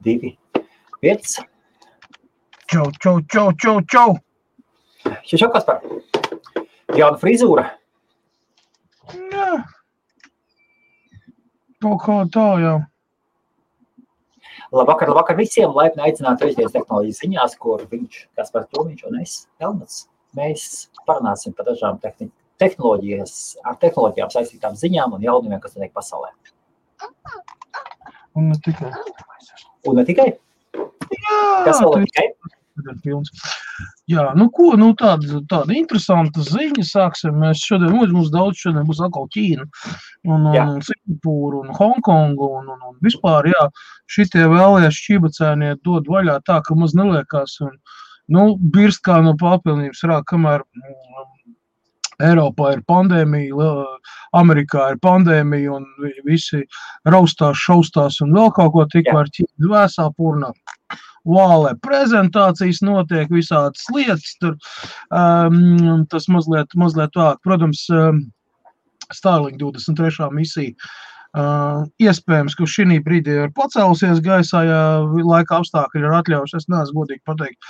2, 5. Čau. Šau, Kaspar. Jauna frizūra. Jā. Kaut kā tā, jā. Labvakar visiem. Laipni aicināti Trešdienas tehnoloģijas ziņās, kur viņš, Kaspars Tomiņš un es, Elmats. Mēs parunāsim par dažām tehnoloģijām saistītām ziņām un jaunumiem, kas notiek pasaulē. Un ne tikai. Jā, kas vēl ne tikai? Jā, tāda interesanta ziņa sāksim. Mēs šodien, mums daudz šodien būs atkal Ķīna un Singapūra un Hongkongu un vispār, jā, šitie vēlējās šķībacēnie dod vaļā tā, ka maz neliekās un, birst kā no papilnības rāk, kamēr Eiropā ir pandēmija, Amerikā ir pandēmija un visi raustās, šaustās un vēl kaut ko tikmēr Ķīna vēsā purnā. Vālē prezentācijas notiek, visādas lietas, tur tas mazliet vāk. Protams, Starlink 23. misija iespējams, ka šī brīdī ir pacēlusies gaisā, ja laika apstākļi ir atļaujuši, es neesmu godīgi pateikt,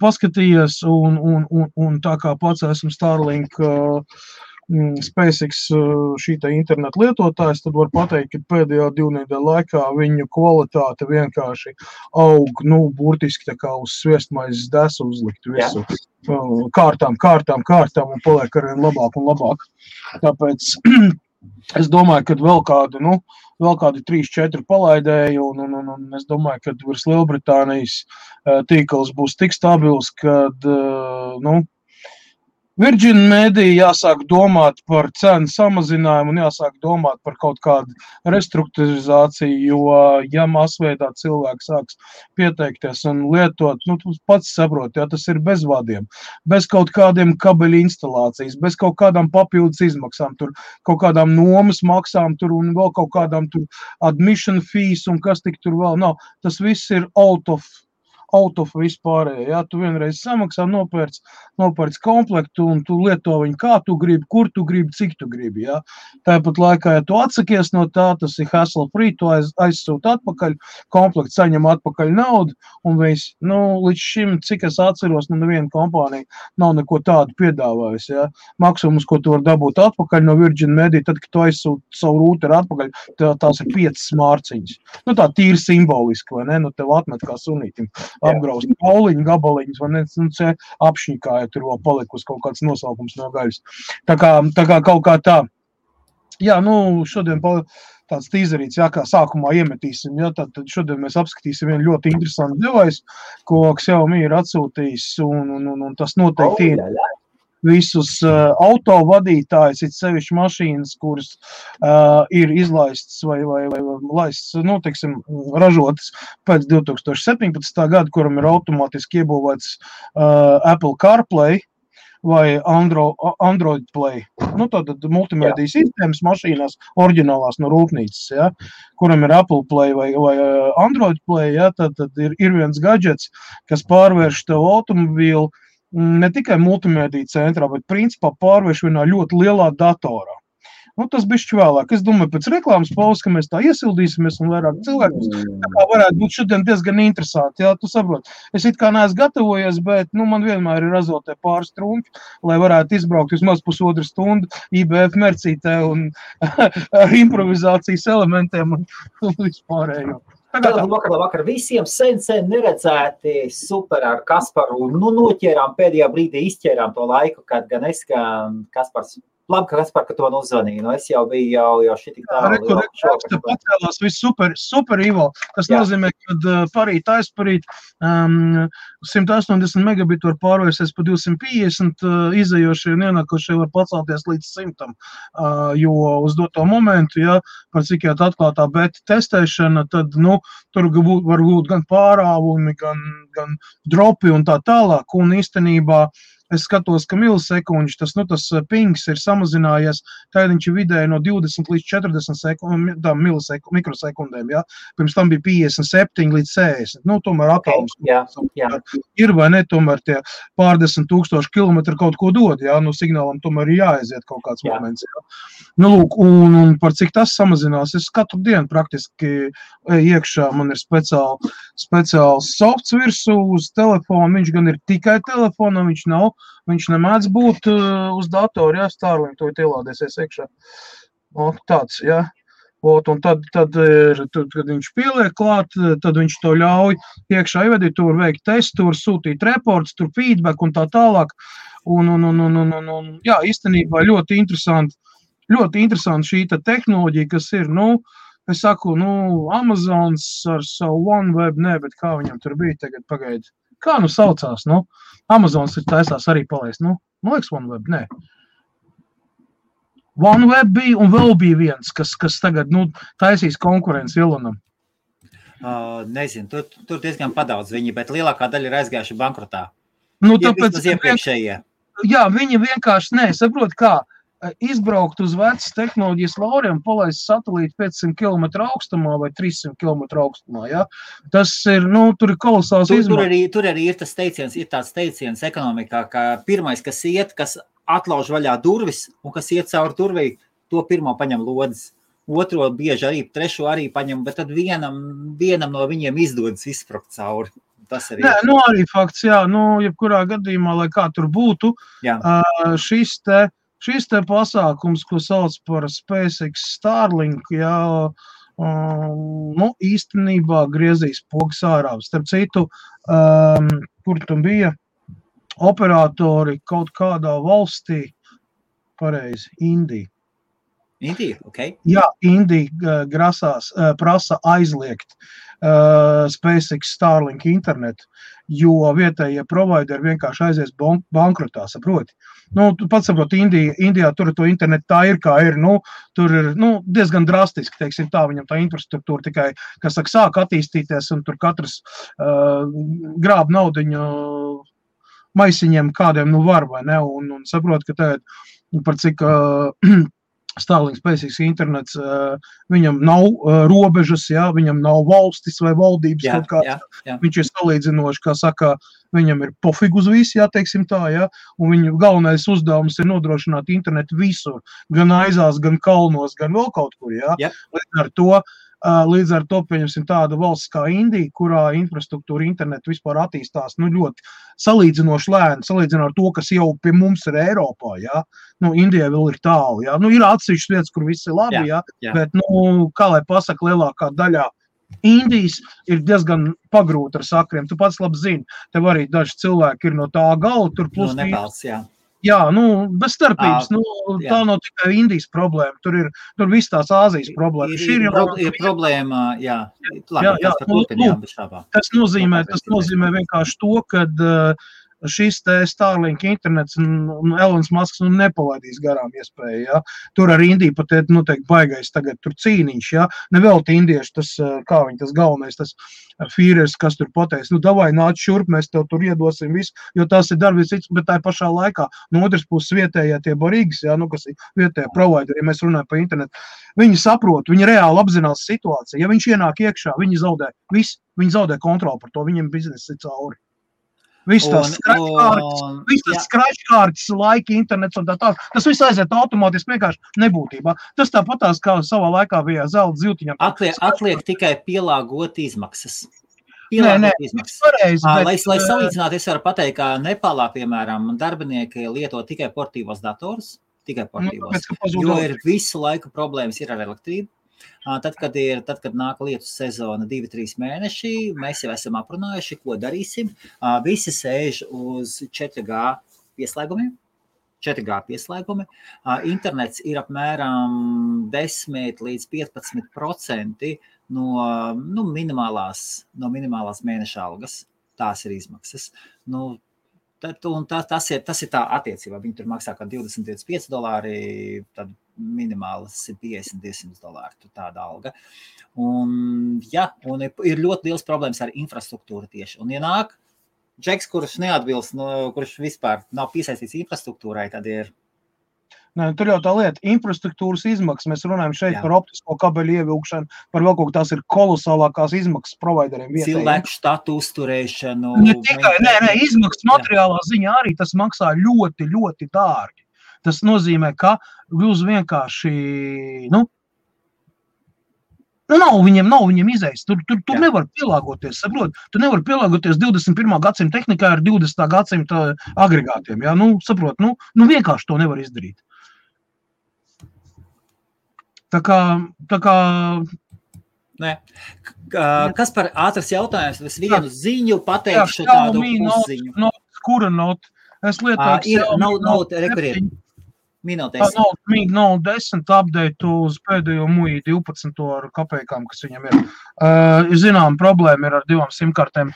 paskatījies un tā kā pats esmu Starlink SpaceX šī interneta lietotājs, tad var pateikt, ka pēdējā 2 nedēļu laikā viņu kvalitāte vienkārši aug, burtiski tā kā uz sviestmaizes desu uzlikt visu. Kārtām un paliek arvien labāk un labāk. Tāpēc es domāju, ka vēl kādi 3-4 palaidēji un es domāju, ka virs Lielbritānijas tīkls būs tik stabils, kad, Virgin Media jāsāk domāt par cenu samazinājumu un jāsāk domāt par kaut kādu restruktūrizāciju, jo, ja masveidā cilvēki sāks pieteikties un lietot, tu pats saproti, ja tas ir bez vadiem, bez kaut kādiem kabeļu instalācijas, bez kaut kādām papildus izmaksām, tur kaut kādām nomas maksām tur un vēl kaut kādām tur admission fees un kas tik tur vēl nav. Tas viss ir out of vispārējā. Ja? Tu vienreiz samaksā, nopērc komplektu un tu lieto viņu kā tu gribi, kur tu gribi, cik tu gribi. Ja? Tāpat laikā, ja tu atsakies no tā, tas ir hassle free, tu aizsūti atpakaļ, komplekts saņem atpakaļ naudu un viss. Līdz šim, cik es atceros, neviena kompānija nav neko tādu piedāvājusi. Ja? Maksimums, ko tu var dabūt atpakaļ no Virgin Media, tad, kad tu aizsūti savu rūteru atpakaļ, tās ir 5 smārciņas. Tā tīri simboliski, vai ne? Tev atmet kā sunītim. Apgraust pauliņu, gabaliņus, vai ne, apšņikā, ja tur vēl palikusi kaut kāds nosaukums no gaļas. Tā kā kaut kā tā. Jā, šodien tāds tīzerīts, jā, kā sākumā iemetīsim, jā, tad šodien mēs apskatīsim vienu ļoti interesantu device, ko Xiaomi ir atsūtījis, un tas noteikti ir visus autovadītājus, it sevišķi mašīnas, kuras ir izlaistas vai laistas, ražotas pēc 2017. Gada, kuram ir automātiski iebūvēts Apple CarPlay vai Android Play. Tātad multimēdijas sistēmas mašīnās, oriģinālās no rūpnīcas, ja, kuram ir Apple Play vai Android Play, ja, tad ir viens gadžets, kas pārvērš tev automobīlu ne tikai multimēdija centrā, bet principā pārvērš vienā ļoti lielā datorā. Tas bišķi vēlāk. Es domāju, pēc reklāmas pauzes, ka mēs tā iesildīsimies un vairāk cilvēkus. Tā kā varētu būt šodien diezgan interesanti. Jā, tu saproti. Es it kā neesmu gatavojies, bet man vienmēr ir azotē pāris trumpi, lai varētu izbraukt vismaz pusotru stundu IBF mercītē un ar improvizācijas elementiem un vispārējo. Labvakar visiem sen neredzēti super ar Kasparu. Noķērām pēdējā brīdī, izķērām to laiku, kad gan es, gan Kaspars. Labi, Kaspar, ka to uzvanīju. Es jau biju jau šitik tālu. Pacēlās viss super Ivo. Tas nozīmē, ka parīt aizparīt 180 megabitu var pārvērsties pa 250, izējošie un ienākošie var pacelties līdz 100. Jo uz doto momentu, ja, par cik jau atklātā beta testēšana, tad, tur var būt gan pārāvumi, gan dropi un tā tālāk. Un īstenībā es skatos, ka milisekundži, tas pings ir samazinājies, tad viņš ir vidēji no 20 līdz 40 mikrosekundēm, ja? Pirms tam bija 57 līdz 60, tomēr atoms ir vai ne, tomēr tie pārdesmit tūkstoši kilometri kaut ko dod, ja? Signālam tomēr ir jāaiziet kaut kāds moments, ja? Lūk, un par cik tas samazinās, es katru dienu praktiski iekšā, man ir speciāls softs virsū uz telefonu, viņš gan ir tikai telefonam, viņš nemēdz būt uz datoru, ja, Starlink to ielādēsies iekšā. Tāds, ja. Un tad, kad viņš pieliek klāt, tad viņš to ļauj iekšā ievedīt, tur veikt testu, tur sūtīt reports, tur feedback un tā tālāk. Jā, īstenībā ļoti interesanti šī tehnoloģija, kas ir, es saku, Amazons ar savu OneWeb, bet kā viņam tur bija tagad pagaidi? Kā saucās, Amazons ir taisās arī palaist, liekas OneWeb, nē. OneWeb bija un vēl bija viens, kas tagad, taisīs konkurenci Ilonam. Nezinu, tur diezgan padaudz viņi, bet lielākā daļa ir aizgājuši bankrotā. Tāpēc, jā, viņi vienkārši, saprot kā, izbraukt uz vecas tehnoloģijas lauriem, palaist satelītu 500 km augstumā vai 300 km augstumā, ja? Tas ir, tur ir kolosāls izmaiņas. Tur arī ir tāds teiciens ekonomikā, ka pirmais, kas atlauž vaļā durvis un kas iet cauri durvī, to pirmo paņem lodes. Otro bieži arī, trešo arī paņem, bet tad vienam no viņiem izdodas izsprakt cauri. Tas arī ir. Nē, arī fakts, jā, jebkurā gadījumā, lai kā tur būtu, šis te pasākums, ko sauc par SpaceX Starlink, jā, īstenībā griezīs pogas ārā. Starp citu, kur tam bija operatori kaut kādā valstī, pareizi, Indija. Indija, ok. Jā, Indija prasa aizliegt SpaceX Starlink internetu, jo vietējie provideri vienkārši aizies bankrotā, saproti. Tu pats saproti, Indijā tur to internetu tā ir, kā ir, tur ir, diezgan drastiski, teiksim tā, viņam tā infrastruktūra tikai, kas sāk attīstīties, un tur katrs grāb naudiņu maisiņiem kādiem, var vai ne, un saproti, ka tagad par cik Starlink SpaceX internets, viņam nav robežas, jā, viņam nav valstis vai valdības kaut kāds. Viņš ir salīdzinoši, kā saka, viņam ir pofig uz visu, jā, teiksim tā, jā, un viņu galvenais uzdevums ir nodrošināt internetu visur, gan aizās, gan kalnos, gan vēl kaut kur, jā. Līdz ar to, pieņemsim, tāda valsts kā Indija, kurā infrastruktūra internetu vispār attīstās, ļoti salīdzinoši lēni, salīdzinot ar to, kas jau pie mums ir Eiropā, jā. Indijai vēl ir tālu, jā. Ir atsevišķas vietas, kur viss ir labi, jā. Bet, kā lai pasaka, lielākā daļā Indijas ir diezgan pagrūta ar sakriem. Tu pats labi zini, tev arī daži cilvēki ir no tā gala, tur plus Nepāls, jā. Jā, bez starpības, tā nav tikai Indijas problēma, tur viss tās Āzijas problēma. Ir problēma, jā. Tas nozīmē vienkārši to, kad šis te Starlink internets un Elons Musks nepalaidīs garām iespēju, ja. Tur ar Indiju pat noteikti baigais tagad tur cīniņš, ja. Nevelti indieši, tas, kā viņi tas galvenais, tas Fīrers, kas tur pateiks, davai nāc šurp, mēs tev tur iedosim visu, jo tas ir darbs cits, bet tā pašā laikā, no otras puses vietējā tie barīgas, ja, kas ir vietējā provideri, ja mēs runājam par internetu, viņi saprot, viņi reāli apzinās situāciju, ja viņš ienāk iekšā, viņi zaudē kontroli par to, viņiem biznesa ir cauri. Viss tās skračkārtas, laika, internets un tā. Tas viss aiziet automātiski vienkārši nebūtībā. Tas tāpatās, kā savā laikā bija zelta ziltiņam. Atliek tikai pielāgot izmaksas. Pareizi. Lai salīdzinātu, es varu pateikt, ka Nepālā, piemēram, darbinieki lieto tikai portīvos datorus, jo ir visu laiku problēmas ir ar elektrību. Tad, kad nāk lietus sezona 2-3 mēneši, mēs jau esam aprunājuši, ko darīsim. Visi sēž uz 4G pieslēgumiem. Internets ir apmēram 10 līdz 15% no minimālās mēneša algas. Tās ir izmaksas. Tas ir tā attiecībā. Viņi tur maksā kā $20-25, tad minimāls ir $50-200, tāda alga. Un ir ļoti liels problēmas ar infrastruktūru tieši. Un ienāk Džeks, kurš neatbilst, kurš vispār nav piesaistīts infrastruktūrai, tad ir. Nē, tur jau tā lieta, infrastruktūras izmaksas. Mēs runājam šeit par optisko kabeļu ievilkšanu, par vēl kaut kā tās ir kolosālākās izmaksas provideriem vietējiem. Cilvēku štatu uzturēšanu. Ne tikai, izmaksas materiālā ziņā arī tas maksā ļoti, ļoti dārgi. Tas nozīmē, ka jūs vienkārši, viņam izējas. Tur nevar pielāgoties, saprot? Tu nevar pielāgoties 21. gadsimta tehnikai ar 20. gadsimta agregātiem, jā? Saprot, vienkārši to nevar izdarīt. Tā kā... Nē. Kas par ātras jautājums? Es vienu ziņu pateikšu tādu uzziņu. Kura not? Es lietoju rekurēt. Minūtēs. Nav 10 update uz pēdējo MUI 12 ar kapējām, kas viņam ir. Zinām, problēma ir ar 2 simkartēm,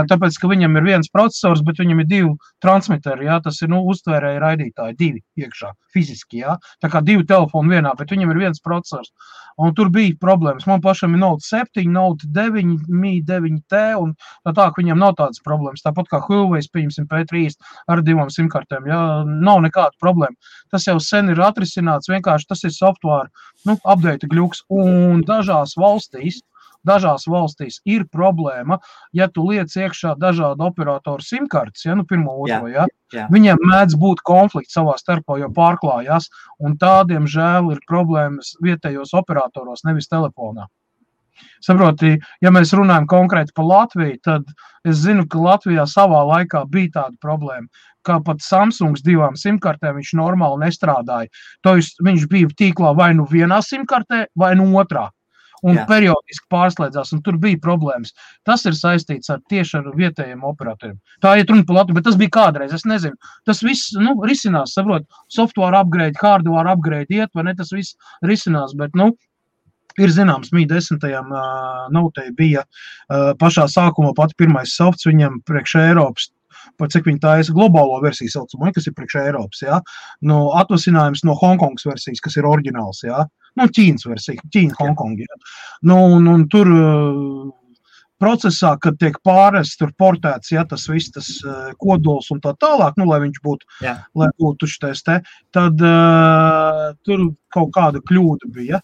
tāpēc, ka viņam ir viens procesors, bet viņam ir 2 transmiteri, jā, tas ir, uztvērēji raidītāji, 2 iekšā, fiziski, jā. Tā kā 2 telefoni vienā, bet viņam ir viens procesors. Un tur bija problēmas. Man pašam ir Note 7, Note 9, Mi 9T, un tā, ka viņam nav tādas problēmas. Tāpat kā Huawei, pieņemsim, P30 ar 2 simkartēm, jā, nav nekāda problēma. Tas jau sen ir atrisināts, vienkārši tas ir software, update gļuks, un dažās valstīs ir problēma, ja tu liec iekšā dažādu operatoru simkartes, pirmo, otro, viņiem mēdz būt konflikts savā starpā, jo pārklājās, un tādiem žēl ir problēmas vietējos operatoros, nevis telefonā. Saproti, ja mēs runājam konkrēti par Latviju, tad es zinu, ka Latvijā savā laikā bija tāda problēma, ka pat Samsungs 2 simkartēm viņš normāli nestrādāja. Viņš bija tīklā vai vienā simkartē, vai otrā. Un periodiski pārslēdzās, un tur bija problēmas. Tas ir saistīts tieši ar vietējiem operatoriem. Tā iet runa par Latviju, bet tas bija kādreiz, es nezinu. Tas viss, risinās, saprot, software upgrade, hardware upgrade iet, vai ne, tas viss risinās, bet, ir zināms, Mi 10. Notei bija pašā sākumā pat pirmais softs viņam priekš Eiropas, par cik viņi taisa globālo versiju saucamo, kas ir priekš Eiropas, jā. Atvasinājums no Hongkongas versijas, kas ir oriģināls, jā. Ķīnas versija, Ķīna, Hongkonga, jā. Un tur procesā, kad tiek pārests, tur portēts, jā, tas viss, tas kodols un tā tālāk, lai viņš būtu, lai būtu šitais te, tad tur kaut kāda kļūda bija.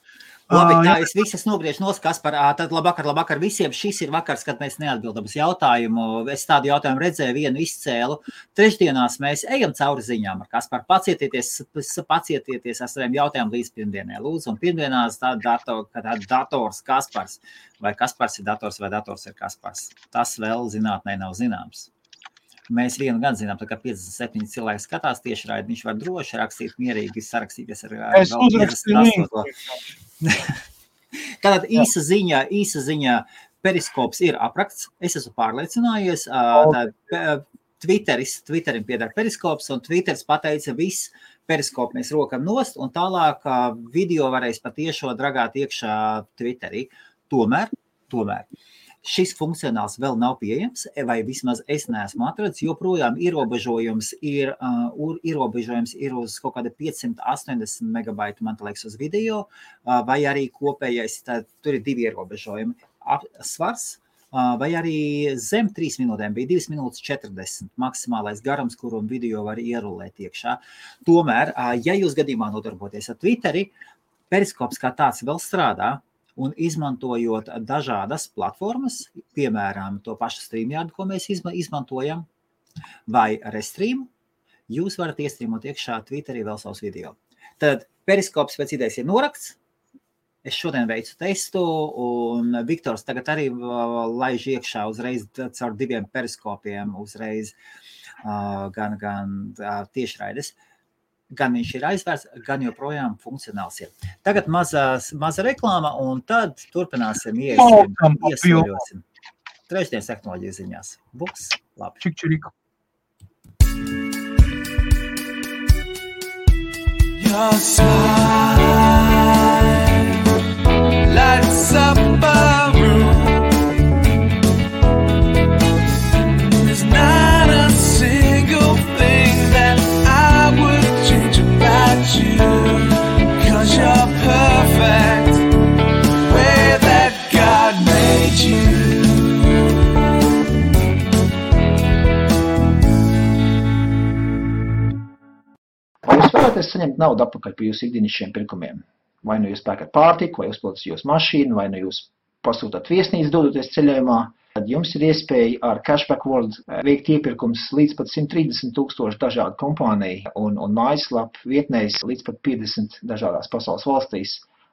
Labi, tā es visas nogriežu Kaspar, tad labvakar visiem. Šis ir vakars, kad mēs neatbildam uz jautājumu. Es tādu jautājumu redzēju, vienu izcēlu. Trešdienās mēs ejam cauri ziņām ar Kaspar. Pacietieties ar saviem jautājumiem līdz pirmdienai. Lūdzu, un pirmdienās dators Kaspars. Vai Kaspars ir dators vai dators ir Kaspars. Tas vēl zinātnē nav zināms. Mēs vienu gan zinām, tā kā 57 cilvēki skatās tieši raidi, viņš var droši rakstīt, mierīgi sarakstīties ar es uzrakstīju. Tātad īsa ziņa, periskops ir aprakts, es esmu pārliecinājies, Twitterim piedara periskops, un Twitteris pateica, viss periskopu mēs rokam nost, un tālāk video varēs patiešo dragāt iekšā Twitterī. Tomēr, šis funkcionāls vēl nav pieejams, vai vismaz es neesmu atradzis, joprojām ierobežojums ir uz kaut kāda 580 megabaitu, man liekas, uz video, vai arī kopējais, tur ir 2 ierobežojumi. Svars, vai arī zem 3 minūtēm bija 2 minūtes 40 maksimālais garums, kuru video var ierulēt iekšā. Tomēr, ja jūs gadījumā nodarboties ar Twitteri, periskops kā tāds vēl strādā, un izmantojot dažādas platformas, piemēram, to pašu StreamYard, ko mēs izmantojam, vai Restream, jūs varat iestrīmot iekšā Twitterī vēl savus video. Tad periskops pēc idejas ir norakts. Es šodien veicu testu, un Viktors tagad arī laiž iekšā uzreiz caur 2 periskopiem, uzreiz gan tiešraides. Gan viņš ir aizvērts, gan joprojām funkcionāls ir. Tagad maza reklāma, un tad turpināsim iesaļosim. Trešdienas tehnoloģiju ziņās. Būs labi. Čik-čiriku. Your smile lights up a room. There's not a single thing that I would change about you, 'cause you're perfect the way that God made you. vēlaties saņemt naudu atpakaļ par jūsu ikdienišķiem pirkumiem. Vai nu jūs pērkat pārtiku, vai uzpildat jūsu mašīnu, vai nu jūs pasūtāt viesnīcu dodoties ceļojumā, tad jums ir iespēja ar Cashback World veikt iepirkums līdz pat 130,000 dažādu kompāniju un mājaslapu vietnēs līdz pat 50 dažādās pasaules valstīs.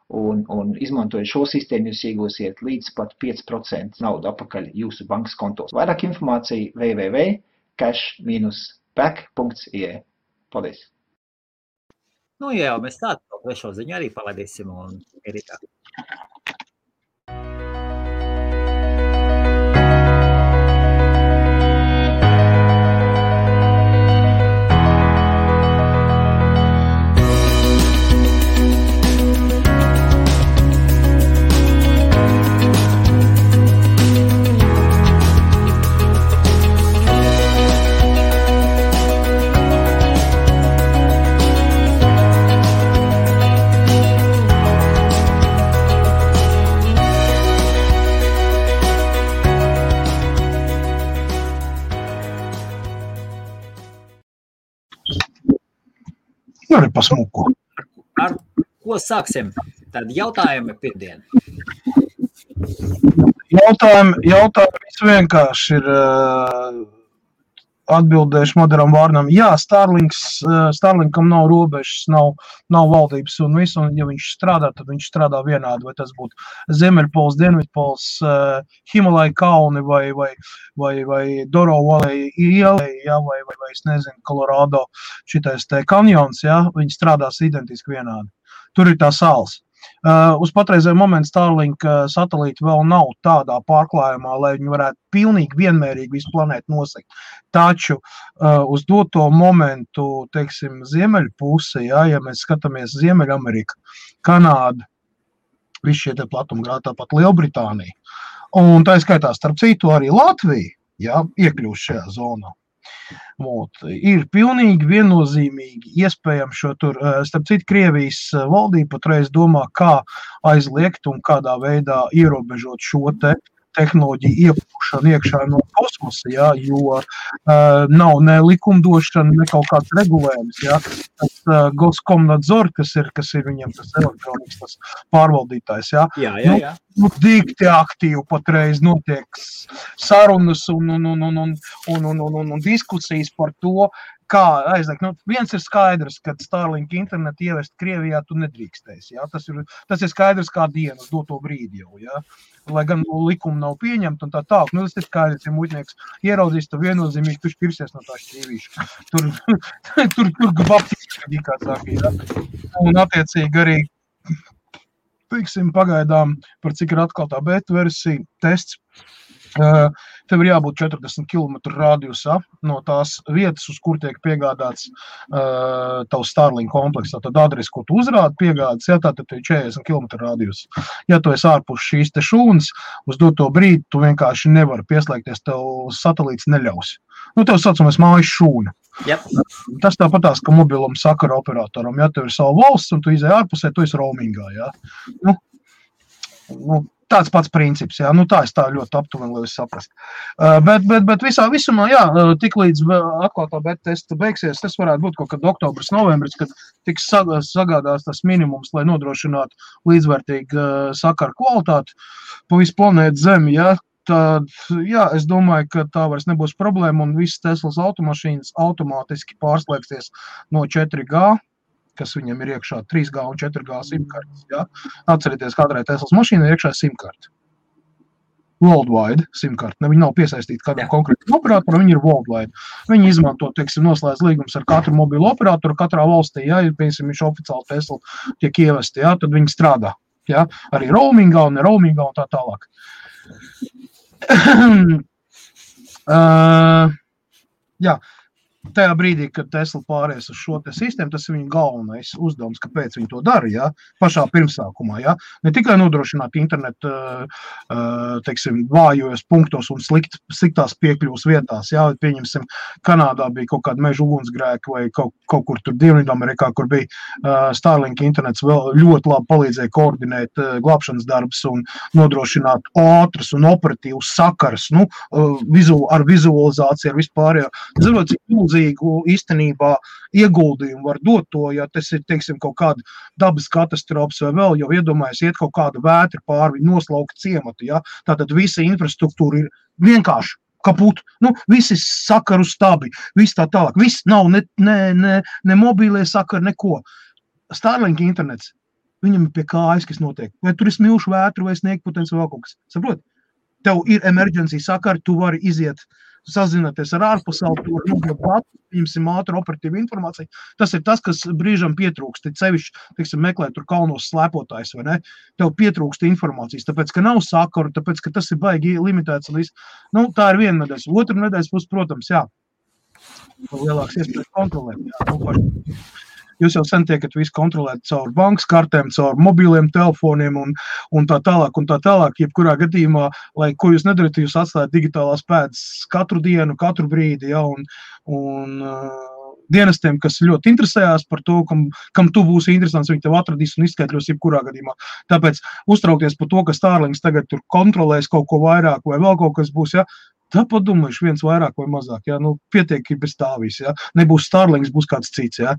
Un izmantojot šo sistēmu, jūs iegūsiet līdz pat 5% naudu atpakaļ jūsu bankas kontos. Vairāk informācija www.cash-back.ie. Paldies! Nu jā, mēs tādu trešo ziņu arī palaidīsim un ir tā. Arī pasmuku. Ar ko sāksim? Tad jautājumi pirmdien. Jautājumi vienkārši ir atbildējuši moderam vārnam. Jā, Starlinkam nav robežas, nav valdības un visu, un ja viņš strādā, tad viņš strādā vienādi, vai tas būtu Ziemeļpols, Dienvidpols, Himalaya kalni vai Doro Valley ielai, ja, vai es nezinu, Colorado šitais te kanjons, ja, viņi strādās identiski vienādi. Tur ir tā sāls. Uz patreizēju momentu Starlink satelīti vēl nav tādā pārklājumā, lai viņi varētu pilnīgi vienmērīgi visu planētu nosegt. Taču uz doto momentu, teiksim, ziemeļu pusi, ja mēs skatāmies Ziemeļamerika, Kanāda, visi šie te platumgrādi, tāpat Lielbritānija, un tā skaitā starp citu arī Latvija, ja, iekļūst šajā zonā. Ir pilnīgi viennozīmīgi iespējams šo tur, starp citu, Krievijas valdība patreiz domā, kā aizliegt un kādā veidā ierobežot šo te tehnoloģiju iepūšanu iekšā no kosmosa, ja, jo nav ne likumdošana, ne kaut kāds regulējums. Ja. Tas Goskomnadzor, kas ir viņiem tas elektronikas tas pārvaldītājs. Ja. Jā. Nu, dikti aktīvi patreiz notiek sarunas un diskusijas par to, kā aizliegt. Nu, viens ir skaidrs, ka Starlink internetu ievest Krievijā tu nedrīkstēsi. Ja? Tas ir skaidrs kā diena uz doto brīdi jau. Ja? Lai gan likumi nav pieņemti un tā tālāk. Nu, tas ir skaidrs, ja muļķnieks ieraudzīs, tad viennozīmīgi tu pirsies no tā šķīvīša. Tur gabaptiski, kā saka. Ja? Un attiecīgi arī, teiksim, pagaidām, par cik ir atklātā beta versija, tests, tev ir jābūt 40 km radiusā no tās vietas, uz kur tiek piegādāts tavs Starlink kompleks. Tad adresi, ko tu uzrādi piegādas, ja, tad ir 40 km radius. Ja tu esi ārpus šīs te šūnas, uz doto brīdi tu vienkārši nevari pieslēgties, tev satelīts neļaus. Nu, tev saucamais mājas šūna. Yep. Tas tāpatās, ka mobilam sakara operatoram, ja tev ir savu valsts un tu izēj ārpusē, tu esi roamingā, ja. Nu, tāds pats princips, jā, nu tā es tā ļoti aptuveni, lai es saprast. Bet visumā, jā, tik līdz atklātā beta testa beigsies, tas varētu būt kaut kad oktobris, novembris, kad tiks sagādās tas minimums, lai nodrošinātu līdzvērtīgu sakaru kvalitāti pa visu planētu Zemi, jā. Tad, jā, es domāju, ka tā vairs nebūs problēma un visas Teslas automašīnas automātiski pārslēgsies no 4G, kas viņam ir iekšā 3G un 4G simkartes. Ja? Atcerieties, katrai Teslas mašīnai ir iekšā simkarte. Worldwide simkarte. Viņi nav piesaistīti kādam konkrētam operatoram, viņi ir worldwide. Viņi izmanto, teiksim, noslēdz līgums ar katru mobilu operatoru katrā valstī, ja, piemēram, viņš oficiāli Tesla tiek ievesti, ja, tad viņi strādā. Ja? Arī roamingā un ne roamingā un tā tālāk. Jā. Tajā brīdī, kad Tesla pāries uz šo te sistēmu, tas ir viņa galvenais uzdevums, kāpēc viņi to dara, ja? Pašā pirmsākumā. Ja? Ne tikai nodrošināt internetu, teiksim, vājos punktos un sliktās piekļuvas vietās. Ja? Pieņemsim, Kanādā bija kaut kāda meža ugunsgrēka vai kaut kur tur Dienvidamerikā, kur bija Starlink internets vēl ļoti labi palīdzēja koordinēt glābšanas darbus un nodrošināt ātras un operatīvas sakaras, nu, ar vizualizāciju, ar vispārējo. Zinot, cik milzīgi milzīgu īstenībā ieguldījumu var dot to, ja tas ir, teiksim, kaut kāda dabas katastrofas vai vēl, jo iedomājas iet kaut kāda vētra pāri, noslauka ciematu, ja? Tātad visa infrastruktūra ir vienkārši kaput, visi sakaru stabi, viss tā tālāk, viss nav ne mobīlie sakari, neko. Starlink internets, viņam ir pie kājas, kas notiek. Vai tur ir smilšu vētru vai sniegputens vai vēl kaut kas. Saprot? Tev ir emergency sakari, tu vari iziet, sazināties ar ārpasauli, tu vari nogūt datu, viņam ātru operatīvu informāciju. Tas ir tas, kas brīžam pietrūkst. Te sevišķi, teiksim, meklē tur kalnos slēpotājs, vai ne? Tev pietrūkst informācijas, tāpēc, ka nav sakaru, tāpēc, ka tas ir baigi limitēts. Tā ir viena nedēļas. Otra nedēļas būs, protams, jā, lielāks iespējas kontrolēt. Jā, jūs jau sen tiekat visu kontrolēt caur bankas kartēm, caur mobīliem telefoniem un tā tālāk, jebkurā gadījumā, lai ko jūs nedarat, jūs atstājat digitālās pēdas katru dienu, katru brīdi, ja, un dienestiem, kas ļoti interesējās par to, kam tu būsi interesants, viņi tev atradīs un izskaidros jebkurā gadījumā. Tāpēc uztraukties par to, ka Starlinks tagad tur kontrolēs kaut ko vairāk vai vēl kaut kas būs, ja, tā padomājuši viens vairāk vai mazāk, ja, pietiek bez tā viss, ja, nebūs Starlinks, būs kāds cits, ja,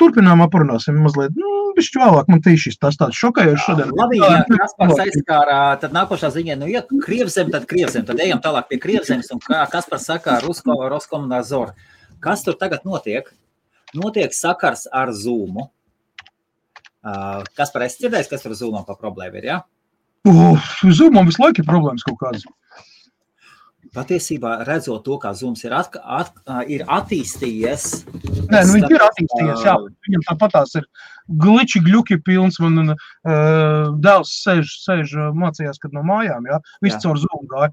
turpinājumā parunāsim mazliet, bišķi vēlāk, man tīšis tas tāds šokējoši šodien. Labi, ja Kaspars aizskārā, tad nākošā ziņā, ja Krievzem, tad ejam tālāk pie Krievzemes, un kā Kaspars saka Roskomunāzor. Kas tur tagad notiek? Notiek sakars ar Zoomu. Kaspar, esi dzirdējis, kas tur Zoomam pa problēma ir, ja? Zoomam visu laiku ir problēmas kaut kādas. Patiesībā redzot to, kā Zooms ir attīstījies. Nē, viņš ir attīstījies, jā. Viņam tāpatās ir gliči, gļuki pilns, man dēls sēž mācījās, kad no mājām, jā. Viss caur Zoom gāja.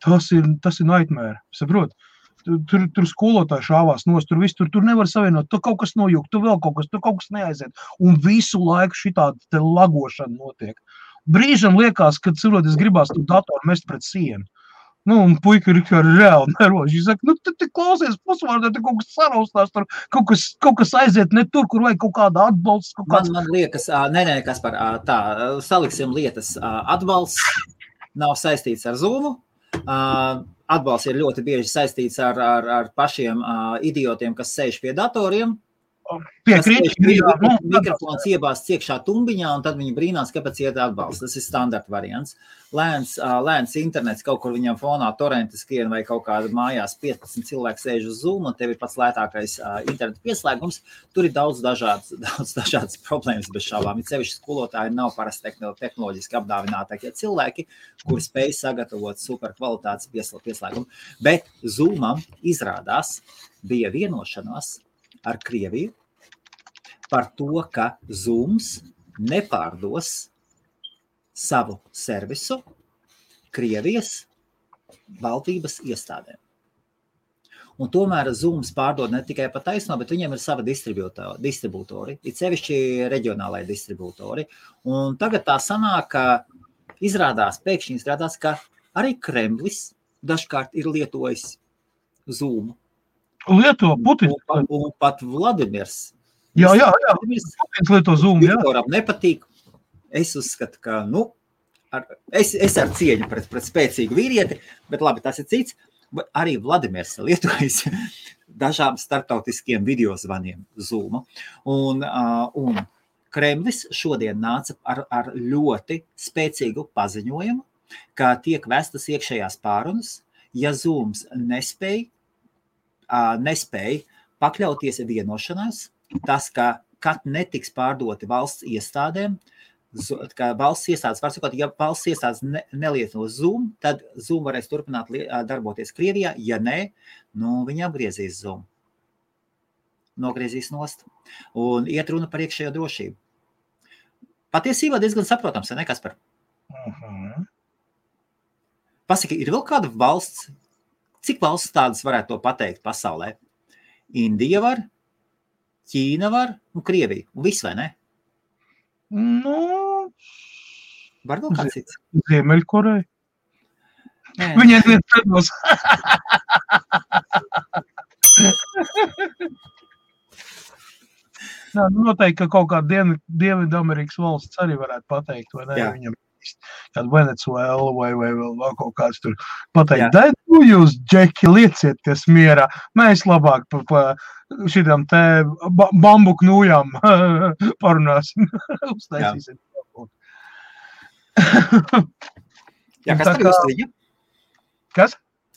Tas ir nightmare, saprot? Tur skolotāji šāvās nost, tur nevar savienot, tur kaut kas nojūk, tur vēl kaut kas neaiziet. Un visu laiku šitāda te lagošana notiek. Brīžam liekas, kad cilvēks gribās tu datoru mest pret sienu. Un puika ir reāli neroši. Viņš saka, te klausies pusvārdā, te kaut kas saraustās, tur kaut kas aiziet ne tur, kur vajag kaut kāda atbalsts. Man liekas, nē, Kaspar, tā, saliksim lietas. Atbalsts nav saistīts ar Zoomu. Atbalsts ir ļoti bieži saistīts ar pašiem idiotiem, kas sēž pie datoriem. Mikrofons iebāsts iekšā tumbiņā, un tad viņi brīnās, kāpēc iet atbalsts. Tas ir standarta variants. Lēns internets, kaut kur viņam fonā torrenti skrien vai kaut kāda mājās 15 cilvēki sēž uz Zoom, un tev ir pats lētākais interneta pieslēgums. Tur ir daudz dažādas problēmas bez šaubām. Ir sevišķi skolotāji nav parasti tehnoloģiski apdāvinātākie cilvēki, kuri spēj sagatavot super kvalitātes pieslēgumu. Bet Zoomam izrādās bija vienošanās ar Krieviju par to, ka Zooms nepārdos savu servisu Krievijas valdības iestādēm. Un tomēr Zooms pārdod ne tikai pa taisno, bet viņiem ir sava distribūtori, it sevišķi reģionālai distribūtori. Un tagad tā sanāk, ka pēkšņi izrādās, ka arī Kremlis dažkārt ir lietojis Zoomu. Lieto Putins. Un pat Vladimirs. Jā. Putins lieto Zoom, jā. Viktoram nepatīk. Es uzskatu, ka, es ar cieņu pret spēcīgu vīrieti, bet labi, tas ir cits. Arī Vladimirs lietojas dažām starptautiskiem videozvaniem Zoomu. Un Kremlis šodien nāca ar ļoti spēcīgu paziņojumu, ka tiek vestas iekšējās pārunas, ja Zooms nespēja pakļauties vienošanās, tas, ka kad netiks pārdoti valsts iestādēm, ka valsts iestādes var sakot, ja valsts iestādes nelieto Zoom, tad Zoom varēs turpināt darboties Krievijā, ja ne, viņi apgriezīs Zoom. Nogriezīs nost. Un iet runa par iekšējo drošību. Patiesībā diezgan saprotams, ne, Kaspar? Pasaki, ir vēl kāda valsts, cik valsts tādas varētu to pateikt pasaulē? Indija var, Ķīna var un Krievija. Un viss, vai ne? Var vēl kāds cits? Ziemeļkoreja. Viņiem viens predos. Noteikti, ka kaut kāda Dienvidamerikas valsts arī varētu pateikt, vai ne? Viņam kāda Venecuēla vai vēl kaut kāds tur pateikt. Jūs, Džeki, liecieties mierā. Mēs labāk pa šitām te bambuku nūjām parunāsim. Uztaisīsim. Jā, kas par jūs liņa? Kas?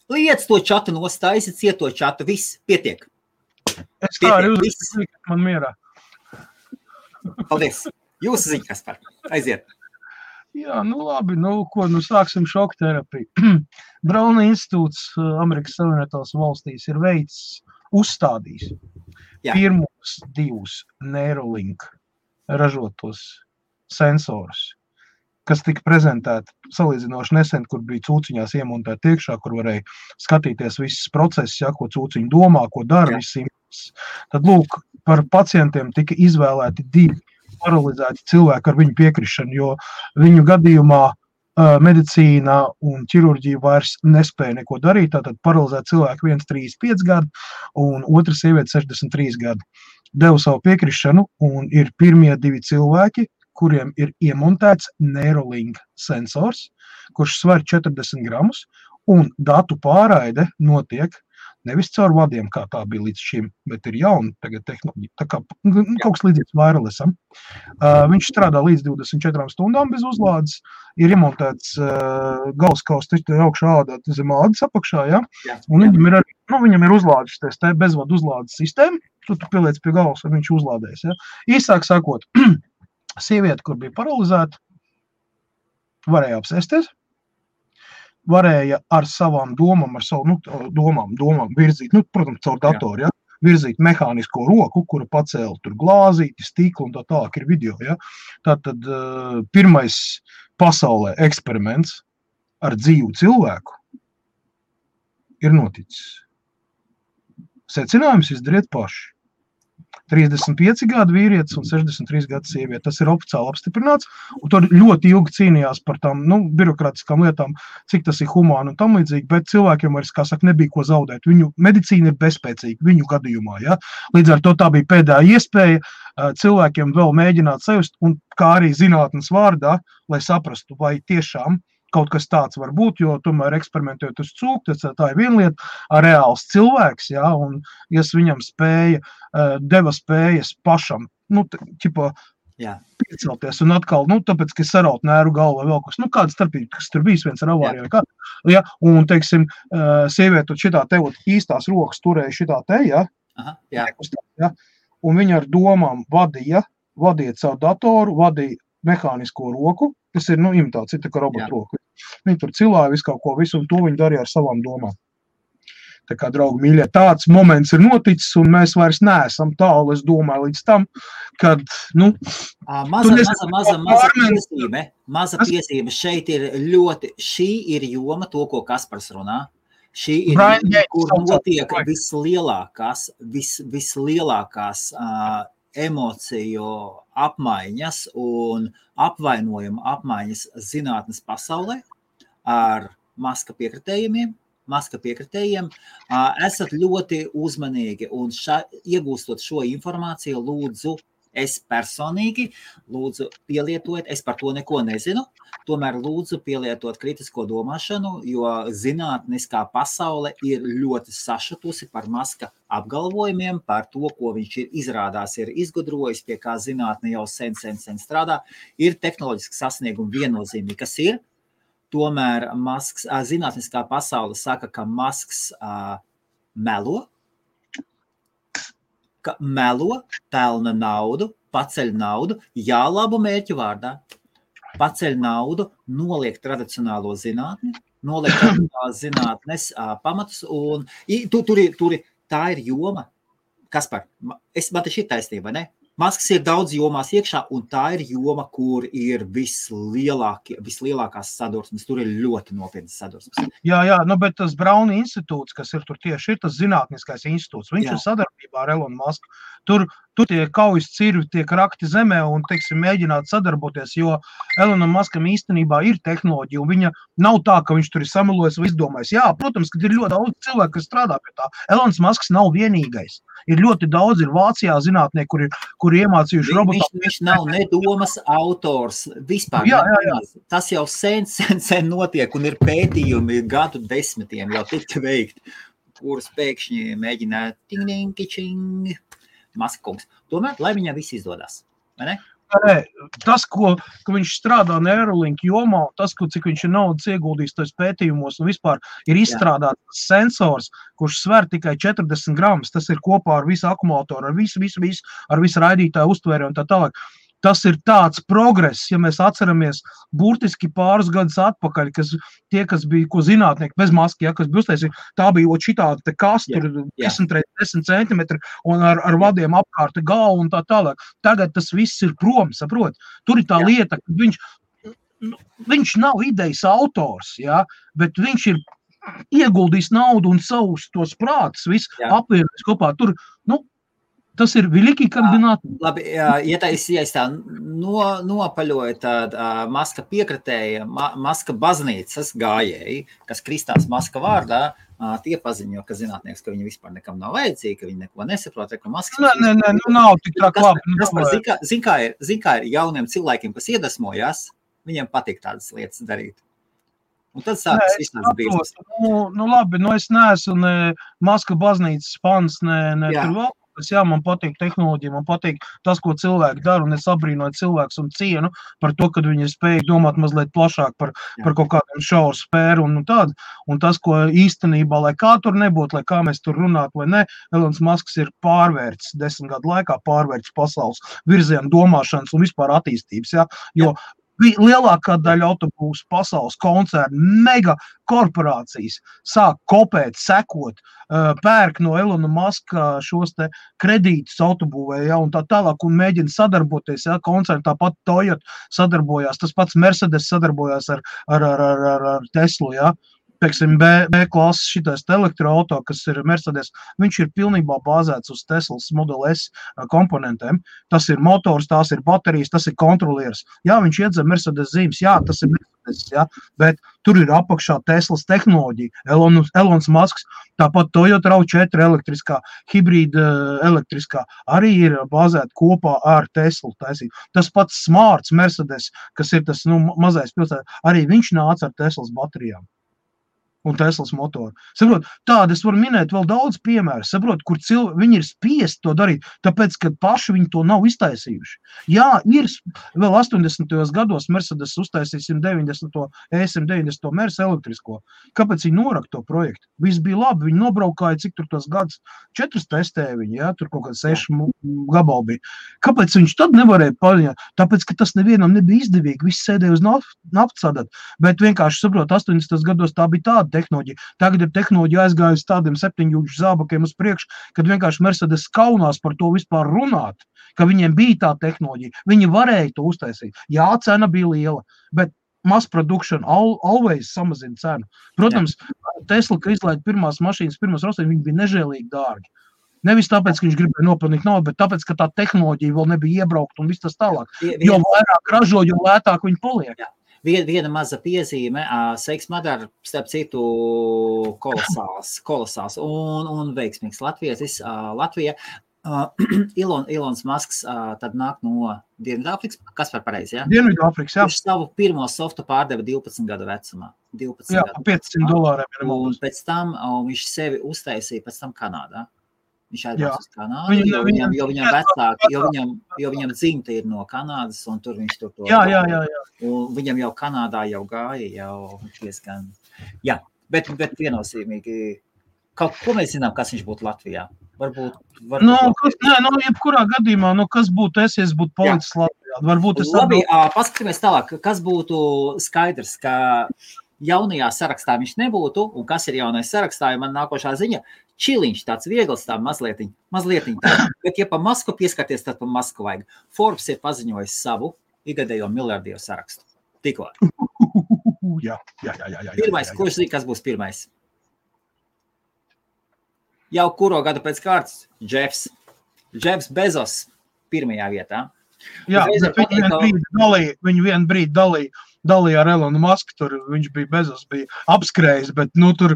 Liec to čatu nostājas, cieto čatu, viss, pietiek. Es tā arī uzliku man mierā. Paldies. Jūsu ziņa, kas par? Aiziet. Jā, nu labi, sāksim šoku terapiju. Brauna institūts Amerikas Savienotās valstīs ir uzstādījis pirmos 2 Neuralink ražotos sensorus, kas tika prezentēti salīdzinoši nesen, kur bija cūciņās iemontēti iekšā, kur varēja skatīties visas procesus, ko cūciņi domā, ko dara, visi impulsi. Tad, lūk, par pacientiem tika izvēlēti 2 paralizēti cilvēki ar viņu piekrišanu, jo viņu gadījumā medicīna un ķirurģija vairs nespēja neko darīt. Tātad paralizēti cilvēki 1 35 gadu un otra sieviete 63 gadu. Devu savu piekrišanu un ir pirmie 2 cilvēki, kuriem ir iemontēts Neuralink sensors, kurš sver 40 gramus, un datu pārraide notiek nevis caur vadiem, kā tā bija līdz šim, bet ir jauna tagad tehnoloģija, tā kā kaut kas līdzīgs wirelessam. Viņš strādā līdz 24 stundām bez uzlādes, ir iemontēts galskaus augšā ādā zem ādas apakšā, un viņam ir uzlādes te bezvadu uzlādes sistēma, tu pieliec pie galvas, un viņš uzlādēs. Īsāk sakot, sieviete, kur bija paralizēta, varēja apsēsties, varēja ar savām domām, domām virzīt, protams, caur datoru, virzīt mehānisko roku, kura pacēla tur glāzīti, stiklu un tā tālāk ir video. Tātad pirmais pasaulē eksperiments ar dzīvu cilvēku ir noticis. Secinājums izdariet paši. 35 gadu vīrietis un 63 gadu sieviete. Tas ir oficiāli apstiprināts, un tur ļoti ilgi cīnījās par tām birokrātiskām lietām, cik tas ir humāni un tam līdzīgi, bet cilvēkiem vairs, kā saka, nebija ko zaudēt. Viņu medicīna ir bezspēcīga viņu gadījumā. Līdz ar to tā bija pēdējā iespēja cilvēkiem vēl mēģināt sajust, un kā arī zinātnes vārdā, lai saprastu, vai tiešām kaut kas tāds var būt, jo tomēr eksperimentējot uz cūku, tā ir viena lieta, reāls cilvēks, un ja viņam deva spējas pašam, piecelties un atkal, tāpēc, ka saraut nēru galvu vai vēl kas, kāda starpība, kas tur bijis viens ar avāriju vai kā, un, teiksim, sieviete šitā te īstās rokas turēja šitā te, un viņa ar domām vadiet savu datoru, vadīja mehānisko roku, kas ir, imitācija, tā kā robotu roku. Viņi tur cilāja visu kaut ko, visu, un to viņi darīja ar savām domām. Tā kā, draugi mīļie, tāds moments ir noticis, un mēs vairs neesam tālu, es domāju, līdz tam, kad, Maza piesīme šeit ir ļoti, šī ir joma, to, ko Kaspars runā. Šī ir joma, kur notiek vislielākās emociju apmaiņas un apvainojuma apmaiņas zinātnes pasaulē ar Maska piekritējiem. Esat ļoti uzmanīgi un iegūstot šo informāciju, lūdzu, es personīgi, lūdzu, pielietojiet, es par to neko nezinu, tomēr lūdzu pielietot kritisko domāšanu, jo zinātniskā pasaule ir ļoti sašutusi par Maska apgalvojumiem, par to, ko viņš ir izgudrojis, pie kā zinātne jau sen strādā, ir tehnoloģiski sasniegumi viennozīmīgi, kas ir. Tomēr zinātniskā pasaule saka, ka Masks melo, pelna naudu, paceļ naudu, labu mērķu vārdā, paceļ naudu, noliek tradicionālo zinātni, noliek tradicionālās zinātnes pamatus, un tā ir joma. Kaspar, man te šī taisnība, ne? Masks ir daudz jomās iekšā, un tā ir joma, kur ir vislielākās sadursmes. Tur ir ļoti nopietnas sadursmes. Jā, bet tas Brauna institūts, kas ir tur tieši, ir tas zinātniskais institūts. Viņš ir sadarbībā ar Elonu Masku. Tur tur tie kaujas cirvi tiek rakti zemē un, teiksim, mēģināt sadarboties, jo Elonam Muskam īstenībā ir tehnoloģija, un viņa nav tā, ka viņš tur ir samelojis vai izdomājis. Jā, protams, ka ir ļoti daudz cilvēku, kas strādā pie tā. Elons Musks nav vienīgais. Ir ļoti daudz, ir Vācijā zinātnieki, kuri iemācījuši robotu. Viņš nav nedomas autors vispār. Jā. Tas jau sen notiek, un ir pētījumi gadu desmitiem jau tika veikti, kurus pēkšņi mēģināja ting-ting-kičing Maskungs. Tomēr, lai viņam viss izdodas, vai ne? Tas, ka viņš strādā Neuralink jomā, tas, cik viņš ir naudas ieguldījis tos pētījumos un vispār ir izstrādāts sensors, kurš sver tikai 40 gramus, tas ir kopā ar visu akumulātoru, ar visu, ar visu raidītāju uztvēri un tā tālāk. Tas ir tāds progress, ja mēs atceramies burtiski pāris gadus atpakaļ, kas bija, ko zinātnieki bez maski, kas bija uztaisīja, tā bija šitāda te kastur 10x10 centimetri un ar vadiem apkārt galvu un tā tālāk. Tagad tas viss ir prom, saprot? Tur ir tā lieta, ka viņš nav idejas autors, bet viņš ir ieguldījis naudu un savus tos prātus, visu apvienojis kopā. Tur, tas ir veliki kandidāti. Labi, ja tā nopaļoja tāda Maska piekritēja, Maska baznīcas gājēji, kas kristās Maska vārdā, tie paziņo, ka zinātnieks, ka viņi vispār nekam nav vajadzīgi, ka viņi neko nesaprot, ka Maskas... Nē, nav tik tā labi. Zin kā ir jauniem cilvēkiem, kas iedvesmojās, viņiem patīk tādas lietas darīt. Un tad sākas viss tāds biznes. Labi, es neesmu ne Maska baznīcas fans, ne tur vēl. Man patīk tehnoloģija, man patīk tas, ko cilvēki dara, un es abrīnoju cilvēkus un cienu par to, ka viņi ir spējīgi domāt mazliet plašāk par kaut kādiem šauru spēru un tādu. Un tas, ko īstenībā, lai kā tur nebūtu, lai kā mēs tur runātu vai ne, Elons Musks ir pārvērts 10 gadu laikā, pārvērts pasaules virzienu domāšanas un vispār attīstības, jo lielākā daļa autobūsu pasaules koncernu, mega korporācijas sāk kopēt, sekot, pērk no Elona Muska šos te kredītus autobūvē, un tā tālāk, un mēģina sadarboties, koncerni, tāpat Toyota sadarbojās, tas pats Mercedes sadarbojās ar Teslu, Pieksim, B klases šitais elektroauto, kas ir Mercedes, viņš ir pilnībā bāzēts uz Teslas Model S komponentiem. Tas ir motors, tās ir baterijas, tas ir kontrolieris. Viņš iedzem Mercedes zīmes, tas ir Mercedes, bet tur ir apakšā Teslas tehnoloģija, Elons Musks, tāpat Toyota RAV4 elektriskā, hibrīda elektriskā, arī ir bāzēta kopā ar Teslu taisīt. Tas pats Smarts Mercedes, kas ir tas mazais pilsēta, arī viņš nāca ar Teslas baterijām un Teslas motoru. Saprot, tādi es varu minēt vēl daudz piemēru, saprot, kur viņi ir spiesti to darīt, tāpēc, ka paši viņi to nav iztaisījuši. Ir vēl 80. gados Mercedes uztaisīja 190. ES190. Mercedes elektrisko. Kāpēc viņi norak to projektu? Viss bija labi, viņi nobraukāja, cik tur tos gadus 4 testēja viņi, tur kaut kāds 6 gabali bija. Kāpēc viņš tad nevarēja paņemt? Tāpēc, ka tas nevienam nebija izdevīgi, viss sēdēja uz naftasadat, bet vienkārši, saprot, 80. gados tā bija tāda tehnoloģija. Tagad ir tehnoloģija aizgājusi tādiem 7 zābakiem uz priekšu, kad vienkārši Mercedes kaunās par to vispār runāt, ka viņiem bija tā tehnoloģija. Viņi varēja to uztaisīt. Cena bija liela, bet mass production always samazina cenu. Protams, Tesla, ka izlaida pirmās mašīnas, viņi bija nežēlīgi dārgi. Nevis tāpēc, ka viņš gribēja nopelnīt naudu, bet tāpēc, ka tā tehnoloģija vēl nebija iebraukt un viss tas tālāk. Jo vairāk ražo, jo lētāk viņi paliek. Viena maza piezīme, Seiks Madara, starp citu, kolosāls un veiksmīgs latvietis. Latvija, Ilons Musks tad nāk no Dienvidāfrikas, kas par pareizi, Dienvidāfrikas, Viņš savu pirmo softu pārdeva 12 gadu vecumā. $500. Un pēc tam viņš sevi uztaisīja pēc tam Kanādā. Viņš aizbrauc uz Kanādu, jo viņam dzimta ir no Kanādas, un tur viņš tur to... Un viņam jau Kanādā jau gāja, jau diezgan... Bet viennozīmīgi, ko mēs zinām, kas viņš būtu Latvijā? Jebkurā gadījumā, kas būtu es būtu palicis Latvijā? Labi, paskatīmies tālāk, kas būtu skaidrs, ka jaunajā sarakstā viņš nebūtu, un kas ir jaunais sarakstā, ja man nākošā ziņa, Čiliņš tāds viegls, tā mazlietiņ tā. Bet, ja pa Masku pieskarties, tad pa Masku vajag. Forbes ir paziņojis savu igadējo miljardieru sarakstu. Tikko. Pirmais, kurš zina, kas būs pirmais? Jau kuro gadu pēc kārtas? Jeffs. Jeffs Bezos pirmajā vietā. Jā, viņi vienu brīdi dalīja ar Elonu Musku, tur viņš bija Bezos, bija apskrējis, bet tur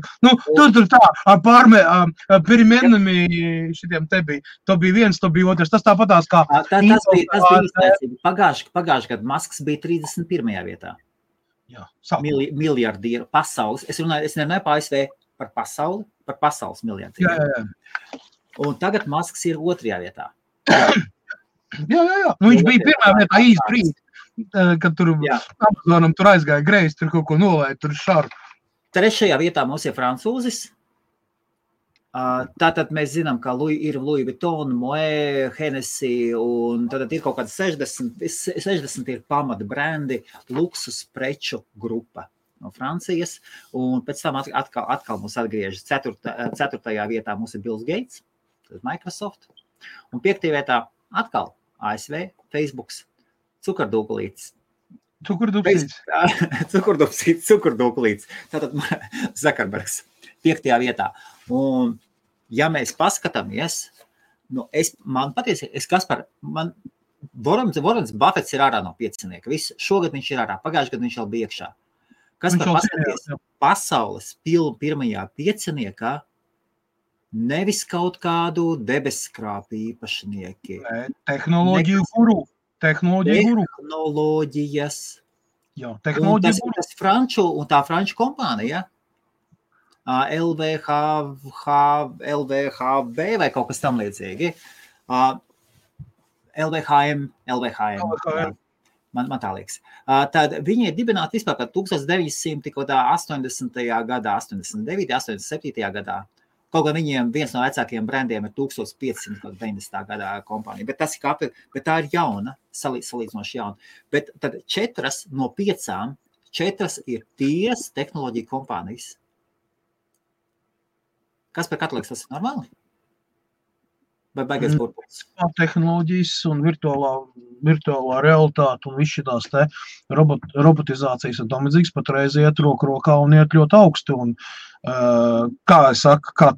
tā, pirmēnami šitiem te bija, to bija viens, to bija otrs, tas tāpatās kā... Tas bija izniecība. Pagājuši gadu Musks bija 31. vietā. Jā, miljardieru pasaules. Es nerunāju par ASV, par pasaules miljardieru. Jā. Un tagad Musks ir 2. vietā. Jā. Viņš bija pirmā vietā īsti brīdi, kad tur Amazonam tur aizgāja greizi, tur kaut ko nolēja, tur šaru. 3. vietā mums ir francūzis. Tātad mēs zinām, ka ir Louis Vuitton, Moët, Hennessy, un tad ir kaut kāds 60 ir pamata brendi, luksus preču grupa no Francijas, un pēc tam atkal mums atgriežas 4. vietā mums ir Bills Gates, tad Microsoft, un 5. vietā atkal ASV, Facebooks, Cukurdūkulītis. Cukurdūkulītis. Tātad Zuckerbergs 5. vietā. Un, ja mēs paskatāmies, Warrens Buffets ir ārā no 5. Šogad viņš ir ārā, pagājušajā gadā viņš jau bija iekšā. Kaspar, paskaties, pasaules pirmajā 5. Nevis kaut kādu debeskrāpu īpašnieki. Tehnoloģiju guru. Tehnoloģijas. Jā, tehnoloģiju guru. Tas franču un tā franču kompānija, LVHV vai kaut kas tam līdzīgi. LVHM. Man tā liekas. Tad viņi ir dibināti vispār 1980. gadā, 89. 87. gadā. Kaut gan viņiem viens no vecākajiem brandiem ir 1590. gadā kompānija, bet tā ir jauna, salīdzinoši jauna. Bet tad 4 no 5, 4 ir tīras tehnoloģija kompānijas. Kas par katliks, tas ir normāli? Vai baigais burbulis? Tehnoloģijas un virtuālā realitāte un viss šitās te robotizācijas un tam līdzīgs patreiz iet roku rokā un iet ļoti augsti. Un, kā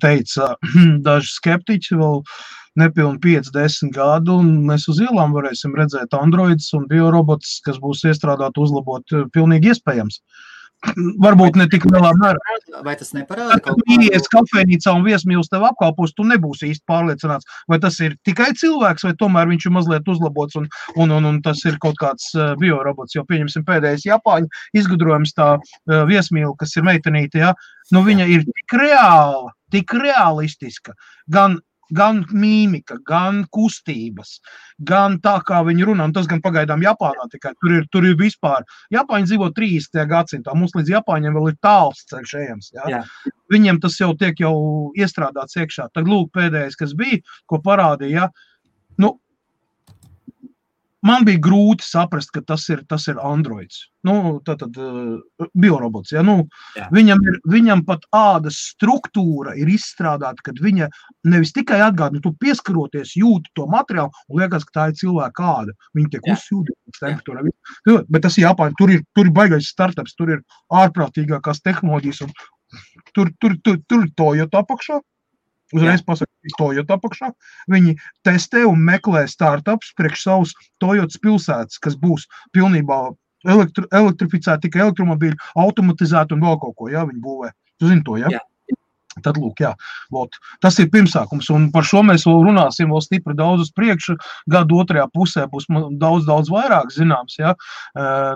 teica daži skeptiķi, vēl nepilni 5-10 gadu, un mēs uz ielām varēsim redzēt androidus un biorobotus, kas būs iestrādāti uzlabot pilnīgi iespējams. Varbūt ne tik lielā mērā. Vai tas neparāda? Kad ies kafejnīcā un viesmīlis tev apkalpos, tu nebūsi īsti pārliecināts, vai tas ir tikai cilvēks, vai tomēr viņš ir mazliet uzlabots un tas ir kaut kāds biorobots. Jo pieņemsim pēdējais Japāņu izgudrojums tā viesmīli, kas ir meitenīte, ja? Viņa ir tik realistiska, gan mīmika, gan kustības, gan tā, kā viņi runā, un tas gan pagaidām Japānā tikai, tur ir vispār, Japāņi dzīvo 30. gadsimtā, mums līdz Japāņiem vēl ir tāls ceļš ejams, ja? Viņiem tas jau tiek iestrādāts iekšā. Tad lūk pēdējais, kas bija, ko parādīja, man bija grūti saprast, ka tas ir androids, tātad biorobots, ja, viņam pat ādas struktūra ir izstrādāta, kad viņa nevis tikai atgādina, tu pieskaroties jūti to materiālu un liekas, ka tā ir cilvēka āda, viņa tiek uzsūdītas temperatūrā, bet tas ir Japāņi, tur ir baigais startups, tur ir ārprātīgākās tehnoloģijas un tur ir Toyota apakšā. Uzreiz pasaka, Toyota apakšā. Viņi testē un meklē startups priekš savus Toyotas pilsētas, kas būs pilnībā elektrificēti, tikai elektromobīļi, automatizēti un vēl kaut ko, viņi būvē. Tu zini to, ja? Tad lūk, tas ir pirmsākums, un par šo mēs vēl runāsim vēl stipri daudz uz priekšu, gadu otrajā pusē būs daudz vairāk zināms,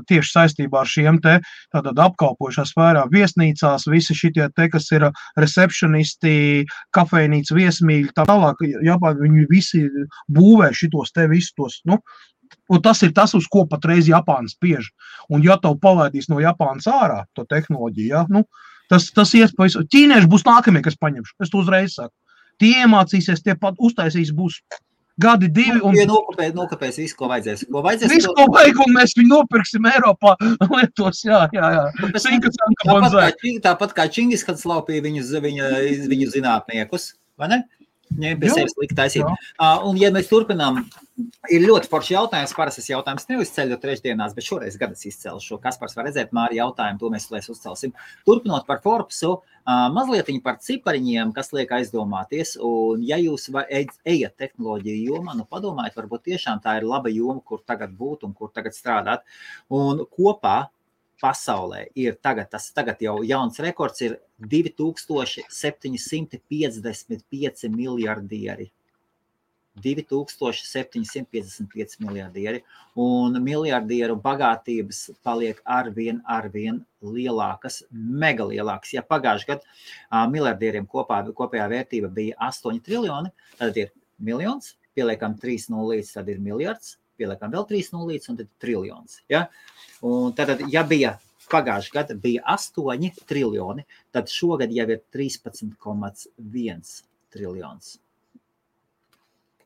tieši saistībā ar šiem te tātad apkalpojušā sfērā viesnīcās, visi šitie te, kas ir receptionisti, kafejnīca, viesmīļi, tā tālāk, viņi visi būvē šitos te visus tos, un tas ir tas, uz ko patreiz Japāna spiež, un ja tev palaidīs no Japānas ārā to tehnoloģiju, Tas iespējas, ķīnieši būs nākamie, kas paņemšu. Es to uzreiz saku. Tie iemācīsies, tie pat uztaisīs, būs gadi 2. Un nokapēs visu, ko vajadzēs. Visu, ko vajag, un mēs viņu nopirksim Eiropā lietos, jā. Tāpat kā Čingis, kad slaupīja viņu zinātniekus, vai ne? Ņem pie sevis likt taisīt. Un, ja mēs turpinām, ir ļoti forši jautājums, parastas jautājums neuzceļu trešdienās, bet šoreiz gadas izcelšu. Kaspars var redzēt Māri jautājumu, to mēs uzcelsim. Turpinot par Forbesu, Mazlietiņi par cipariņiem, kas liek aizdomāties, un ja jūs ejat tehnoloģiju jomā, nu padomājiet, varbūt tiešām tā ir laba joma, kur tagad būt un kur tagad strādāt. Un kopā pasaulē ir tagad jau jauns rekords ir 2755 miljardieri. 2755 miljardieri, un miljardieru bagātības paliek arvien lielākas, mega lielākas. Ja pagājuši gadu miljardieriem kopējā vērtība bija 8 triljoni, tad ir miljons, pieliekam 3 nulītes, tad ir miljards, pieliekam vēl 3 nulītes, un tad triljons. Ja? Un tad, ja bija pagājuši gadu bija 8 triljoni, tad šogad jau ir 13,1 triljons.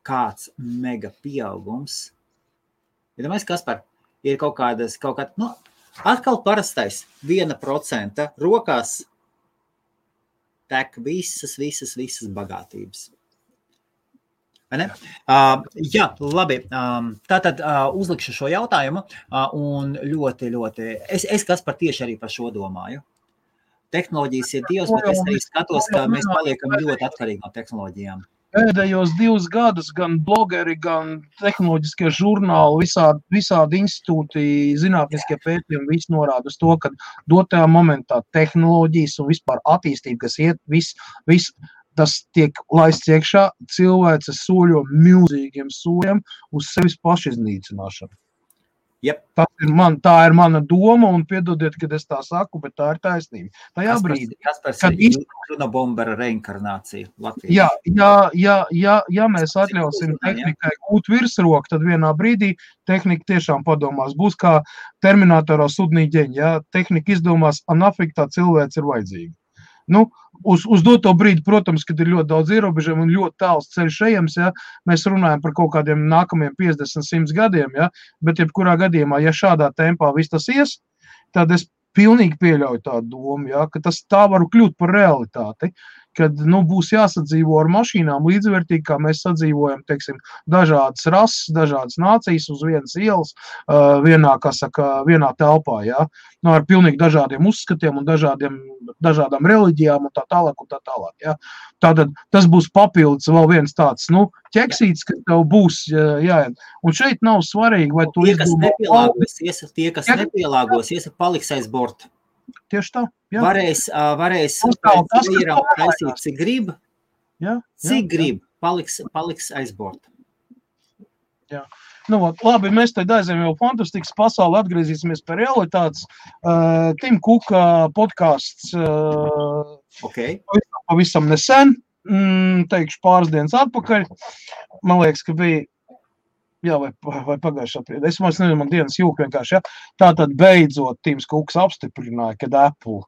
Kāds mega pieaugums. Iedomājies, Kaspar, ir kaut kāda, atkal parastais 1% rokās tek visas bagātības. Vai ne? Jā, labi. Tātad uzlikšu šo jautājumu un ļoti, es Kaspar tieši arī par šo domāju. Tehnoloģijas ir dievs, bet es arī skatos, ka mēs paliekam ļoti atkarīgi no tehnoloģijām. Pēdējos 2 gadus gan blogeri, gan tehnoloģiskie žurnāli, visādi institūti, zinātniskie pētījumi, visi norāda uz to, ka dotajā momentā tehnoloģijas un vispār attīstība, kas iet, viss tas tiek laists iekšā, cilvēces soļo milzīgiem soļiem uz sevis pašiznīcināšanu. Yep. Tā ir mana doma, un piedodiet, kad es tā saku, bet tā ir taisnība. Tajā brīdī, kad Junobombera reinkarnācija ja Latvijā. Mēs atļausim tehnikai gūt virsroku, tad vienā brīdī tehnika tiešām padomās. Būs kā Terminatorā sudnīģeņi, ja tehnika izdomās, nafik tā cilvēks ir vajadzīga. Nu, uz doto brīdi, protams, kad ir ļoti daudz ierobežojumu un ļoti tāls ceļš ejams, ja, mēs runājam par kaut kādiem nākamajiem 50-100 gadiem, ja, bet jebkurā gadījumā, ja šādā tempā viss tas ies, tad es pilnīgi pieļauju tādu domu, ja, ka tā var kļūt par realitāti, kad būs jāsadzīvo ar mašīnām līdzvērtīgi, kā mēs sadzīvojam, teiksim, dažādas rases, dažādas nācijas uz vienas ielas, vienā telpā, ja, ar pilnīgi dažādiem uzskatiem un dažādām reliģijām un tā tālāk. Ja. Tātad tas būs papildus vēl viens tāds, ķeksīts, ka tev būs jāiet. Un šeit nav svarīgi, vai tu tie, kas nepielāgosies, paliks aiz borta. Tieši tā. Jā. Varēs taisīt, cik grib, paliks aiz borta. Jā. Labi, mēs tad aizējam jau fantastikas pasauli, atgriezīsimies pie realitātes. Tim Kuka podcasts pavisam nesen, teikšu pāris dienas atpakaļ. Man liekas, ka bija vai pagājušā brīdī. Es nezinu, man dienas jūk vienkārši, ja. Tātad beidzot Tims Kuks apstiprināja, kad Apple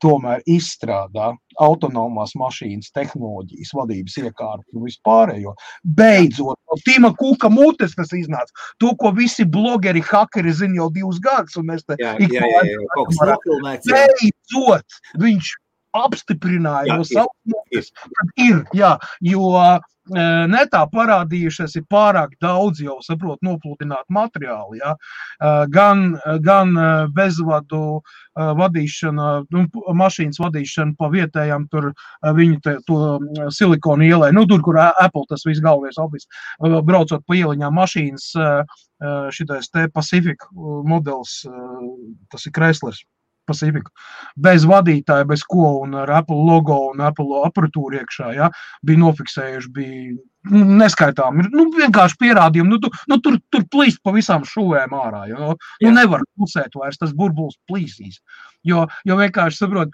tomēr izstrādā autonomās mašīnas tehnoloģijas, vadības iekārtu un vispārējo. Beidzot, no Tima Kuka mutes tas iznāca. To, ko visi blogeri, hakeri zina jau 2 gadus, un mēs te beidzot viņš apstiprināja no savas mutes, kad ir, jo netā parādījušies ir pārāk daudz jau, nopludināt materiāli, gan bezvadu vadīšana, mašīnas vadīšana pa vietējām tur viņu to silikonu ielai, tur, kur Apple tas viss galvenais office, braucot pa ieliņām mašīnas, šitais te Pacific modelis, tas ir Chryslers. Pacific. Bez vadītāja, bez ko, un ar Apple logo un Apple aparatūru iekšā, bija nofiksējuši, bija neskaitām, vienkārši pierādījumi, tur plīst pa visām šuvēm ārā, nevar pusēt vairs, tas burbulis plīsīs, jo vienkārši, saprot,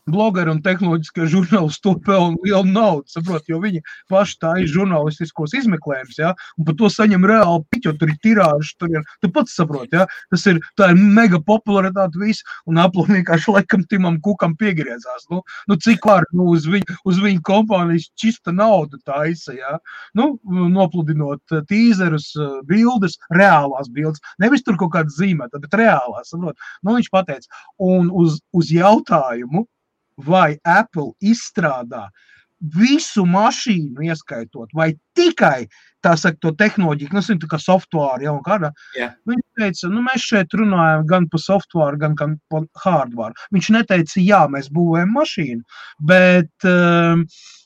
blogeri un tehnoloģiskie žurnālisti to pelna lielu naudu, jo viņi paši tā ir žurnālistiskos izmeklējums, un par to saņem reāli piķi, jo tur ir tirāžas, tu pats saproti, tā ir mega popularitāte viss, un Apple vienkārši laikam Timam Kukam piegriezās, cik var, uz viņu kompānijas čista nauda taisa, nopludinot tīzerus, bildes, reālās bildes, nevis tur kaut kāds zīmēta, bet reālās, saprot, viņš pateica, un uz jautājumu, vai Apple izstrādā visu mašīnu ieskaitot, vai tikai tā saka, to tehnoloģiju, nu, tā kā software, ja, un kādā. Jā. Viņš teica, nu, mēs šeit runājam gan par software, gan par hardware. Viņš neteica, jā, mēs būvējam mašīnu, bet,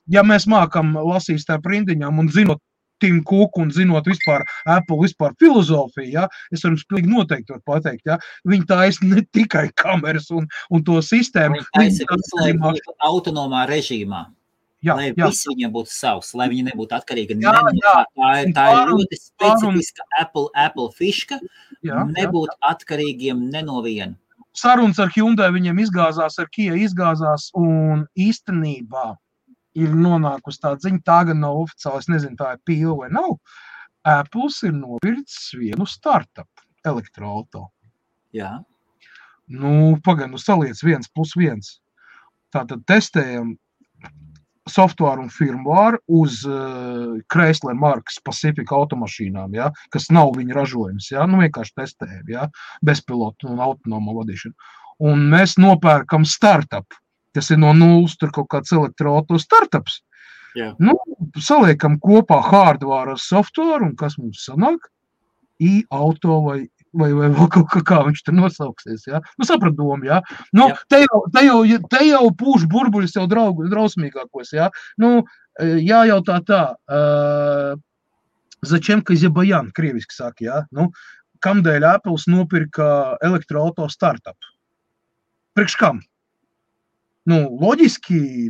ja mēs mākam lasīt tā prindiņām un zinot Tim Cook un zinot vispār Apple vispār filozofiju, ja, es varu pilnīgi noteikti var pateikt, ja, viņi taisa ne tikai kameras un to sistēmu. Viņi taisa visu, lai būtu autonomā režīmā. Jā, lai jā. viss viņiem būtu savs, lai viņi nebūtu atkarīgi. Jā, jā. Tā ir ļoti specifiska Apple fiška, Jā, nebūt atkarīgiem ne no viena. Sarunas ar Hyundai viņiem izgāzās, ar Kia izgāzās, un īstenībā ir nonākusi tā ziņa, tā gan nav oficiāli, es nezinu, tā ir pīla vai nav. Apples ir nopircis vienu startup elektroauto. Jā. Nu, pagaid, saliec 1+1. Tātad testējam software un firmware uz Chrysler markas Pacific automašīnām, ja, kas nav viņa ražojums, ja, nu vienkārši testējam, ja, bezpilotu un autonomo vadīšanu. Un mēs nopērkam startup, kas ir no nulles, tur kaut kāds elektroauto startups. Jā. Nu, saliekam kopā hardware ar software, un kas mums sanāk? I-auto vai vēl kaut kā viņš tur nosauksies, ja? Nu, saprat domu, ja? Nu, te jau pūš burbuļus jau drausmīgākos, ja? Nu, jājautā tā, začem, ka zebajān, krieviski saka, ja? Nu, kamdēļ Apples nopirka elektroauto startup? Priekš kam? Nu, loģiski,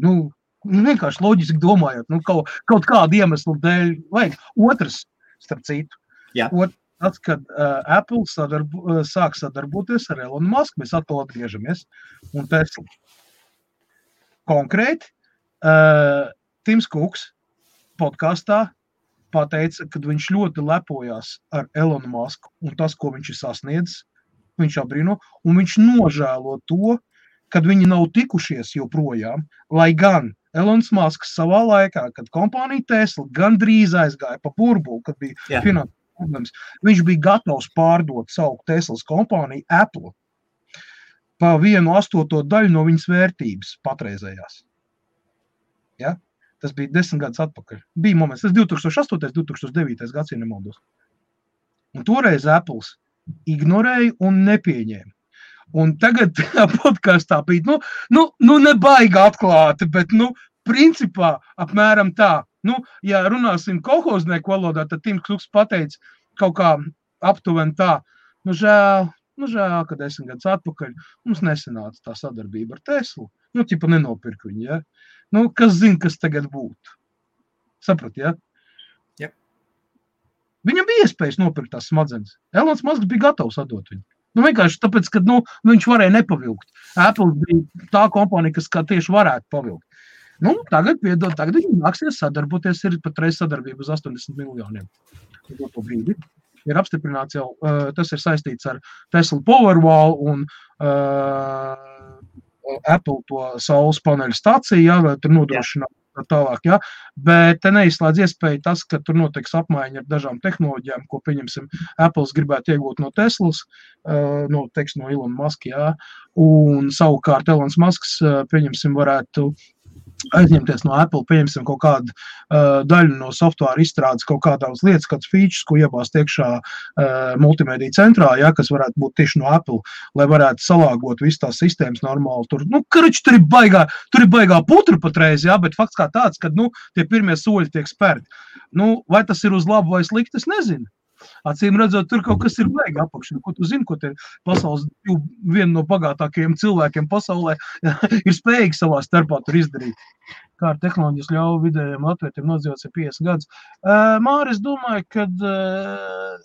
vienkārši loģiski domājot, kaut kādu iemeslu dēļ vajag. Otrs, starp citu, tāds, kad Apple sāk sadarboties ar Elonu Musku, mēs atkal atgriežamies, un Tesla. Konkrēti, Tims Cooks podkastā pateica, kad viņš ļoti lepojās ar Elonu Musku un tas, ko viņš ir sasniedzis, viņš abrīno, un viņš nožēlo to, kad viņi nav tikušies joprojām, lai gan Elons Musks savā laikā, kad kompānija Tesla gandrīz aizgāja pa burbuli, kad bija finanses problēmas, viņš bija gatavs pārdot savu Teslas kompāniju Apple pa 1/8 daļu no viņas vērtības patreizējās. Ja? Tas bija 10 gadus atpakaļ. Bija moments, tas 2008. 2009. gads, ja nemaldos. Un toreiz Apples ignorēja un nepieņēma. Un tagad podkastā bija, nebaigi atklāti, bet, principā apmēram tā. Ja runāsim kolhoznieku valodā, tad Tims Cooks pateica kaut kā aptuveni tā, žēl, ka 10 gadus atpakaļ mums nesanāca tā sadarbība ar Teslu. Tipa nenopirka viņu, ja? Kas zina, kas tagad būtu? Saprat, ja? Jā. Viņam bija iespējas nopirkt tās smadzenes. Elons Musks bija gatavs atdot viņu. Vienkārši tāpēc, ka viņš varēja nepavilkt. Apple bija tā kompānija, kas kā tieši varētu pavilkt. Tagad viņi nāksies sadarboties, ir patreiz sadarbība uz 80 miljoniem. Brīdi. Ir apstiprināts jau, tas ir saistīts ar Tesla Powerwall un Apple to saules paneļu stāciju, vai tur nodrošināt tālāk, ja? Bet te neizslēdz iespēju tas, ka tur notiks apmaiņa ar dažām tehnoloģijām, ko, pieņemsim, Apples gribētu iegūt no Teslas, no Elona Muska, ja? Un savukārt Elons Musks, pieņemsim, varētu aizņemties no Apple, pieņemsim kaut kādu daļu no software izstrādes, kaut kādās lietas, kāds features, ko iebāzt iekšā multimediju centrā, ja, kas varētu būt tieši no Apple, lai varētu salāgot visu tās sistēmas normāli. Tur ir baigā putra patreiz, ja, bet fakts kā tāds, kad, tie pirmie soļi tiek spērti. Vai tas ir uz labu vai slikti, es nezinu. Acīm redzot, tur kaut kas ir baigi apakšana. Ko tu zini, ko te pasaules viena no bagātākajiem cilvēkiem pasaulē ir spējīgi savā starpā tur izdarīt. Kā ar tehnoloģijas ļauj vidējiem latvietiem nodzīvots 50 gadus. Māri, es domāju, ka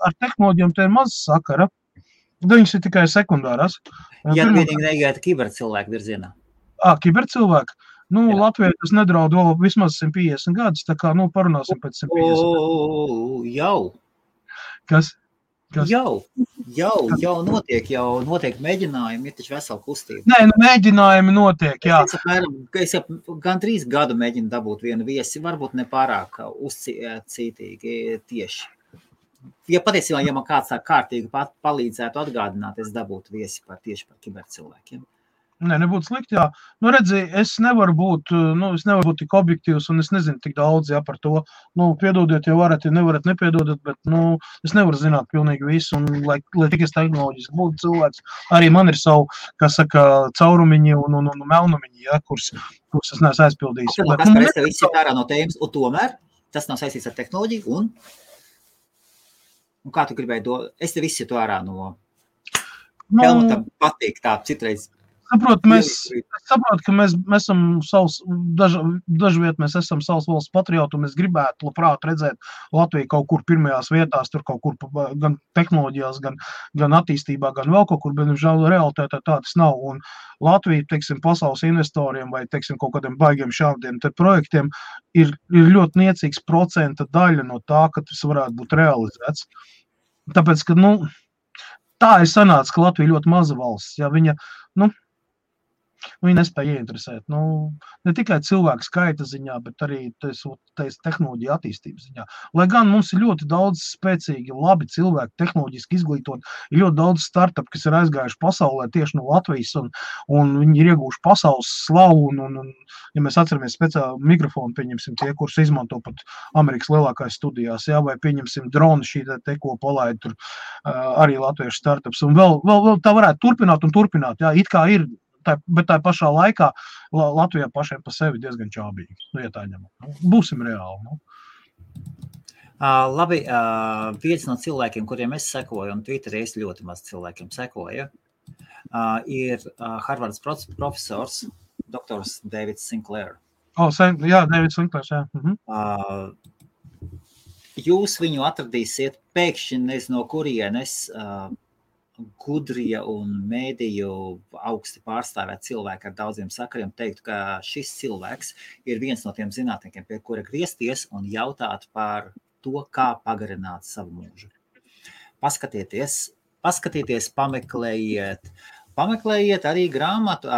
ar tehnoloģijām te ir maz sakara. Viņas ir tikai sekundārās. Ja vienīgi negaita kibercilvēku virzienā. Kibercilvēku? Latvijā tas nedraud vēl vismaz 150 gadus, tā kā, parunāsim pēc 150 gadus. Jau. Kas? Jau notiek mēģinājumi, ir taču vesela kustība. Nē, mēģinājumi notiek, jā. Es jau gan 3 gadu mēģinu dabūt vienu viesi, varbūt ne pārāk uzcītīgi tieši. Ja patiesībā, man kāds tā kārtīgi palīdzētu atgādināt, es dabūtu viesi tieši par kibercilvēkiem. Nē, nebūtu slikti, jā. Nu, redzi, es nevaru būt tik objektīvs, un es nezinu tik daudz, jā, par to. Nu, piedodiet, ja varat, ja nevarat, nepiedodat, bet, nu, es nevaru zināt pilnīgi visu, un, lai tik es tehnoloģiski būtu cilvēks, arī man ir savu, kā saka, caurumiņi un melnumiņi, jā, kurus es neesmu aizpildījis. Es tev izsit ārā no tēmas, un tomēr tas nav saistīts ar tehnoloģiju, un kā tu gribēji es tev izsit ārā no Helmutam patīk tā citreiz. Es saprotu, ka mēs esam dažviet mēs esam savas valsts patrioti, un mēs gribētu labprāt redzēt Latviju kaut kur pirmajās vietās, tur kaut kur gan tehnoloģijās, gan attīstībā, gan vēl kaut kur, bet, žēl, realitātē tā tas nav. Un Latvija, teiksim, pasaules investoriem vai, teiksim, kaut kādiem baigiem šādiem projektiem ir ļoti niecīgs procenta daļa no tā, ka tas varētu būt realizēts. Tāpēc, ka, tā ir sanāca, ka Latvija ļoti maza valsts, ja viņa, viņa nespēja ieinteresēt. Ne tikai cilvēku skaita ziņā, bet arī tehnoloģija attīstības ziņā. Lai gan mums ir ļoti daudz spēcīgi, labi cilvēki, tehnoloģiski izglītot, ir ļoti daudz startup, kas ir aizgājuši pasaulē tieši no Latvijas, un viņi ir ieguvuši pasaules slavu, un ja mēs atceramies speciāli mikrofonu, pieņemsim tie, kurus izmanto pat Amerikas lielākais studijās, jā, vai pieņemsim dronu šī te, ko palaid tur arī latviešu startups, un vēl tā varētu turpināt, jā, it kā ir, bet tā pašā laikā Latvijā pašiem pa sevi diezgan čābīgi. Ja tā ņemam. Būsim reāli. Labi, viens no cilvēkiem, kuriem es sekoju, un Twitterī es ļoti maz cilvēkiem sekoju, ir Harvardas profesors, doktors Davids Sinclair. Jā, Davids Sinclairs, jā. Jūs viņu atradīsiet pēkšņi nezinu no kurienes, gudrie un mēdīju augsti pārstāvēt cilvēki ar daudziem sakariem teiktu, ka šis cilvēks ir viens no tiem zinātniekiem, pie kura griezties un jautāt par to, kā pagarināt savu mūžu. Paskatieties, pameklējiet arī grāmatu,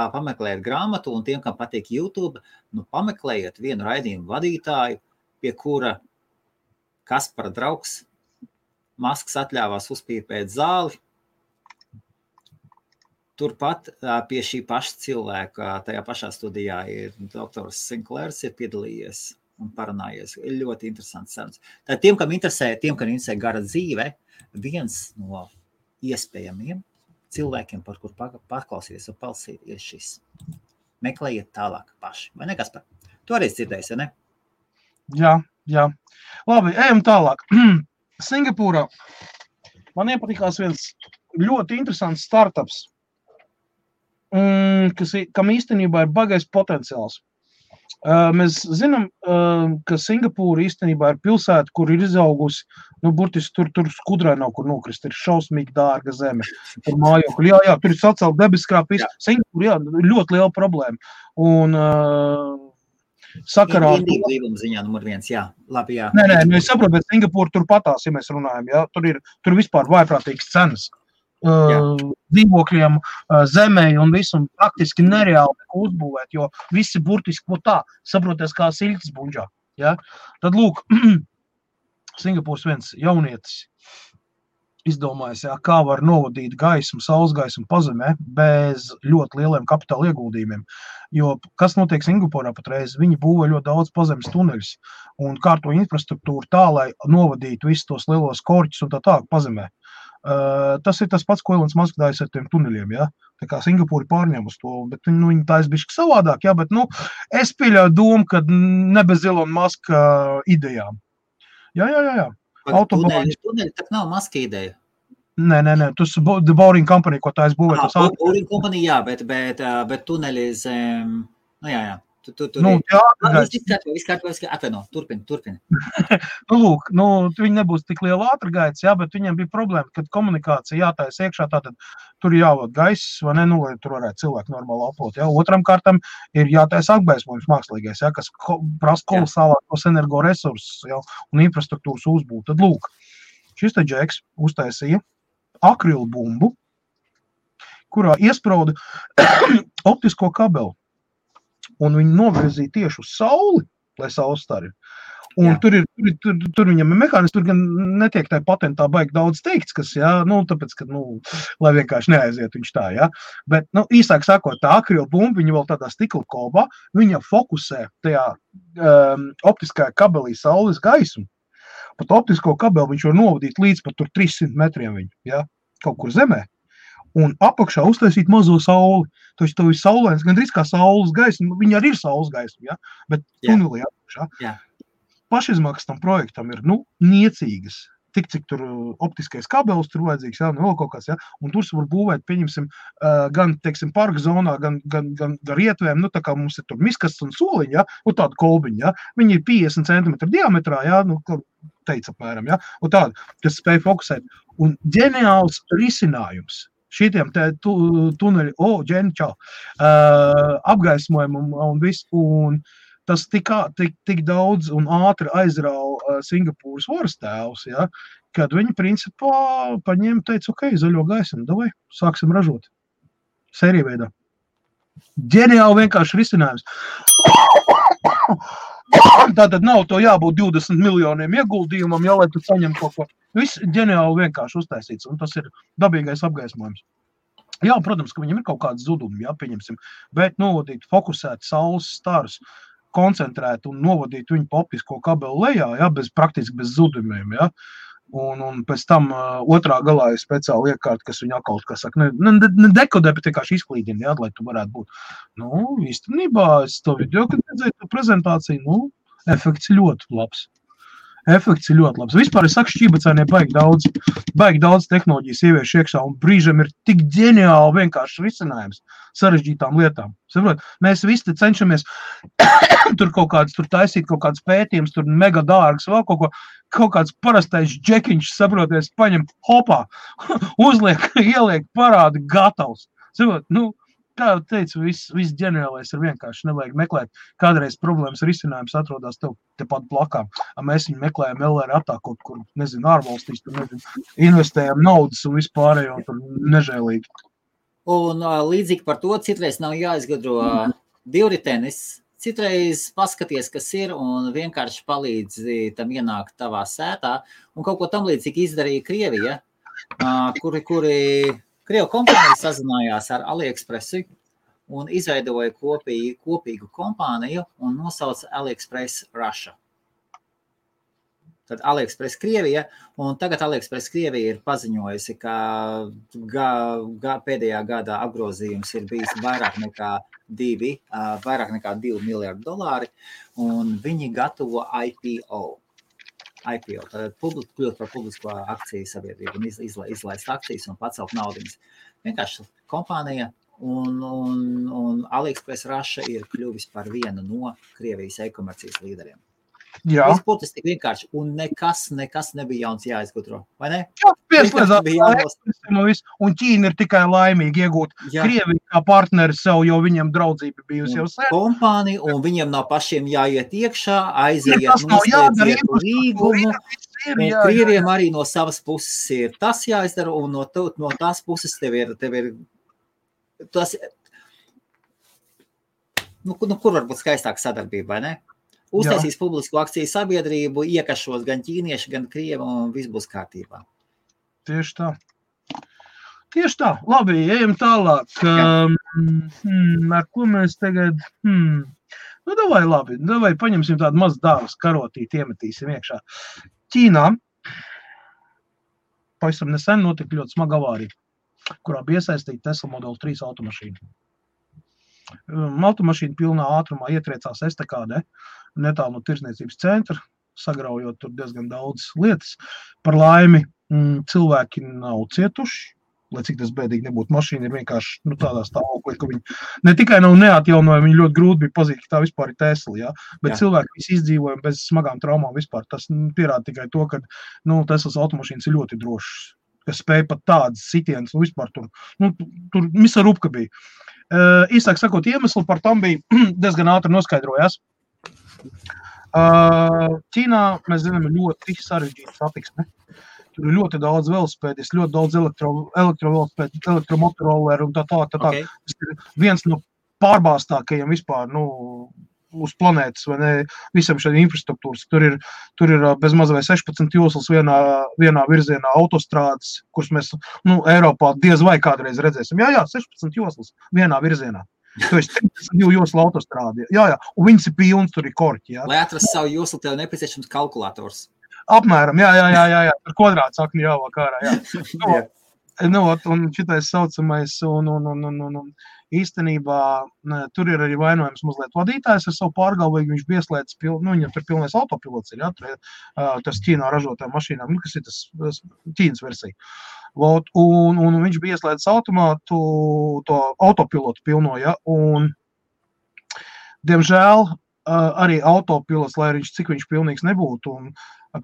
un tiem, kam patīk YouTube, pameklējiet vienu raidījumu vadītāju, pie kura Kaspara draugs Masks atļāvās uzpīpēt zāli. Turpat pie šī paša cilvēka, tajā pašā studijā ir doktors Sinclairs ir piedalījies un parunājies. Ir ļoti interesants sarunas. Tad tiem, kam interesē gara dzīve, viens no iespējamiem cilvēkiem, par kur paklausīties un palsīties šis. Meklējiet tālāk paši. Vai ne, Kaspar? Tu arī dzirdēsi, ne? Jā. Labi, ejam tālāk. Singapūrā man iepatikās viens ļoti interesants startups, kam īstenībā ir bagais potenciāls. Mēs zinām, ka Singapūra īstenībā ir pilsēta, kur ir izaugusi, burtiski tur skudrai nav kur nokrist, ir šausmīgi dārga zeme, tur mājokļi, jā, tur ir sacelt debeskrāpis, Singapūra, jā, ļoti liela problēma. Un sakarā... Indīgi līguma ziņā numur 1, jā, labi, jā. Nē, es saprotu, bet Singapūra tur patās, ja mēs runājam, jā, tur vispār vājprātīgas cenas. Dzīvokļiem, zemē un visu, un praktiski nereāli uzbūvēt, jo visi burtiski tā, saproties kā siļķis buņģā. Ja? Tad lūk, Singapūras viens jaunietis izdomājis, kā var novadīt gaismu, saules gaismu pazemē bez ļoti lieliem kapitāla ieguldījumiem. Jo kas notiek Singapūrā patreiz, viņi būvē ļoti daudz pazemes tuneļus un kārto infrastruktūru tā, lai novadītu visus tos lielos korķus un tā pazemē. Tas ir tas pats, ko Elonas Masks dājas ar tiem tuneļiem, ja? Tā kā Singapūra pārņem uz to, bet viņi tā bišķi savādāk, ja? Bet, es pieļauju domu, ka ne bez Elona Maska idejām. Jā. Tuneļi tak nav Maska ideja. Nē, tas ir The Boring Company, ko tā es būvēju. Boring Company, jā, bet tuneļi zem, jā. Viss kārtībā, atvaino, turpini. Lūk, viņi nebūs tik liela ātrgaitas, jā, bet viņiem bija problēma, kad komunikācija jātais iekšā, tātad tur jāvod gaiss, vai ne, lai tur varētu cilvēku normāli aplot, jā. Otram kārtam ir jātais apgaismojums mākslīgais, jā, kas prasa kolosālākos energoresursus, jā, un infrastruktūras uzbūvu. Tad lūk, šis te džeks uztaisīja akrilu bumbu, kurā iesprauda optisko kabeli. Un viņi novirzīja tieši uz sauli, lai saules stari. Un tur viņam ir mehānisms, tur gan netiek tā patentā baigi daudz teikts, kas, tāpēc, ka, lai vienkārši neaiziet viņš tā, Bet, īsāk sakot, tā akrilbumba, viņa vēl tādā stikla kolbā, viņa fokusē tajā optiskajā kabelī saules gaismu. Pat optisko kabeli viņš var novadīt līdz pat tur 300 metriem viņu, kaut kur zemē. Un apakšā uztaisīt mazo sauli. Taču tev ir saulēns, gandrīz kā saules gaisma, viņa arī ir saules gaisma, bet tunelī apakšā. Pašizmaksas tam projektam ir, niecīgas. Tik, cik tur optiskais kabelis tur vajadzīgs, vēl kaut kāds, Un tur var būvēt, pieņemsim, gan, teiksim, parka zonā, gan rietvēm, tā kā mums ir tur miskasts un soliņi, un tāda kolbiņa, Viņi ir 50 cm diametrā, teica apmēram, un tāda, kas spēj fokusēt. Un ģeniāls risinājums šitiem tuneļi, ģeničā, apgaismojumu un viss, un tas tik daudz un ātri aizrauja Singapūras varas tēvus, kad viņi principā paņēma, teica, zaļo gaismu, davai, sāksim ražot. Sērija veidā. Ģeniāli vienkārši risinājums. Tātad nav to jābūt 20 miljoniem ieguldījumam, lai tu saņem kaut ko. Viss ģeniāli vienkārši uztaisīts, un tas ir dabīgais apgaismojums. Protams, ka viņam ir kaut kāds zudumi, pieņemsim, bet novadīt fokusēt saules starus, koncentrēt un novadīt viņu pa optisko kabelu lejā, praktiski bez zudumiem, Un pēc tam otrā galā ir speciāli iekārta, kas viņu atkal, kas saka, ne dekodē, bet vienkārši izklīdina, lai tu varētu būt. Īstenībā, es to video, kad redzēju to prezentāciju, efekts ļoti labs. Vispār es saku, šķībacēnie baigi daudz tehnoloģijas ievieš iekšā, un brīžam ir tik ģeniāli vienkārši risinājums sarežģītām lietām. Saprot, mēs visi cenšamies tur kaut kāds, tur taisīt kaut kāds pētījums, tur mega dārgs, vēl kaut kāds parastais džekiņš, saproties, paņem hopā, uzliek, ieliek parādi gatavs. Saprot, kā jau teicu, viss ģeniālais ir vienkārši, nevajag meklēt. Kādreiz problēmas risinājums atrodas tev tepat blakām. Mēs viņu meklējam LR kaut kur, ārvalstīs, investējam naudas un vispārējo, un tur nežēlīgi. Un līdzīgi par to, citreiz nav jāizgudro divritenis, citreiz paskaties, kas ir, un vienkārši palīdz tam ienākt tavā sētā, un kaut ko tam līdzīgi izdarīja Krievija, kuri Krievu kompānija sazinājās ar AliExpressu un izveidoja kopīgu kompāniju un nosauca AliExpress Russia. Tad AliExpress Krievija, un tagad AliExpress Krievija ir paziņojusi, ka pēdējā gadā apgrozījums ir bijis vairāk nekā 2 miljardi dolāri, un viņi gatavo IPO, tad kļūt par publisko akciju sabiedrību un izlaist akcijas un pacelt naudiņas. Vienkārši kompānija un AliExpress Russia ir kļuvis par vienu no Krievijas e-komercijas līderiem. Viss būtis tik vienkārši, un nekas nebija jauns jāizgudro, vai ne? Un Ķīna ir tikai laimīgi iegūt Krieviju kā partneri sev, jo viņam draudzība bijusi jau sen. Kompānija, un viņam nav pašiem jāiet iekšā, aiziet, noslēdziet līgumu, un Krieviem arī no savas puses ir tas jāizdara, un no tās puses tev ir tas, kur var būt skaistāka sadarbība, vai ne? Uztaisīs publisku akciju sabiedrību, iekašos gan ķīnieši, gan krievi, un viss būs kārtībā. Tieši tā. Labi, ejam tālāk. Ar ko mēs tagad... Davai paņemsim tādu mazu dāvas karotīti, iemetīsim iekšā. Ķīnā pavisam nesen notika ļoti smaga avārija, kurā bija iesaistīta Tesla Model 3 automašīna. Automašīna pilnā ātrumā ietriecās estakādē, netālu no tirsniecības centra, sagraujot tur diezgan daudz lietas. Par laimi cilvēki nav cietuši, lai cik tas bēdīgi nebūtu. Mašīna ir vienkārši tādā stāvoklī, ka viņi ne tikai nav neatjaunoja, viņi ļoti grūti bija pazīt, ka tā vispār ir Tesla, bet cilvēki visi izdzīvoja bez smagām traumām vispār. Tas pierāda tikai to, ka Teslas automašīnas ir ļoti drošas, kas spēja pat tādas sitienas, vispār tur misa rupka bija. Īsāk sakot, iemesli par tam bija diezgan ātri noskaidrojās. Ķīnā, mēs zinām, ir ļoti sarežģīta satiksme. Tur ir ļoti daudz velosipēdis, ļoti daudz elektrovelosipēdi, elektromotoroleri un tā. Tas ir viens no pārbāstākajiem vispār, uz planētas, vai ne, visam šādiem infrastruktūras. Tur ir bez maz vai 16 joslas vienā virzienā autostrādes, kuras mēs, Eiropā diez vai kādreiz redzēsim. Jā, 16 joslas vienā virzienā. Tu esi 32 joslu autostrādi. Jā, un viņas ir pilns, tur ir korķi. Jā. Lai atrastu savu joslu, tev nepieciešams kalkulators. Apmēram, jā, ar kvadrātu sakni jāvāk ārā, jā. Un šitais saucamais, un īstenībā tur ir arī vainojams mazliet vadītājs ar savu pārgalvīgu, viņš bieslēdz, viņam tur pilnais autopilots ir, tas Ķīnā ražotā mašīnām, kas ir tas Ķīnas versija. Un viņš bieslēdz automātu, to autopilotu pilno, ja, un diemžēl arī autopilots, lai viņš cik viņš pilnīgs nebūtu, un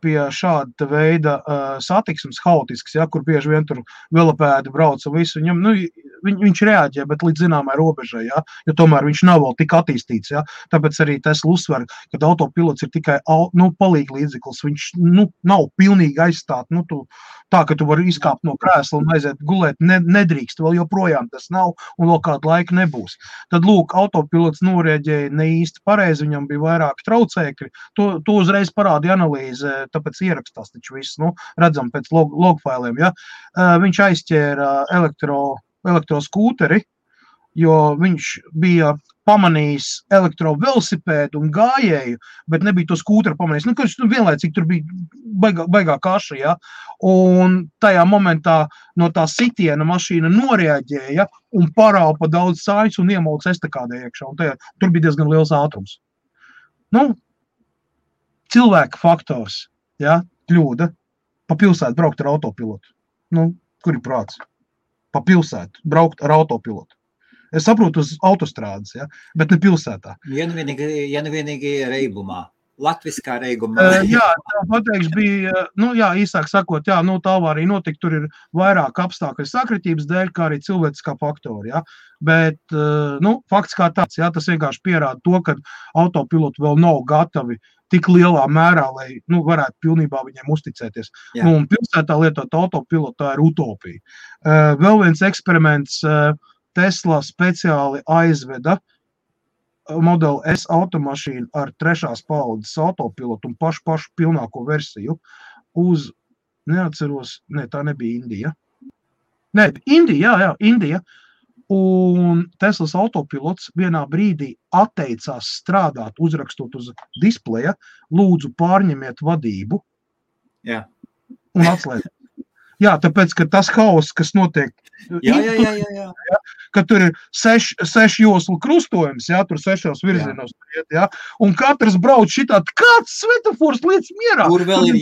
pie šāda veida satiksmes haotisks, ja, kur bieži vien tur velopēdi brauca visu, viņam, viņš reaģē, bet līdz zināmai robežai, ja, jo tomēr viņš nav vēl tik attīstīts, ja, tāpēc arī Tesla uzsver, kad autopilots ir tikai, palīgi līdzeklis, viņš, nav pilnīgi aizstāt, tā, ka tu vari izkāpt no krēsla un aiziet gulēt, nedrīkst, vēl joprojām tas nav, un vēl kādu laiku nebūs. Tad, lūk, autopilots norēģēja ne īsti pareizi, viņam bija vairāki traucēkļi, to uzreiz parāda analīze, tāpēc ierakstās taču viss, redzam pēc logfailiem, ja. Viņš aizķēra elektroskūteri, jo viņš bija pamanījis elektrovelosipēdu un gājēju, bet nebija to skūteru pamanījis. Kurš vienlaicīgi tur bija baigā kaša, ja, un tajā momentā no tā sitiena mašīna noreaģēja un paraupa daudz sāņus un iemauca estakādē iekšā, un tur bija diezgan liels ātrums. Cilvēka faktors, ja, kļūda, pa pilsētu braukt ar autopilotu. Kur ir prāts? Pa pilsētu braukt ar autopilotu. Es saprotu uz autostrādes, ja, bet ne pilsētā. Ja nu vienīgi reibumā, latviskā reibumā. Jā, tā pateikts bija, īsāk sakot, tā avārija notika, tur ir vairāk apstākļu sakritības dēļ, kā arī cilvēciskā faktori, ja. Bet, fakts kā tāds, ja, tas vienkārši pierāda to, ka autopiloti vēl nav gatavi tik lielā mērā, lai, varētu pilnībā viņiem uzticēties. Un pilsētā lietot autopilotu, tā ir utopija. Vēl viens eksperiments, Tesla speciāli aizveda modeli S automašīnu ar 3. paudzes autopilotu un pašu pilnāko versiju uz, neatceros, tā nebija Indija. Indija. Un Teslas autopilots vienā brīdī atteicās strādāt, uzrakstot uz displeja, lūdzu pārņemiet vadību. Jā. Un atslēgt. Jā, tāpēc, ka tas haoss, kas notiek, ka tur ir 6 joslu krustojums, jā, tur 6 virzienos, jā, un katrs brauc šitā, kāds svetafors lietas mierā. Tur vēl ir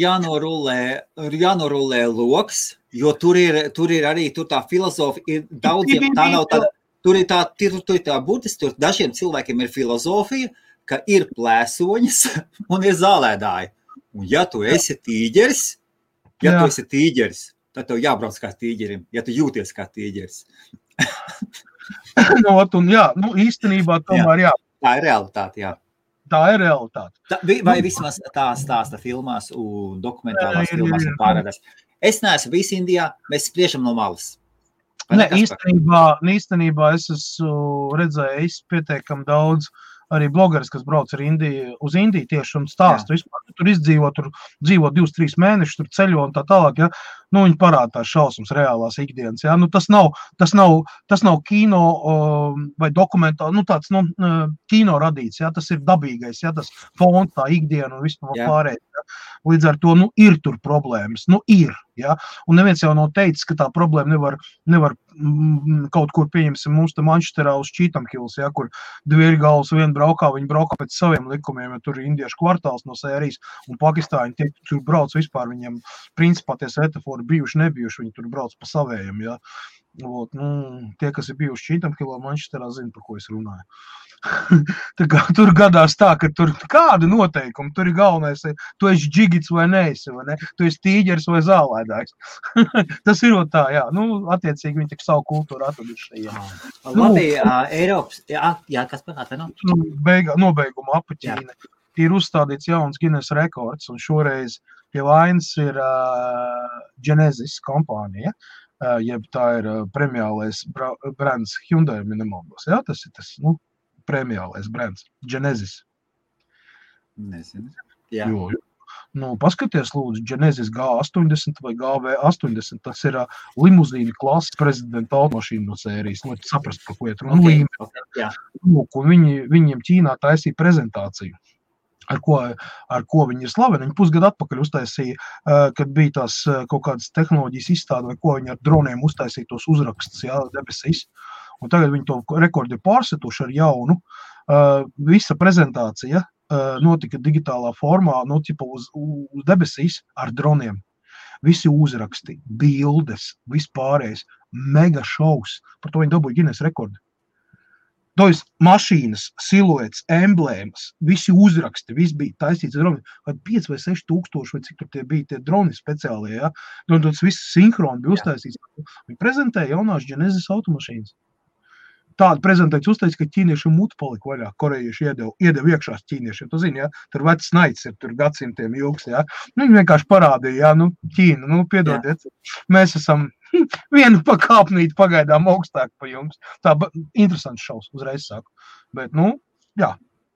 jānorulē loks, jo tur ir arī tā filozofija, ir daudziem, tā nav tāda, tur ir tā burtiski, tur dažiem cilvēkiem ir filozofija, ka ir plēsoņas un ir zālēdāji. Un ja tu esi tīģeris, tad tev jābrauc kā tīģerim, ja tu jūties kā tīģeris. Īstenībā tomēr, jā. Tā ir realitāte, jā. Tā ir realitāte. Vai vismaz tā stāsta filmās un dokumentālās filmās un pārādās. Es neesmu visi Indijā, mēs spriežam no malas. Īstenībā es esmu redzējis pietiekami daudz arī blogeris, kas brauc uz Indiju tieši un stāstu vispār. Tur izdzīvo, tur dzīvo 2-3 mēnešus, tur ceļo un tā tālāk, ja. Viņi parāda tās šausmas reālās ikdienas, ja. Tas nav kino vai dokumentāli, tāds, kino radīts, ja. Tas ir dabīgais, ja. Tas fons, tā ikdiena un vispār pārējais, ja. Līdz ar to, ir tur problēmas, ir, ja. Un neviens jau nav teicis, ka tā problēma nevar kaut kur, pieņemsim, mums te Manchesterā uz Cheetham Hills, ja, kur divi galvas vien braukā, viņi braukā pēc saviem likumiem, ja tur ir indiešu kvartāls no sērijas, un Pakistāņi tie tur brauc vispār, viņiem principā tie svetafori bijuši, nebijuši, viņi tur brauc pa savējiem, ja. Tie, kas ir bijuši Cheetham Hillā, Manchesterā, zina, par ko es runāju. Tur gadās tā, ka tur kāda noteikuma, tur ir galvenais, tu esi džigits vai neesi, vai ne? Tu esi tīģeris vai zālēdājs. Tas ir tā, jā. Attiecīgi viņi tik savu kultūru atraduši. Labi, Eiropas, jā, kas panāta, Nobeiguma apaķīne. Ir uzstādīts jauns Guinness rekords, un šoreiz pie vainas ir Genesis kompānija, jeb tā ir premiālais brands Hyundai, nemaldos. Jā, tas ir tas, premiālais brands, Genesis. Nezinu. Jā. Jo. Nu, paskaties, lūdzu, Genesis G80 vai GV80, tas ir limuzīna klases prezidenta automašīna no sērijas, lai saprast, par ko iet runa. Jā. Lūk, un viņiem Ķīnā taisīja prezentāciju, ar ko viņi ir slaveni. Viņi pusgadu atpakaļ uztaisīja, kad bija tās kaut kādas tehnoloģijas izstāde, vai ko viņi ar droniem uztaisīja tos uzrakstus, debesīs. Un tagad viņi to rekordu ir pārsetuši ar jaunu. Visa prezentācija notika digitālā formā, uz debesīs ar droniem. Visi uzraksti, bildes, vispārējais, mega šovs. Par to viņi dabūja Guinness rekordu. Tojas mašīnas, siluets, emblēmas, visi uzraksti, viss bija taisīts ar droni. 5 vai 6 tūkstoši, vai cik tur tie bija tie droni speciālie, ja? Un tas viss sinhroni bija uztaisīts. Viņi prezentēja jaunās Genesis automašīnas. Tāda prezentācija uzteica, ka ķīniešiem mutu palika vaļā, korejieši iedeva iekšās ķīniešiem. Tu zini, ja, tur vecs naids ir, tur gadsimtiem ilgs, ja. Nu, viņi vienkārši parādīja, ja, Ķīna, piedodiet, mēs esam vienu pakāpnīti pagaidām augstāk pa jums. Tā interesants šaus, uzreiz saku. Bet,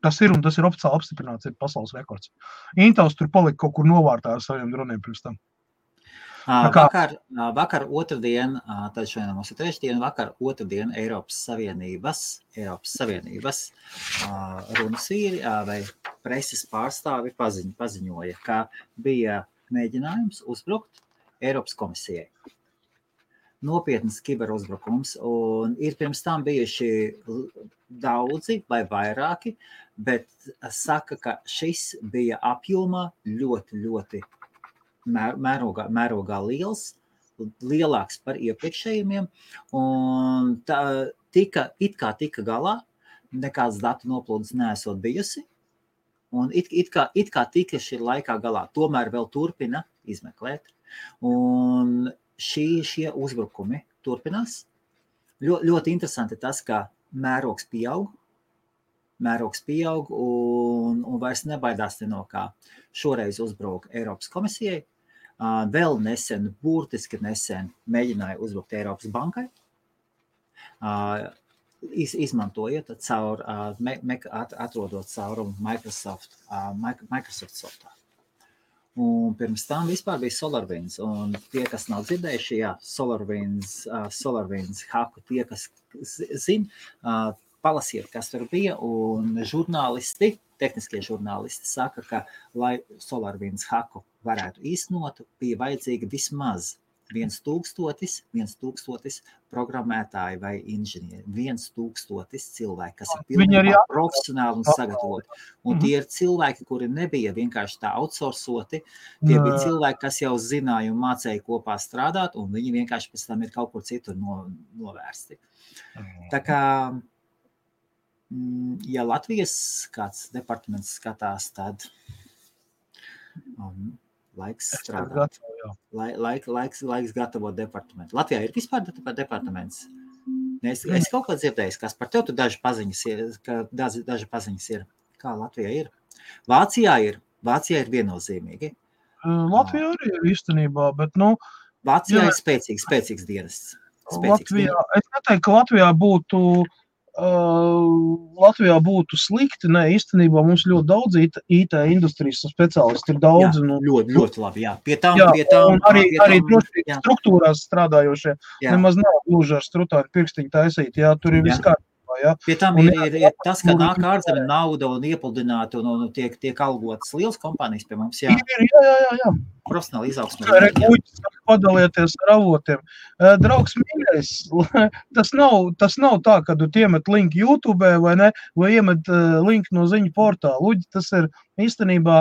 tas ir un tas ir oficiāli apstiprināts, ir pasaules rekords. Intels tur palika kaut kur novārtā ar saviem droniem pirms tam. Vakar otrdien, tad šodien mums ir trešdien, vakar otrdien Eiropas Savienības runas vīri vai preses pārstāvi paziņoja, ka bija mēģinājums uzbrukt Eiropas komisijai. Nopietnas kiberuzbrukums, un ir pirms tam bijuši daudzi vai vairāki, bet saka, ka šis bija apjomā ļoti mērogā liels, lielāks par iepriekšējiem, un tika galā, nekāds datu noplūdes neesot bijusi, un it kā tika šī laikā galā, tomēr vēl turpina izmeklēt, un šie uzbrukumi turpinās. Ļoti interesanti tas, ka mērogs pieaug un vairs nebaidās no kā. Šoreiz uzbruka Eiropas komisijai, vēl burtiski nesen mēģināja uzbrukt Eiropas bankai, izmantojot atrodot caurumu Microsoft softā. Un pirms tam vispār bija SolarWinds, un tie, kas nav dzirdējuši, SolarWinds haku, tie, kas zina, palasiet, kas tur bija, un tehniskie žurnālisti saka, ka, lai SolarWinds haku varētu īstenot, bija vajadzīgi vismaz 1000 programmētāji vai inženieri, 1000 cilvēki, kas ir pilnībā profesionāli un sagatavoti. Un tie ir cilvēki, kuri nebija vienkārši tā outsourcoti, tie bija cilvēki, kas jau zināja un mācēja kopā strādāt, un viņi vienkārši pēc tam ir kaut kur citur novērsti. Tā kā, ja Latvijas kāds departaments skatās, tad laiks strādāt. Laiks gatavot departamentu. Latvijā ir vispār departaments. Es kaut kā dzirdējis, kas par tev tu daži paziņas ir. Kā Latvijā ir? Vācijā ir viennozīmīgi. Latvijā arī ir īstenībā, bet, Vācijā ir spēcīgs dienests. Latvijā, es neteiktu, ka Latvijā būtu slikti, īstenībā mums ļoti daudz IT industrijas speciālisti ir daudz. Ļoti labi, jā. Pie tām, un arī drošības struktūrās strādājošie nemaz nav gluži ar strutāni pirkstiņu taisīt, jā, tur ir viss kārtībā. Jā. Pie tam ir tas, ka nāk ārzemē nauda un iepludināta un tiek algotas liels kompānijas pie mums, jā. Jā. Profesionāli izaugsmē. Guļķis padalieties ar avotiem. Draugs mīļais, tas nav tā, ka tu iemet linku YouTube vai iemet linku no ziņu portāla. Luģi, tas ir īstenībā,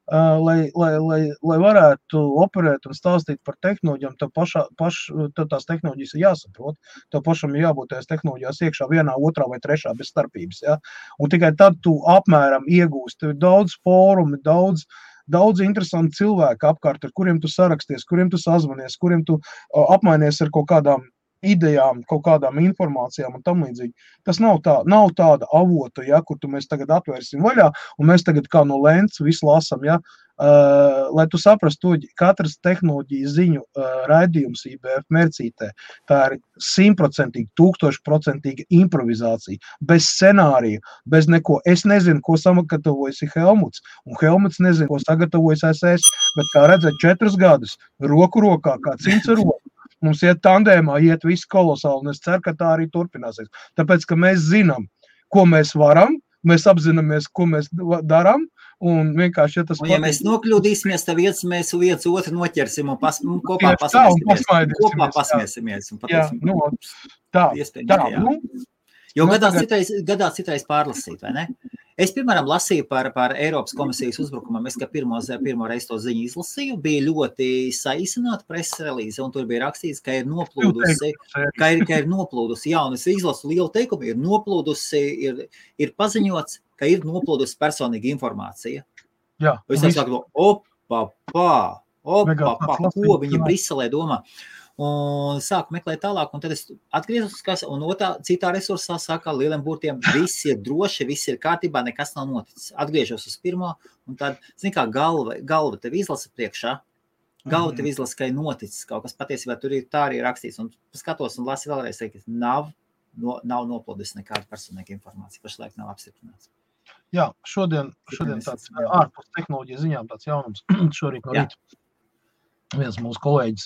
lai varētu operēt un stāstīt par tehnoloģijām, tās tehnoloģijas ir jāsaprot. Tev pašam ir jābūt tās tehnoloģijās iekšā vienā, otrā vai trešā bez starpības. Ja? Un tikai tad tu apmēram iegūsti. Tev ir daudz fórumi, daudz interesanti cilvēki apkārt, ar kuriem tu saraksties, kuriem tu sazvanies, kuriem tu apmainies ar kaut kādām idejām, kaut kādām informācijām un tam līdzīgi. Tas nav tāda avota, ja, kur mēs tagad atvērsim vaļā, un mēs tagad kā no lents visu lasam, ja, lai tu saprastu, katras tehnoloģijas ziņu raidījums IBF Mercītē, tā ir 100%, 1000% improvizācija, bez scenārija, bez neko. Es nezinu, ko sagatavojas Helmuts, un Helmuts nezinu, ko sagatavojas es, bet kā redzēt 4 gadus, roku rokā, kā cimds ar roku. Mums iet tandēmā, iet viss kolosāli, un es ceru, ka tā arī turpināsies. Tāpēc, ka mēs zinām, ko mēs varam, mēs apzināmies, ko mēs darām, un vienkārši, ja tas un, ja mēs nokļūdīsimies, tad mēs viens otru noķersim un kopā pasmiesimies. Tā. Jo gadās citreiz pārlasīt, vai ne? Es, piemēram, lasīju par Eiropas komisijas uzbrukumam. Es, ka pirmo reizi to ziņu izlasīju, bija ļoti saīsināta preses relīze, un tur bija rakstīts, ka ir noplūdusi, jā, un es izlasu lielu teikumu, ir noplūdusi, ir paziņots, ka ir noplūdusi personīga informācija. Jā. Es saku, ko viņi Briselē domā. Un sāku meklēt tālāk, un tad es atgriezos, un citā resursā saka lieliem burtiem, viss ir droši, viss ir kārtībā, nekas nav noticis. Atgriežos uz pirmo, un tad, zini kā, galva tev izlasa priekšā, tev izlasa, ka ir noticis kaut kas patiesībā, tur ir tā arī rakstīts, un skatos un lasi vēlreiz, ka nav noplūdis nekāda personīga informācija, pašlaik nav apstiprināts. Jā, šodien tāds ārpus tehnoloģijas ziņām tāds jaunums, šorīt no rīta. Viens mūsu kolēģis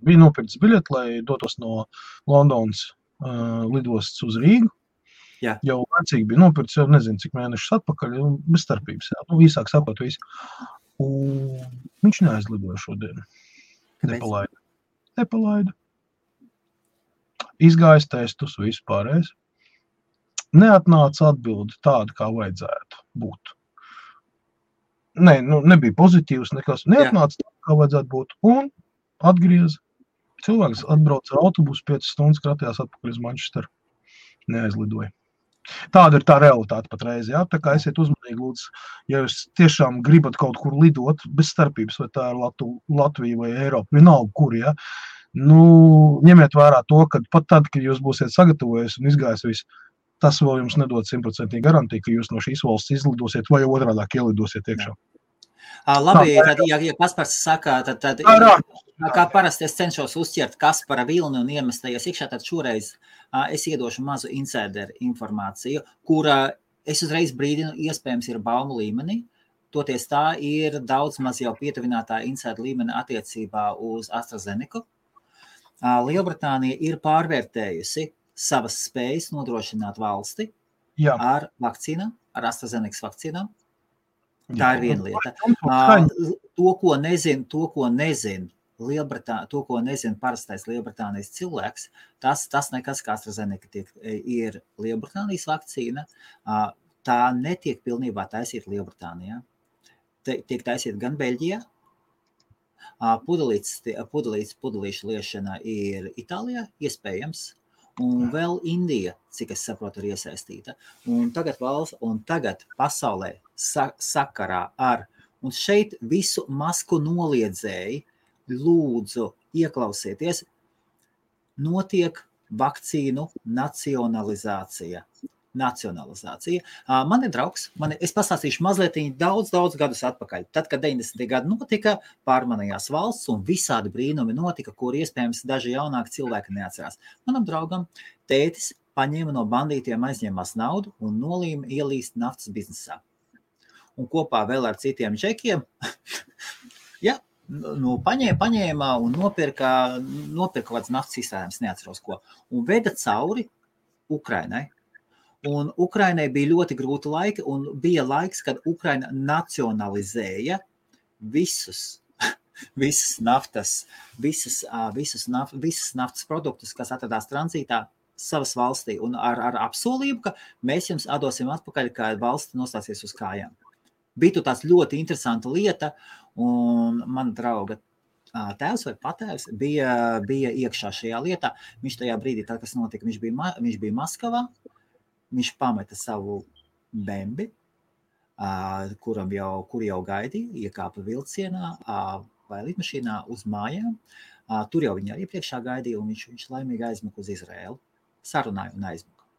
bija nopircis biļeti, lai dotos no Londonas lidostas uz Rīgu. Jā. Jau vecīgi bija nopircis, jau nezinu, cik mēnešus atpakaļ, bez starpības. Jā. Īsāk sakot visu. Un viņš neaizlidoja šodien. Nepalaida. Izgājis testus, visu pārējais. Neatnāca atbildi tādu, kā vajadzētu būt. Nebija pozitīvs nekas. Neatnāca tā, kā vajadzētu būt. Un atgriez. Cilvēks atbrauc ar autobusu 5 stundas, kratījās atpakaļ uz Manchesteru. Neaizlidoja. Tāda ir tā realitāte patreiz. Jā? Tā kā esiet uzmanīgi, lūdzu, ja jūs tiešām gribat kaut kur lidot, bez starpības, vai tā ir Latvija vai Eiropa, vienalga kur, jā. Ņemiet vērā to, ka pat tad, kad jūs būsiet sagatavojies un izgājis visu, tas vēl jums nedod 100% garantiju, ka jūs no šīs valsts izlidosiet vai otrādāk ielidosiet iekšā. Labi, tad, ja Kaspars saka, tad kā parasti es cenšos uzķert Kaspara vilni un iemestājies iekšā, tad šoreiz es iedošu mazu insider informāciju, kura es uzreiz brīdinu, iespējams ir baumu līmenī, toties tā ir daudz maz jau pietuvinātā insider līmeni attiecībā uz AstraZeneca. Lielbritānija ir pārvērtējusi savas spējas nodrošināt valsti ar vakcīnām, ar AstraZeneca vakcīnām. Tā ir viena lieta. To, ko nezin parastais Lielbritānijas cilvēks, tas nekas, kā AstraZeneca ir Lielbritānijas vakcīna, tā netiek pilnībā taisīta Lielbritānijā. Tiek taisīta gan Beļģijā, pudelīšu liešana ir Itālijā, iespējams, un vēl Indija, cik es saprotu, ir iesaistīta. Un tagad pasaulē sakarā ar, un šeit visu masku noliedzēji, lūdzu, ieklausieties, notiek vakcīnu nacionalizācija. Man ir draugs, es pastāstīšu mazliet daudz gadus atpakaļ. Tad, kad 90. gadi notika, pārmanījās valsts un visādi brīnumi notika, kur iespējams daži jaunāki cilvēki neatcerās. Manam draugam tētis paņēma no bandītiem, aizņēmās naudu un nolīma ielīst naftas biznesā. Un kopā vēl ar citiem džekiem, paņēma un nopirka kāds naftas izstrādājums, neatceros ko, un veda cauri Ukrainai. Un Ukrainai bija ļoti grūti laiki, un bija laiks, kad Ukraina nacionalizēja visas naftas produktus, kas atradās tranzītā savas valstī, un ar apsolību, ka mēs jums atdosim atpakaļ, kad valsts nostāsies uz kājām. Bija tāds ļoti interesanta lieta, un mana drauga tēvs vai patēvs bija iekšā šajā lietā. Viņš tajā brīdī, tad, kas notika, viņš bija Maskavā. Viņš pameta savu bembi, kur jau gaidīja, iekāpa vilcienā vai lidmašīnā uz mājām. Tur jau viņa iepriekšā gaidīja, un viņš laimīgi aizmuka uz Izraēlu. Sarunāja un aizmuka.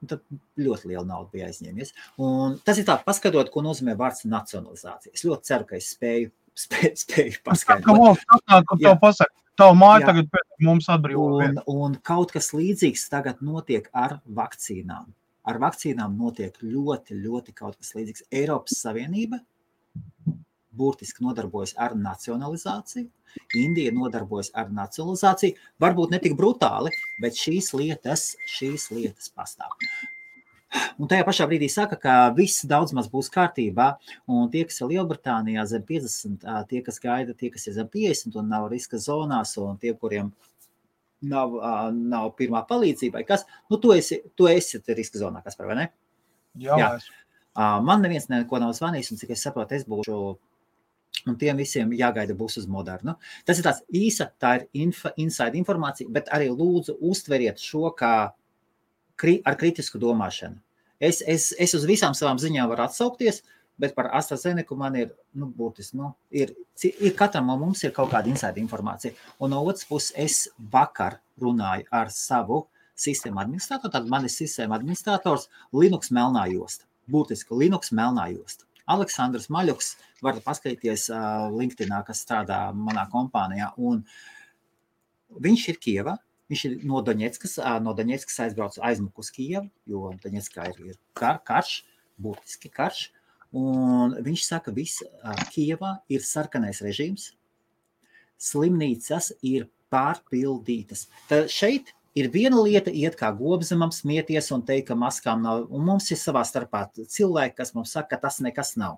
Tad ļoti liela nauda bija aizņēmies. Un tas ir tā, paskatot, ko nozīmē vārds nacionalizācija. Es ļoti ceru, ka es spēju paskaidrot. Tev pasaka, tavu māju tagad pēc mums atbrīvo. Un kaut kas līdzīgs tagad notiek ar vakcīnām. Ar vakcīnām notiek ļoti, ļoti kaut kas līdzīgs. Eiropas Savienība burtiski nodarbojas ar nacionalizāciju. Indija nodarbojas ar nacionalizāciju. Varbūt ne tik brutāli, bet šīs lietas pastāv. Un tajā pašā brīdī saka, ka viss daudz maz būs kārtībā, un tie, kas ir Lielbritānijā zem 50, tie, kas gaida, tie, kas ir zem 50 un nav riska zonās, un tie, kuriem nav pirmā palīdzība, kas, tu esi riska zonā, kas par vai ne? Jā. Man neviens neko nav zvanījis, un cik es saprotu, es būšu, un tiem visiem jāgaida būs uz Modernu. Tas ir tāds īsa, tā ir inside informācija, bet arī lūdzu uztveriet šo kā ar kritisku domāšanu. Es uz visām savām ziņām varu atsaukties, bet par AstraZeneca man ir, būtiski, ir katram mums ir kaut kāda inside informācija. Un no otras puses, es vakar runāju ar savu sistēmu administratoru, tad man ir sistēma administrators Linux melnā josta. Būtiski Linux melnā josta. Aleksandrs Maļuks, varat paskatīties LinkedInā, kas strādā manā kompānijā, un viņš ir Kievā, viņš ir no Doņetskas aizmuku uz Kievu, jo Doņetskā ir karš, būtiski karš, un viņš saka, Kievā ir sarkanais režīms, slimnīcas ir pārpildītas. Tad šeit ir viena lieta iet kā gobzemam, smieties un teikt, ka maskām nav, un mums ir savā starpā cilvēki, kas mums saka, ka tas nekas nav.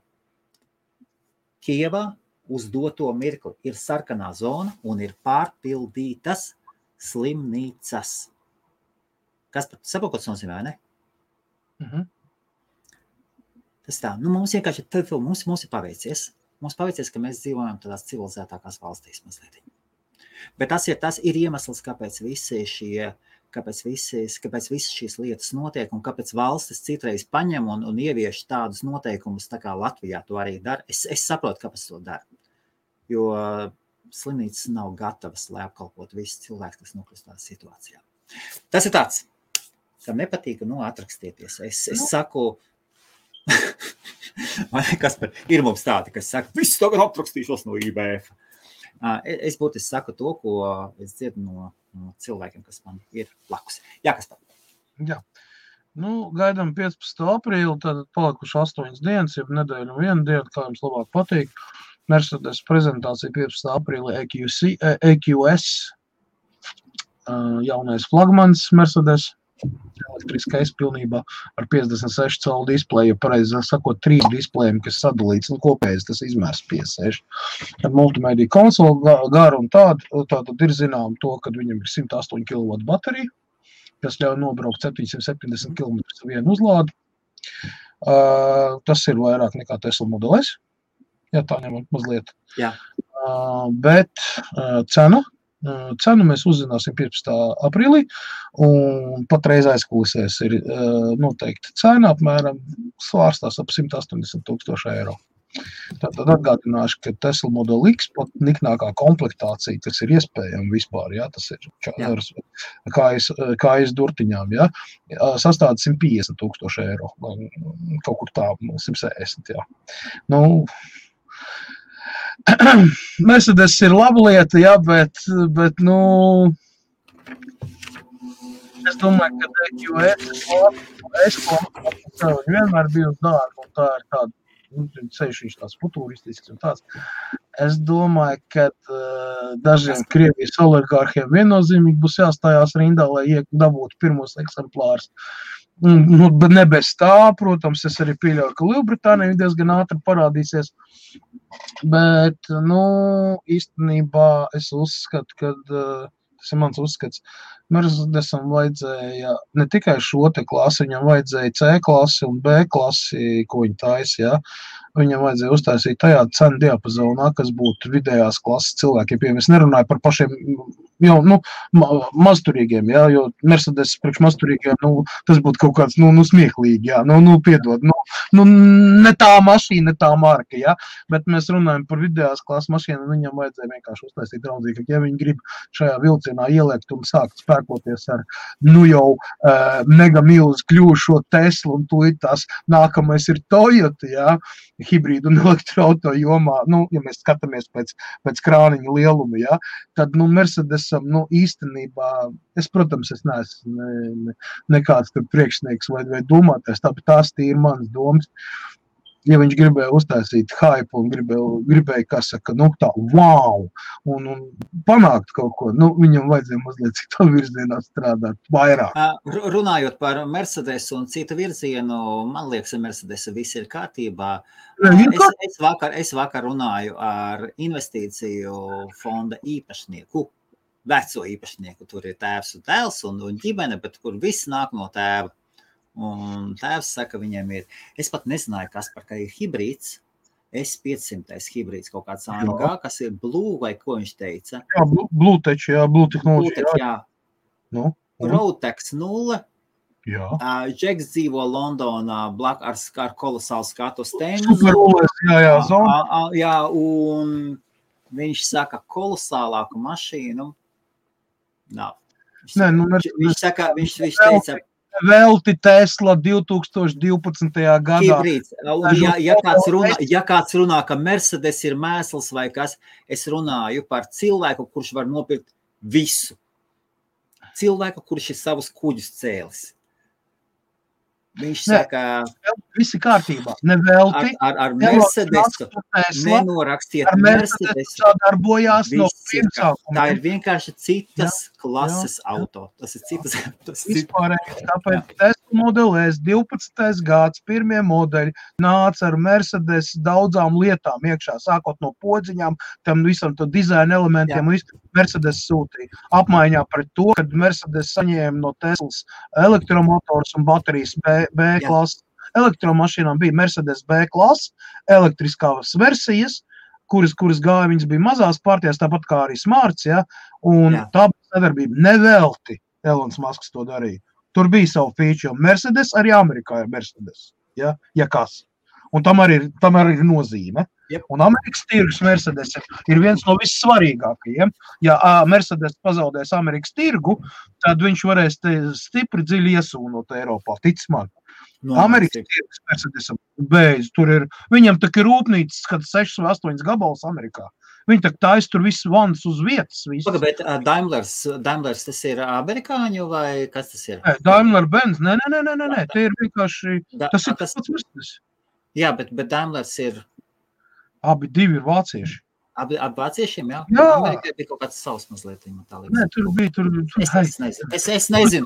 Kievā uz doto mirkli ir sarkanā zona un ir pārpildītas slimnīcas. Kas pat saprot, ko tas nozīmē, ne? Tas tā, mums vienkārši, mums ir paveicies. Mums paveicies, ka mēs dzīvojam tādās civilizētākās valstīs mazliet. Bet tas ir iemesls, kāpēc visas šīs lietas notiek un kāpēc valstis citreiz paņem un ievieš tādus noteikumus, tā kā Latvijā to arī dara. Es saprotu, kāpēc to dara, jo slimnīcas nav gatavas, lai apkalpot visus cilvēkus, kas nokļūst tādā situācijā. Tas ir tāds, kam nepatīk, atrakstieties. Es saku, ir mums tādi, kas saka, viss tagad atrakstīšos no IBF. Es būtiski saku to, ko es dzirdu no cilvēkiem, kas man ir blakus. Jā, kas tā? Jā. Gaidām 15. aprīli, tad palikuši 8 dienas, jeb nedēļu un 1 dienu, kā jums labāk patīk. Mercedes prezentācija 15. aprīli EQS, jaunais flagmans Mercedes, elektriskais pilnībā ar 56 colu displeju, pareizi sakot, 3 displejiem, kas sadalīts, kopējais tas izmērs 56. Ar multimediju konsoli garu un tātad ir zinām to, ka viņam ir 108 kW baterija, kas ļauj nobraukt 770 km vienu uzlādi. Tas ir vairāk nekā Tesla Model S. Jā, tā ņemot mazliet. Jā. Bet cenu mēs uzzināsim 15. aprīlī, un patreiz aizkulisēs ir noteikti cena apmēram svārstās ap 180,000 eiro. Tātad atgādināšu, ka Tesla Model X pat niknākā komplektācija, kas ir iespējama vispār, jā, tas ir kājas durtiņām, jā, sastāda 150,000 eiro, kaut kur tā, 160, jā. Mercedes ir laba lieta, jā, bet es domāju, ka EQS vienmēr bija uz dārgu, un tā ir tāda, ceļš viņš tāds futuristisks un tāds. Es domāju, ka dažiem Krievijas oligārhiem viennozīmīgi būs jāstājās rindā, lai dabūtu pirmos eksemplārus. Bet ne bez tā, protams, es arī pieļauju, ka Lielbritānija diezgan ātri parādīsies. Bet, īstenībā es uzskatu, ka tas ir mans uzskats, Mercedesam vajadzēja ne tikai šo te klasi, viņam vajadzēja C klasi un B klasi, ko viņi taisa, jā. viņam vajadzēja uztaisīt tajā cenu diapazonā, kas būtu vidējās klases cilvēkiem. Es nerunāju par pašiem jau, mazturīgiem, jā, jo Mercedes priekš mazturīgiem, tas būtu kaut kāds, smieklīgi, jā, piedod, ne tā mašīna, ne tā marka, jā, bet mēs runājam par vidējās klases mašīnu, un viņam vajadzēja vienkārši uztaisīt draudzīgi, ja viņi grib šajā vilcienā ieliekt un sākt spēkoties ar, jau mega milzu kļūšo Teslu, un tūlīt tās nākamais ir Toyota, jā, hibrīdu un elektroauto jomā, ja mēs skatāmies pēc krāniņa lieluma, jā, tad, Mercedesam, īstenībā, protams, es neesmu nekāds tur priekšnieks vai domātais, bet tās ir manas domas. Ja viņš gribēja uztaisīt hype un gribēja, kā saka, tā, wow, un panākt kaut ko, viņam vajadzēja mazliet citu virzienā strādāt vairāk. Runājot par Mercedes un citu virzienu, man liekas, Mercedes viss ir kārtībā. Es vakar runāju ar investīciju fonda īpašnieku, veco īpašnieku, tur ir tēvs un dēls un ģimene, bet kur viss nāk no tēva. Un tēvs saka, viņiem ir, es pat nezināju, kas par kā ir hibrīds, S500 hibrīds kaut kāds AMG, kas ir Blue vai ko viņš teica? Jā, Blue tehnoloģija. Jā. Roadtex 0. Jā. Džeks dzīvo Londonā ar kolosālu skatu stendu. Superulēs, jā, zona. Jā, un viņš saka, kolosālāku mašīnu nav. Viņš teica, Velti Tesla 2012. gadā. Hibrīds. Ja kāds runā, ka Mercedes ir mēsls vai kas, es runāju par cilvēku, kurš var nopirkt visu. Cilvēku, kurš ir savus kuģus cēlis. Viņš saka, visi kārtībā, nevelti. Ar Mercedesu nenorakstiet Mercedesu. Sadarbojās no pirmsākuma. Tā ir vienkārši citas klases auto. Tas ir citas. Vispārējais, tāpēc Tesla Model S 12. gads, pirmie modeļi nāca ar Mercedes daudzām lietām iekšā, sākot no podziņām, tam visam to dizaina elementiem, un Mercedes sūtīja. Apmaiņā pret to, kad Mercedes saņēma no Teslas elektromotors un baterijas B klases. Elektromašīnām bija Mercedes B klases, elektriskās versijas, kuras gāja, viņas bija mazās partijās, tāpat kā arī Smarts, ja, un tā bija sadarbība. Nevelti Elons Musks to darīja. Tur bija savu feature. Mercedes arī Amerikā ir Mercedes, ja kas. Un tam arī ir nozīme. Yep. Un Amerikas tirgus Mercedes ir viens no vissvarīgākajiem. Ja Mercedes pazaudēs Amerikas tirgu, tad viņš varēs stipri dziļi iesūnot Eiropā, tic man. Amerikas tirgus Mercedesam beidz, tur ir, viņam tak ir rūpnīcas, kad 6 vai 8 gabalus Amerikā. Viņi tak taisa tur visu vans uz vietas. Bet Daimlers tas ir amerikāņu vai kas tas ir? Daimler-Benz, nē, tie ir vienkārši, tas ir tas pats Mercedes. Jā, bet Daimlers ir... Abi divi ir vācieši. Abi vāciešiem, jā? Jā. Amerikai bija kaut kāds savs mazliet. Nē, tur bija. Es nezinu.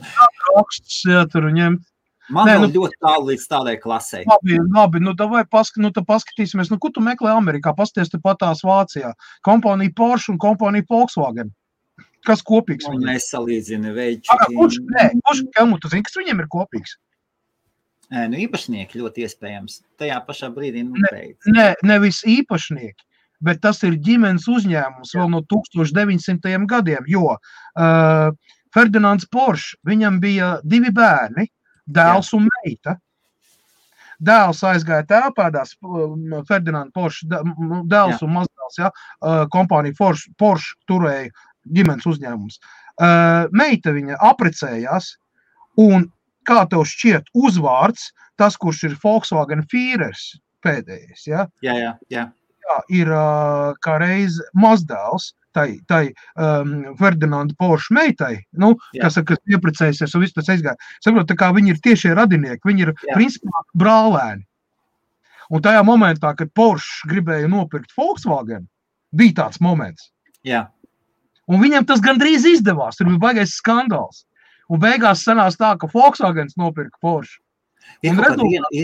Raksts, jā, tur ņemt. Man vēl ļoti tālu līdz tādai klasei. Labi, davai paskatīsimies. Ko tu meklē Amerikā? Pasties te patās Vācijā. Kompānija Porsche un kompānija Volkswagen. Kas kopīgs viņiem? Nesalīdzina veiči. Kurš, tu zini, kas viņiem ir kopīgs? Īpašnieki ļoti iespējams. Tajā pašā brīdī beidz. Nevis īpašnieki, bet tas ir ģimenes uzņēmums vēl no 1900. gadiem, jo Ferdinands Porsche, viņam bija 2 bērni, dēls un meita. Dēls aizgāja tēlpēdās, Ferdinands Porsche, dēls un mazdēls, ja, kompānija Porsche turēja ģimenes uzņēmums. Meita viņa aprecējās, un kā tev šķiet uzvārds, tas, kurš ir Volkswagen Führers pēdējais, ja? Jā. Jā, ir kā reiz mazdēls tai Ferdinanda Porsche meitai, kas ieprecējusies un viss tas aizgāja. Saprot, tā kā viņi ir tiešie radinieki, viņi ir principā brālēni. Un tajā momentā, kad Porsche gribēja nopirkt Volkswagen, bija tāds moments. Jā. Un viņam tas gandrīz izdevās, tur bija baigais skandāls. Un beigās sanās tā, ka Volkswagens nopirka Porsche. Ir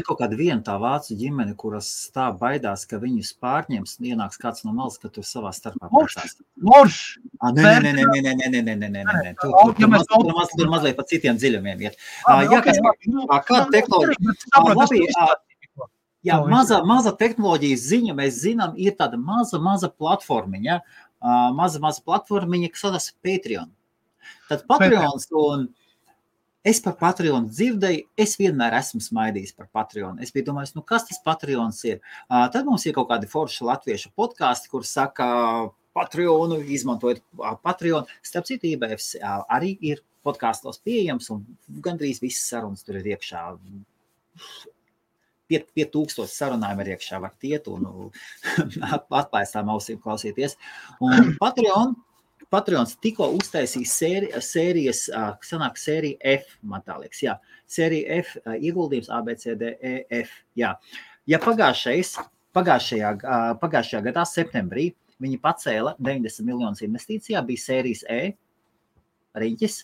kaut kāda viena tā vācu ģimene, kuras tā baidās, ka viņus pārņems, ienāks kāds no malas, ka tur savā starpā pārstās. Porsche! Nē. Tur mazliet pa citiem dziļumiem iet. Kāda tehnoloģija? Jā, maza tehnoloģijas ziņa, mēs zinām, ir tāda maza platformiņa, maza platformiņa, kas saucas Patreon. Tad Patreons, un es par Patreon dzirdēju, es vienmēr esmu smaidījis par Patreon. Es biju domājis, kas tas Patreons ir? Tad mums ir kaut kādi forši latviešu podkasti, kur saka Patreonu, izmantojot Patreon. Starp citu, IBFs arī ir podkastos pieejams, un gandrīz visas sarunas tur ir iekšā. 5000 sarunājumi ir iekšā, var tiet un atklāstām ausīm klausīties. Un Patreons tikko uztaisīja sērijas, sanāk sērija F, man tā liekas, jā. Sērija F, ieguldījums ABCDEF, jā. Ja pagājušajā gadā, septembrī, viņi pacēla 90 miljonus investīcijā, bija sērijas E, riņķis,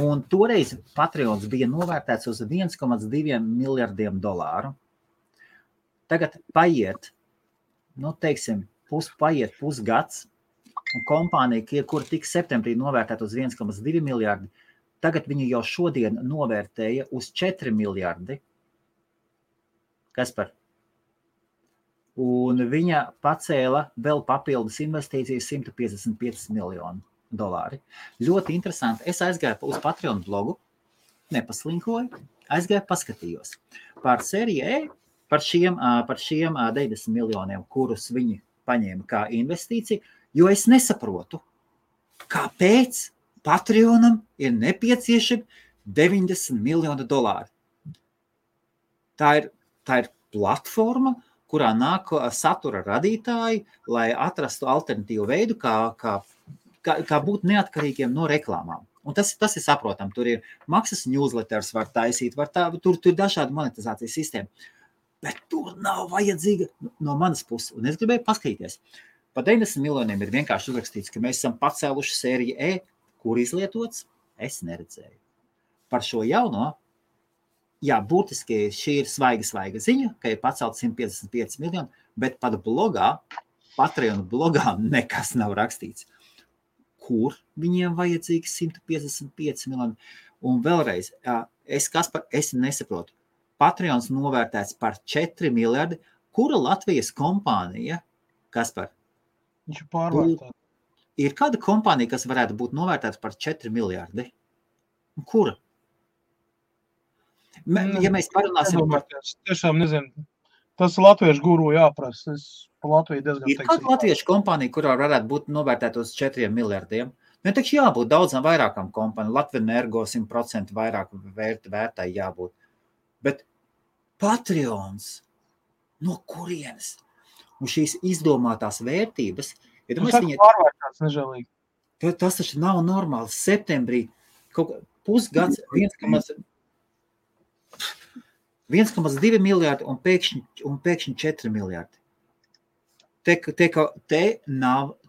un toreiz Patreons bija novērtēts uz 1,2 miljardiem dolāru. Tagad paiet, paiet pusgads, un kompānija, kur tika septembrī novērtēta uz 1,2 miljardi, tagad viņu jau šodien novērtēja uz 4 miljardi. Kas par? Un viņa pacēla vēl papildus investīcijas 155 miljonu dolāri. Ļoti interesanti. Es aizgāju uz Patreon blogu, nepaslinkoju, aizgāju paskatījos par sēriju E, par šiem 90 miljoniem, kurus viņi paņēma kā investīciju, jo es nesaprotu, kāpēc Patreonam ir nepieciešami 90 miljoni dolāri. Tā ir platforma, kurā nāk satura radītāji, lai atrastu alternatīvu veidu, kā būt neatkarīgiem no reklāmām. Un tas ir saprotam. Tur ir maksas newsletters var taisīt, tur ir dažādi monetizācijas sistēma. Bet tur nav vajadzīga no manas puses. Un es gribēju paskatīties. Pa 90 miljoniem ir vienkārši uzrakstīts, ka mēs esam pacēluši sēriju E, kur izlietots, es neredzēju. Par šo jauno, jā, būtiski šī ir svaiga ziņa, ka ir pacelt 155 miljoni, bet pat blogā, Patreon blogā nekas nav rakstīts. Kur viņiem vajadzīgi 155 miljoni? Un vēlreiz, es nesaprotu. Patreons novērtēts par 4 miljardi. Kura Latvijas kompānija, Kaspar? Viņš ir pārvērtēts. Ir kāda kompānija, kas varētu būt novērtēta par 4 miljardi? Kura? Ja mēs parunāsim par... Tiešām nezinu. Tas Latviešu guru jāprasa. Es pa Latviju diezgan ir kāda latviešu kompānija, kurā varētu būt novērtēta uz 4 miljardiem? Taču jābūt daudzām vairākām kompānijām. Latvenergo 100% vairāk vērtai jābūt. Bet Patreons, no kurienes? Un šīs izdomātās vērtības, pārvērtēts nežēlīgi. Tas taču nav normāli. Septembrī kaut pusgads 1,2 miljardi un pēkšņi 4 miljardi.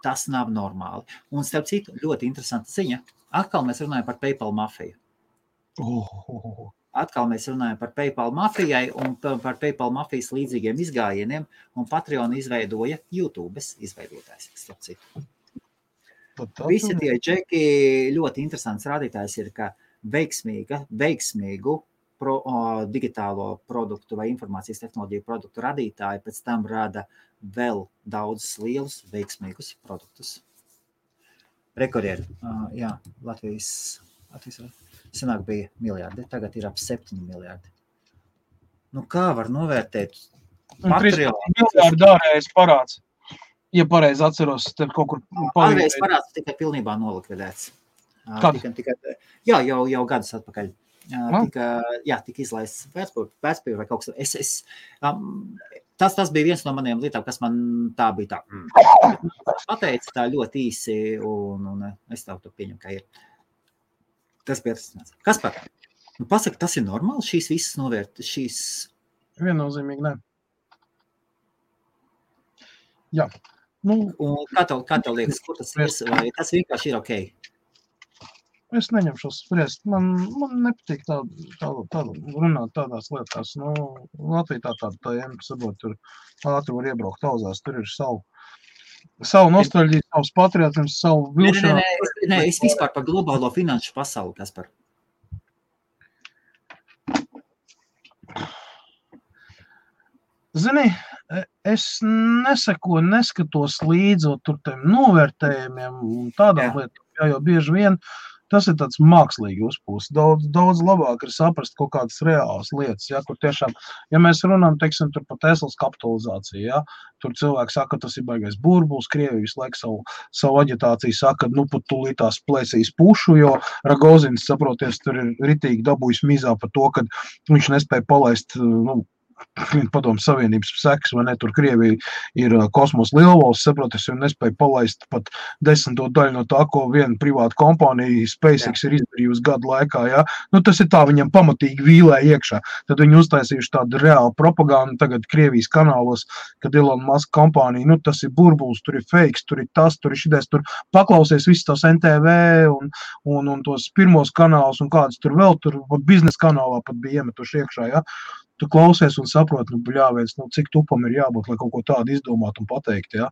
Tas nav normāli. Un starp citu, ļoti interesanta ziņa. Atkal mēs runājam par PayPal mafiju. Atkal mēs runājam par PayPal mafijai un par PayPal mafijas līdzīgiem izgājieniem, un Patreon izveidoja YouTube's izveidotājs, starp citu. Visi tie džeki ļoti interesants rādītājs ir, ka veiksmīgu digitālo produktu vai informācijas tehnoloģiju produktu radītāji pēc tam rada vēl daudzus lielus veiksmīgus produktus. Rekordieri, jā, Latvijas senāk bija miljardi, tagad ir ap 7 miljardi. Kā var novērtēt Patreon? 13 miljardi ārējais parāds. Ja pareizi atceros, tad kaut kur ārējais parāds tikai pilnībā nolikvidēts. Jā, jau gadus atpakaļ. Tika izlaists vērtspapīri vai kaut kas. Tas bija viens no maniem lietām, kas man tā bija tā. Pateica tā ļoti īsi, un es tev to pieņemu, ka ir. Tas bija tas. Kas par? Pasaka, tas ir normāli, šīs visas novērt, šīs... Viennozīmīgi, ne. Jā. Un kā tev liekas, kur tas ir? Vai tas vienkārši ir ok? Es neņemšos spriest. Man nepatīk tā runāt tādās lietās. Latvija tāda tēma, sabot, tur ātri var iebraukt tauzās, tur ir savu nostalģiju, savus patriotismus, savu vilšanu. Nē, es vispār par globālo finanšu pasauli, Kaspar. Zini, es neskatos līdzi tur tiem novērtējumiem un tādām lietām, jo bieži vien tas ir tāds mākslīgi uzpūsts. Daudz labāk ir saprast kaut kādas reālas lietas, ja, kur tiešām, ja mēs runājam, teiksim, tur par Teslas kapitalizāciju, ja, tur cilvēki saka, ka tas ir baigais burbulis, Krievija visu laiku savu aģitāciju saka, nu, pat tūlītās plēsīs pušu, jo Ragozins, saproties, tur ir ritīgi dabūjis mizā par to, ka viņš nespēja palaist, Padomu Savienības sekas, vai ne, tur Krievija ir kosmos lielvalsts, saproties, un nespēja palaist pat 10. daļu no tā, ko viena privāta kompānija SpaceX ir izdarījusi gadu laikā, ja. Nu, tas ir tā, viņam pamatīgi vīlē iekšā. Tad viņi uztaisījuši tādu reālu propagandu tagad Krievijas kanālos, kad Elon Musk kompānija, nu, tas ir burbulis, tur ir fakes, tur ir tas, tur ir šitais, tur paklausies visus tos NTV un tos pirmos kanālus un kādas tur vēl, tur biznesa kanālā pat bija iemetuši iekšā, ja. Tu klausies un saproti, nu, bļāviens, nu, cik tupam ir jābūt, lai kaut ko tādu izdomāt un pateikt, ja.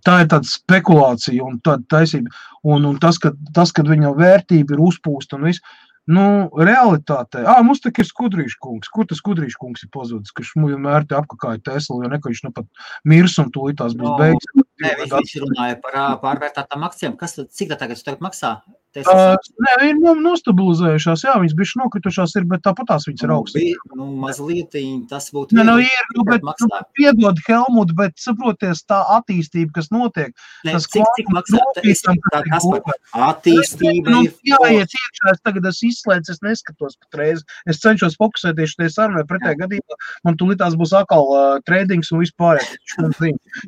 Tā ir tāda spekulācija un tāda taisība. Un tas, kad viņa vērtība ir uzpūsta un viss, nu, realitātē, mums tā ir Skudrīša kungs. Kur tas Skudrīša kungs ir pazudis, ka vienmēr te apkakāja Tesla, jo neko viņš nu pat mirs un tūlīt tās būs beigas. Nē, viņš runāja par pārvērtātām akcijām. Cik tā tagad maksā? Nē, viņi nostabilizējušās, jā, viņas bišķi nokritušās ir, bet tāpat tās viņas ir augstas. Nu, mazliet tas būtu... Nē, nu ir, bet piedod Helmut, bet saproties tā attīstība, kas notiek. Nē, cik maksā? Attīstība ir... Jāiet iekšā, es tagad izslēdzu, es neskatos patreiz. Es cenšos fokusēties tie sarunai, pretējā gadījumā man tūlītās būs atkal tradings un vispārējais.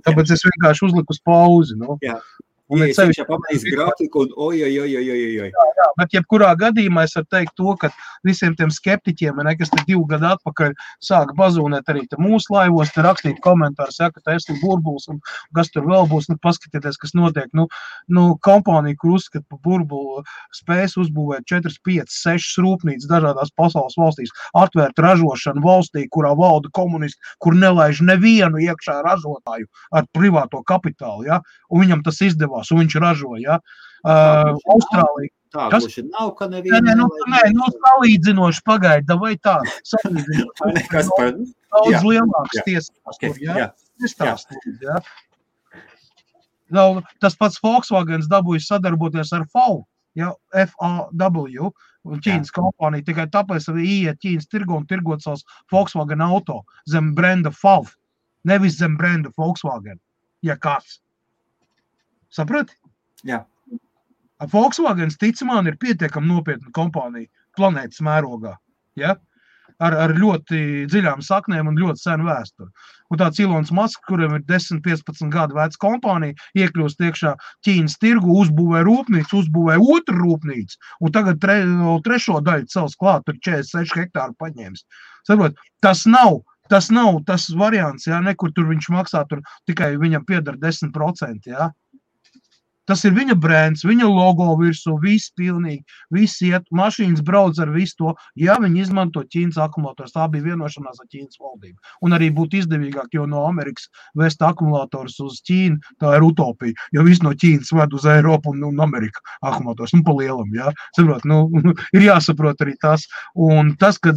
Tāpēc es vienkārši uzliku uz pauzi, nu. Jā. Es viņš pamanīs grafiku un oj. Jā, bet jebkurā gadījumā es varu teikt to, ka visiem tiem skeptiķiem, kas te 2 gadu atpakaļ sāka bazūnēt arī te mūsu laivos, te rakstīt komentārus, ja, ka Tesla burbulis un kas tur vēl būs, nu paskatieties, kas notiek. Nu kompānija, kur uzskata par burbulu, spējas uzbūvēt 4, 5, 6 rūpnīcas dažādās pasaules valstīs, atvērt ražošanu valstī, kurā valda komunisti, kur nelaiž nevienu iekšā ražotāju ar privāto kapitālu, ja, un viņam tas izdevās. Un viņš ražo, ja. Austrālija. Tā, gluži nav, ka nevienu... Nē, salīdzinoši pagaida, vai tā? Salīdzinoši. Daudz lielāks tiesības tur, ja? Nestāstīt, ja? Tas pats Volkswagens dabūjas sadarboties ar FAW, ja? FAW, Ķīnas kompānija, tikai tāpēc arī ieiet Ķīnas tirgu un tirgot savus Volkswagen auto zem brenda FAW, nevis zem brenda Volkswagen, ja kāds. Saprati? Jā. Volkswagens, ticamāk, ir pietiekami nopietna kompānija planētas mērogā, ja? Ar ļoti dziļām saknēm un ļoti senu vēsturi. Un tāds Elons Musk, kuram ir 10-15 gadu veca kompānija, iekļūst iekšā Ķīnas tirgu, uzbūvē rūpnīcu, uzbūvē otru rūpnīcu, un tagad trešo daļu cels klāt, tur 46 hektāru paņēmis. Saprot, tas nav tas variants, ja? Nekur tur viņš maksā, tur tikai viņam piedara 10%, ja? Tas ir viņa brands, viņa logo virsū, viss pilnīgi, viss iet, mašīnas brauc ar visu to, ja viņi izmanto Ķīnas akumulators. Tā bija vienošanās ar Ķīnas valdību. Un arī būtu izdevīgāk, jo no Amerikas vest akumulators uz Ķīnu, tā ir utopija, jo viss no Ķīnas ved uz Eiropu un Ameriku akumulators, pa lielam, jā. Saprot, ir jāsaprot arī tas. Un tas, kad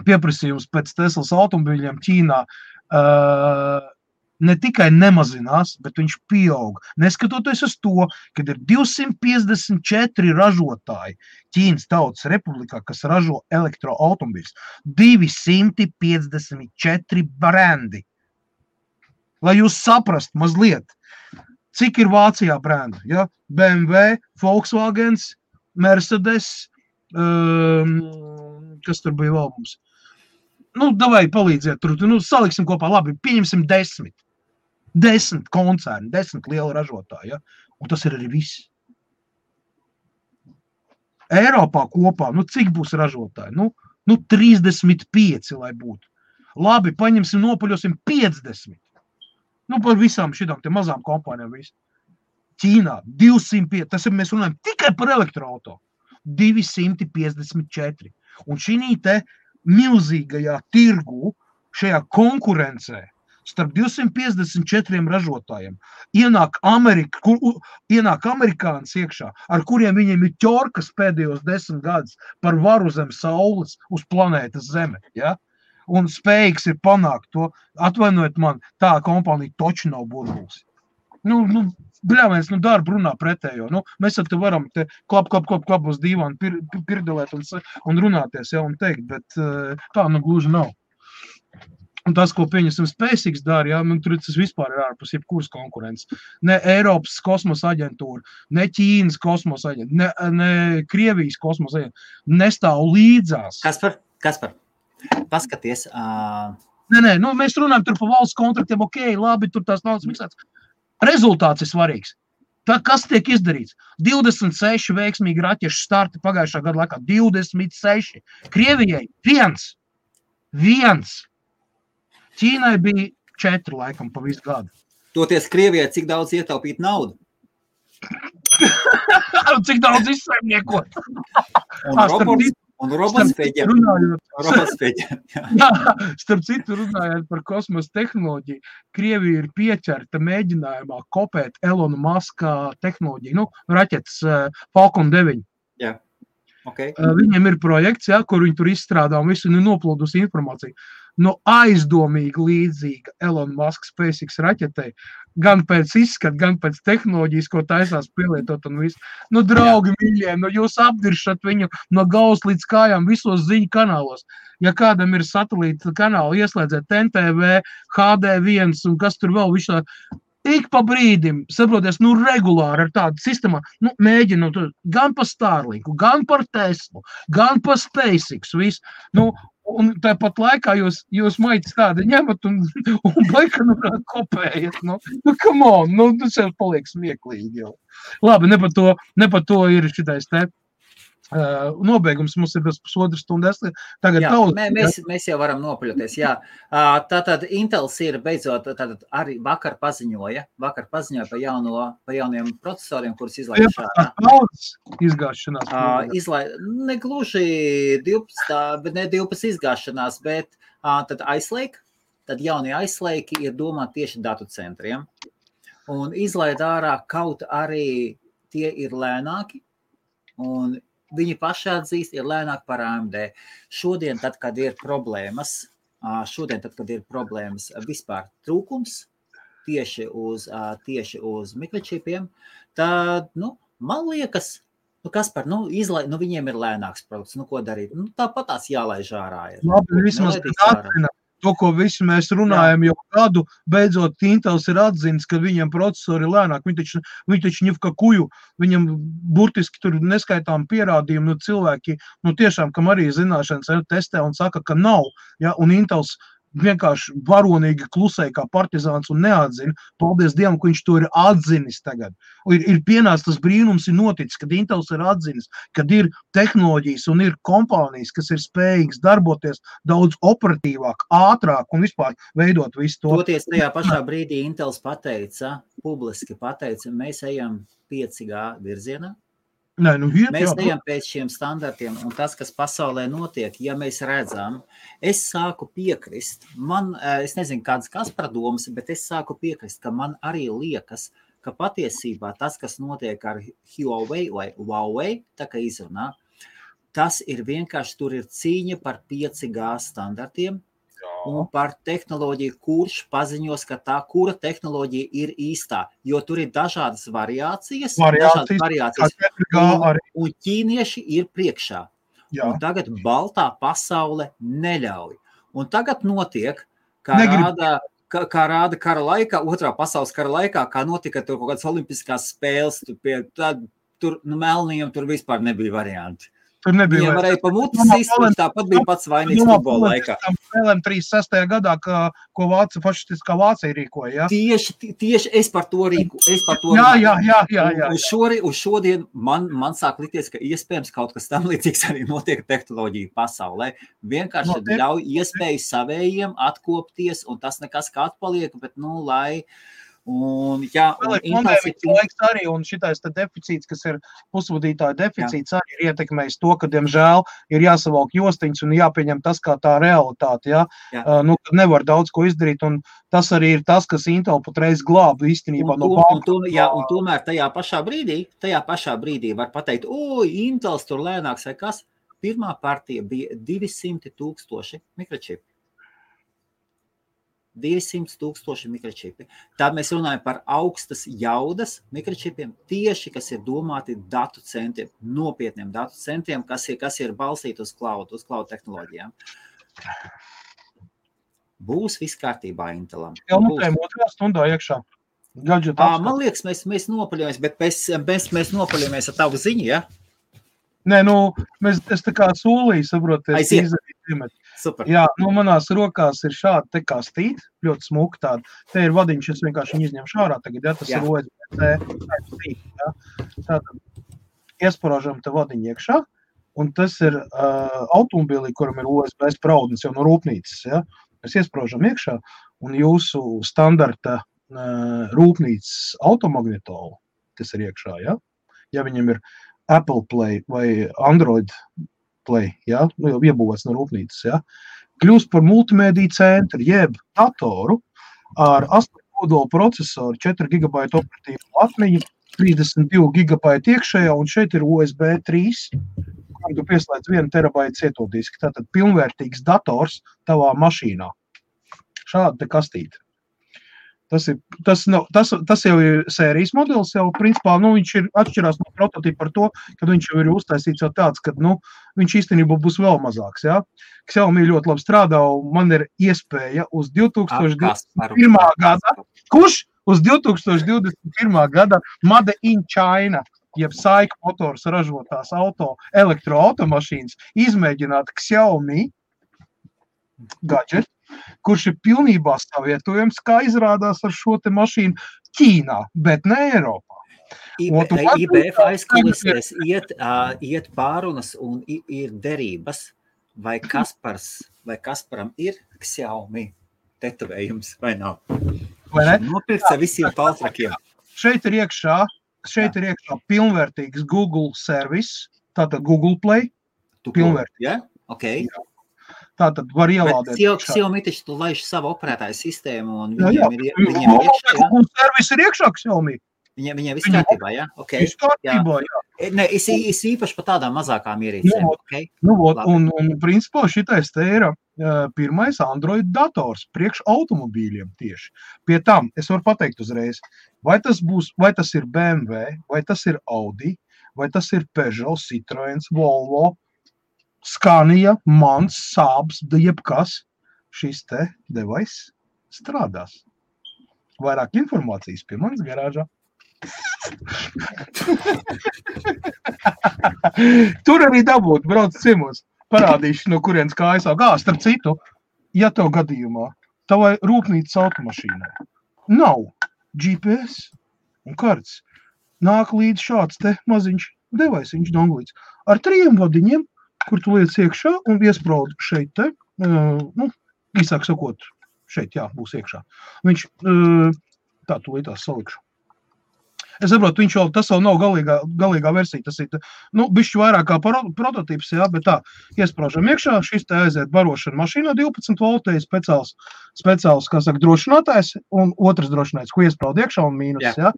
pieprasījums pēc Teslas automobīļiem Ķīnā ne tikai nemazinās, bet viņš pieaug. Neskatoties uz to, kad ir 254 ražotāji Ķīnas Tautas Republikā, kas ražo elektroautomobīļus, 254 brendi. Lai jūs saprast mazliet, cik ir Vācijā brendi, ja? BMW, Volkswagens, Mercedes, kas tur bija vēl mums? Davai palīdziet tur, saliksim kopā, labi, pieņemsim 10. 10 koncerni, 10 liela ražotāji, ja? Un tas ir arī viss. Eiropā kopā, cik būs ražotāji? 35, lai būtu. Labi, paņemsim, nopaļosim 50. Par visām šitām te mazām kompānijām visu. Ķīnā 205, tas ir, mēs runājam tikai par elektroauto. 254. Un šī te milzīgajā tirgu, šajā konkurencē, starp 254 ražotājiem, ienāk amerikānis iekšā, ar kuriem viņiem ir ķorkas pēdējos 10 gadus par varu zem saules uz planētas Zeme. Ja? un spējīgs ir panākt to. Atvainojiet man, tā kompānija toči nav burbulis. Bļāviens, darba runā pretējo. Mēs ar te varam te klap uz dīvānu pirdelēt un runāties, ja, un teikt, bet tā gluži nav. Un tas, ko pieņemsim SpaceX dara, ja, tur tas vispār ir ārpus jebkuras konkurences. Ne Eiropas kosmosa aģentūra, ne Ķīnas kosmosa aģentūra, ne Krievijas kosmosa aģentūra nestāv līdzās. Kaspar, paskaties. Nē, mēs runājam tur par valsts kontraktiem, ok, labi, tur tās naudas miksēts. Rezultāts ir svarīgs. Tā, kas tiek izdarīts? 26 veiksmīgi raķešu starti pagājušā gada laikā. 26. Krievijai 1. Ķīnai bija 4 laikam pa visu gadu. Toties Krievijai cik daudz ietaupīt naudu? Cik daudz izsaimniekot? Un robots pēģiem. Starp citu runājot par kosmosa tehnoloģiju, Krievija ir pieķerta mēģinājumā kopēt Elona Muska tehnoloģiju, raķetes Falcon 9. Jā, ok. Viņiem ir projekts, kur viņi tur izstrādā un visu noplūdus informāciju. Aizdomīgi līdzīga Elon Musk SpaceX raķetei, gan pēc izskata, gan pēc tehnoloģijas, ko taisās pielietot un visu. Draugi mīļie, jūs apdiršat viņu no galvas līdz kājām visos ziņu kanālos. Ja kādam ir satelīta kanāli, ieslēdziet NTV, HD1 un kas tur vēl višā, ik pa brīdim, saproties, regulāri ar tādu sistēmu, mēģinu gan pa Starlinku, gan par Teslu, gan pa SpaceX, visu. Un tāpat laikā jūs maitas tādi ņemat un baika kopējat. Come on, tas jau paliek smieklīgi jau. Labi, ne par to ir šitais te nobeigums, mums ir bez pusotras stundas. Tagad mēs jau varam nopaļoties, jā. Tātad Intels ir beidzot, arī vakar paziņoja par jauniem procesoriem, kurus izlaiž šādā. Izgāšanās. Ne gluži 12, bet ne 12 izgāšanās, bet tad Ice Lake, tad jaunie Ice Lake ir domāti tieši datu centriem. Un izlaid ārā kaut arī tie ir lēnāki, un viņi paši atzīst, ir lēnāk par AMD. Šodien, tad, kad ir problēmas vispār trūkums tieši uz mikročipiem, tad, man liekas, Kaspar, viņiem ir lēnāks produkts, ko darīt? Tāpat tās jālaiž ārā ir. Labi, vismaz atzina to, ko visi mēs runājam jau gadu, beidzot Intels ir atzinis, ka viņiem procesori ir lēnāk. Viņi taču ņivka kuju, viņam burtiski tur neskaitām pierādījumu, cilvēki, tiešām, kam arī zināšanas testē un saka, ka nav, ja, un Intels vienkārši varonīgi klusēja kā partizāns un neatzina. Paldies Dievam, ka viņš to ir atzinis tagad. Ir pienācis tas brīnums, ir noticis, kad Intels ir atzinis, kad ir tehnoloģijas un ir kompānijas, kas ir spējīgas darboties daudz operatīvāk, ātrāk un vispār veidot visu to. Toties tajā pašā brīdī Intels publiski pateica, mēs ejam 5G virzienā. Mēs ejam pēc šiem standartiem, un tas, kas pasaulē notiek, ja mēs redzam, es sāku piekrist, es nezinu, kādas Kaspara domas, bet es sāku piekrist, ka man arī liekas, ka patiesībā tas, kas notiek ar Huawei vai Huawei, tā kā izrunā, tas ir vienkārši, tur ir cīņa par 5G standartiem, un par tehnoloģiju, kurš paziņos, ka tā, kura tehnoloģija ir īstā, jo tur ir dažādas variācijas un ķīnieši ir priekšā. Jā. Un tagad baltā pasaule neļauj. Un tagad notiek, kā rāda kara laikā, otrā pasaules kara laikā, kā notika tur kaut kādas olimpiskās spēles, tur melnījiem tur vispār nebija varianti. Viņiem varēja pa mutis izsūt, tāpat bija pats vainīgs futbola laikā. Spēlēm 36. gadā, ko fašistiskā Vācija rīkoja, ja? Tieši es par to rīku. Jā. Uz šodien man sāk likties, ka iespējams kaut kas tam līdzīgs arī notiek tehnoloģiju pasaulē. Vienkārši ļauj iespēju savējiem atkopties, un tas nekas kā atpaliek, bet, lai... Un arī, un šitais deficīts, kas ir pusvadītāja deficīts, arī ir ietekmējis to, ka, diemžēl, ir jāsavalk jostiņas un jāpieņem tas kā tā realitāte, ja? Kad nevar daudz ko izdarīt, un tas arī ir tas, kas Intel patreiz glāb īstenībā no banka. Un tomēr tajā pašā brīdī var pateikt, Intels tur lēnāks vai kas, pirmā partija bija 200,000 mikročipi. 200,000 mikročipi. Tad mēs runājam par augstas jaudas mikročipiem, tieši, kas ir domāti datu centriem, nopietniem datu centriem, kas ir balstīti uz cloud tehnoloģijām. Būs viss kārtībā Intelam. Jau mutējam otrā stundā iekšā. Man liekas, mēs nopaļojamies, bet mēs nopaļojamies ar tavu ziņu, ja? Nē, es tā kā solīju, saproties, izdarīt. Super. Jā, manās rokās ir šādi te kā stīt, ļoti smuki tādi. Te ir vadiņš, es vienkārši viņu izņemšu ārā tagad, ja tas ir USB-C stīt, ja. Tātad iesparāžam te vadiņu iekšā, un tas ir automobilī, kuram ir USB spraudnis jau no rūpnīcas, ja. Mēs iesparāžam iekšā, un jūsu standarta rūpnīcas automagnetolu, kas ir iekšā, ja. Ja viņam ir Apple Play vai Android Play, ja, jau iebūvēts no rūpnīcas, ja, kļūst par multimēdiju centru, jeb datoru ar 8 kodolu procesoru, 4 GB operatīvu atmiņu, 32 GB iekšējā, un šeit ir USB 3, kuram tu pieslēdz 1 terabaita cietodiski. Tātad pilnvērtīgs dators tavā mašīnā. Šāda te kastīte. Tas jau ir sērijas modelis, jau principā, viņš ir atšķirās no prototipa par to, kad viņš jau ir uztaisīts jau tāds, kad, viņš īstenībā būs vēl mazāks, jā. Xiaomi ļoti labi strādā, un man ir iespēja uz 2021. gada, kurš uz 2021. gada Made in China, jeb Saika motors ražotās elektroautomašīnas, izmēģināt Xiaomi gadget, kurš ir pilnībā savietojams, kā izrādās ar šo te mašīnu Ķīnā, bet ne Eiropā. IBF aizkulisēs iet pārunas un ir derības, vai Kasparam ir Xiaomi tetovējums, vai nav? Vai ne? Nopirkts ar visiem paltrakiem. Šeit ir iekšā pilnvērtīgs Google service, tātad Google Play, pilnvērtīgs. Ja? Okay. Tātad var ielādēt. Bet Xiaomi taču tu laiž savu operētāju sistēmu un viņiem ir iekšā. Google service ir iekšā Xiaomi. Viņiem viss kārtībā, ja? Okay. Viss kārtībā, jā. Ne, es īpaši par tādām mazākām ierīcēm. Okay? Un principā šitais te ir pirmais Android dators priekš automobīļiem tieši. Pie tam es varu pateikt uzreiz, vai tas ir BMW, vai tas ir Audi, vai tas ir Peugeot, Citroen, Volvo, Scania, Mans, Saabs, jebkas, šis te device strādās. Vairāk informācijas pie manas garāžā. Tur arī dabūt, brauc ciemos. Parādīšu, no kurienes kājas aug. Starp citu, ja tev gadījumā tavai rūpnīcas automašīnai nav GPS un karts, nāk līdz šāds te maziņš devaisiņš donglīts ar 3 vadiņiem, kur tu liec iekšā un iespraud šeit te, īsāk sakot, šeit, jā, būs iekšā. Viņš, tā, tu līdās salikšu. Es saprotu, tas vēl nav galīgā versija, tas ir, bišķi vairāk kā prototips, jā, bet tā, iespraužam iekšā, šis te aiziet barošana mašīnā 12 voltēji, speciāls, kā saka, drošinātājs, un otrs drošinātājs, ko iespraud iekšā un mīnus, jā.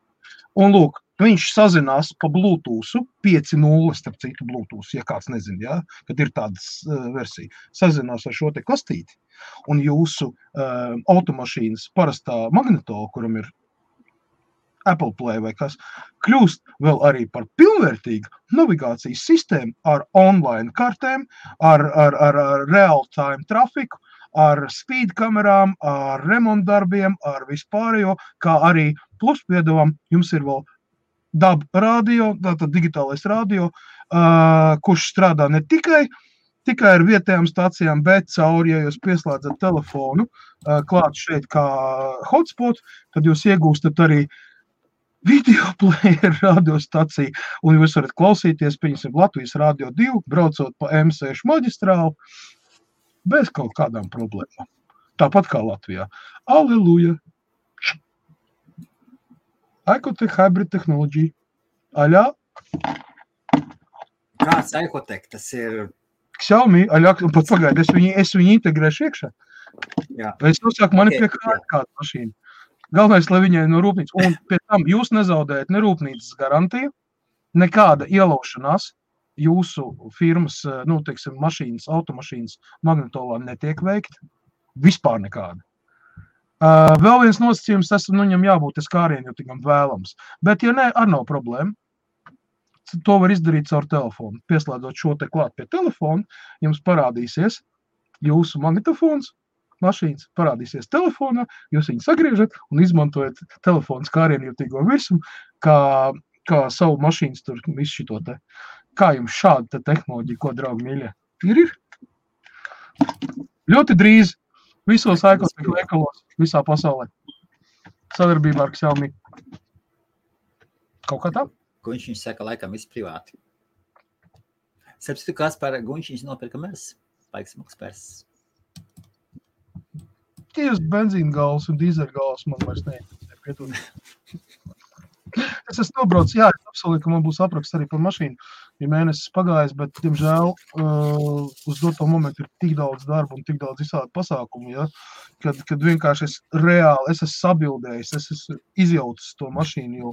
Un lūk, viņš sazinās pa Bluetooth, 5.0, starp citu Bluetooth, ja kāds nezin, jā, kad ir tādas versija, sazinās ar šo te kastīti, un jūsu automašīnas parastā magnetola, kuram ir Apple Play vai kas, kļūst vēl arī par pilnvērtīgu navigācijas sistēmu ar online kartēm, ar real-time trafiku, ar speed kamerām, ar remontdarbiem, ar vispārējo, kā arī plus piedāvām jums ir vēl DAB radio, tātad digitālais radio, kurš strādā ne tikai ar vietējām stācijām, bet cauri, ja jūs pieslēdzat telefonu klāt šeit kā hotspot, tad jūs iegūstat arī video player radiostaciju, un jūs varat klausīties, pieņemsim, Latvijas Radio 2, braucot pa M6 maģistrālu, bez kaut kādām problēmām. Tāpat kā Latvijā. Aleluja! Icotec Hybrid Technology. Aļā? Kāds Icotec? Tas ir... Xiaomi, aļā, un pat pagaidi, es viņu integrēšu iekšā. Jā. Es nosāku mani pie kāda mašīna. Galvenais, lai viņai no rūpnīcas, un pie tam jūs nezaudējat ne rūpnīcas garantiju, nekāda ielaušanās jūsu firmas, mašīnas, automašīnas magnetolā netiek veikta, vispār nekāda. Vēl viens nosacījums, tas viņam jābūt skārienjutīgam vēlams. Bet, ja ne, ar nav problēma. To var izdarīt caur telefonu. Pieslēdzot šo te klāt pie telefona, jums parādīsies jūsu magnetofons, mašīnas parādīsies telefonā, jūs viņu sagriežat un izmantojat telefonu skārienjutīgo virsumu, kā savu mašīnas tur visu šito te. Kā jums šāda te tehnoloģija, ko, draugi mīļie? Ir? Ļoti drīz visos ēkostīgu veikalos visā pasaulē. Sadarbībā ar Xiaomi. Kaut kā tā? Guņš saka, laikam viss privāti. Sapstu, kas par Guņš nopirka mēs? Laiks maksas pers. Tieši benzīna gals un dīzeļa gals man vairs neinteresē. Es esmu nobraucis, jā, es apsolīju, ka man būs apraksts arī par mašīnu. Ir mēnesis pagājis, bet, diemžēl, uz doto momentu ir tik daudz darba un tik daudz visādi pasākumu, ja? Kad vienkārši es esmu sabildējis, es esmu izjaucis to mašīnu, jo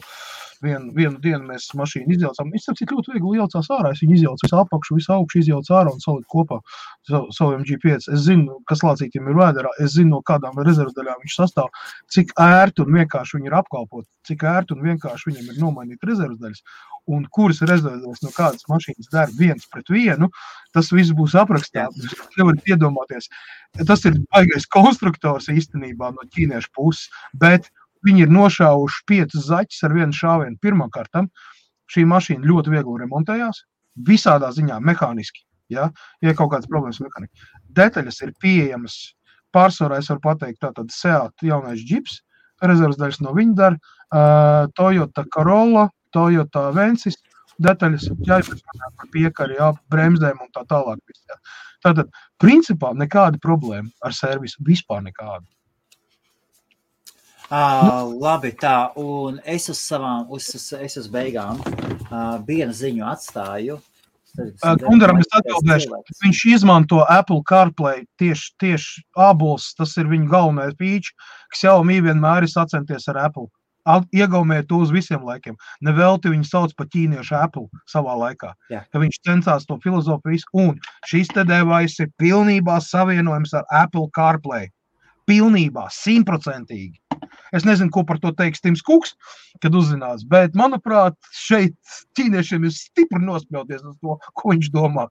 vienu dienu mēs mašīnu izjaucām. Es sapratu, cik ļoti viegli jaucās ārā, es viņu izjaucu visu apakšu, visu augšu izjaucu ārā un saliku kopā savu MG5. Es zinu, kas lācītiem ir vēderā, es zinu, no kādām rezervdaļām viņš sastāv, cik ērti un vienkārši viņi ir apkalpot, cik ērti un vienkārši viņiem ir nomainīt rezervdaļas. Un kuras rezervdaļas no kādas mašīnas der 1:1, tas viss būs aprakstīts. Nevarat iedomāties. Tas ir baigais konstruktors īstenībā no ķīniešu puses, bet viņi ir nošāvuši 5 zaķus ar vienu šāvienu. Pirmkārt, šī mašīna ļoti viegli remontējās, visādā ziņā mehāniski, ja kaut kādas problēmas mehāniski. Detaļas ir pieejamas, pārsvarā es varu pateikt, tātad Seat jaunais džips, rezervdaļas no viņa dar, Toyota Corolla, Toyota Avensis, detaļas, jāizpēc par piekari, bremzdēm un tā tālāk. Tātad, principā, nekāda problēma ar servisu, vispār nekāda. Labi, tā, un es uz beigām vienu ziņu atstāju. Gundaram es atbildēšu, viņš izmanto Apple CarPlay tieši ābols, tas ir viņa galvenais pīči, kas Xiaomi vienmēr ir sacenties ar Apple. Iegaumēja to uz visiem laikiem. Nevelti viņu sauc par ķīniešu Apple savā laikā. Jā. Ka viņš censās to filozofiju un šis te devais ir pilnībā savienojums ar Apple CarPlay. Pilnībā, 100%. Es nezinu, ko par to teiks Tims Kuks, kad uzzinās, bet, manuprāt, šeit ķīniešiem ir stipri nospļauties uz to, ko viņš domā.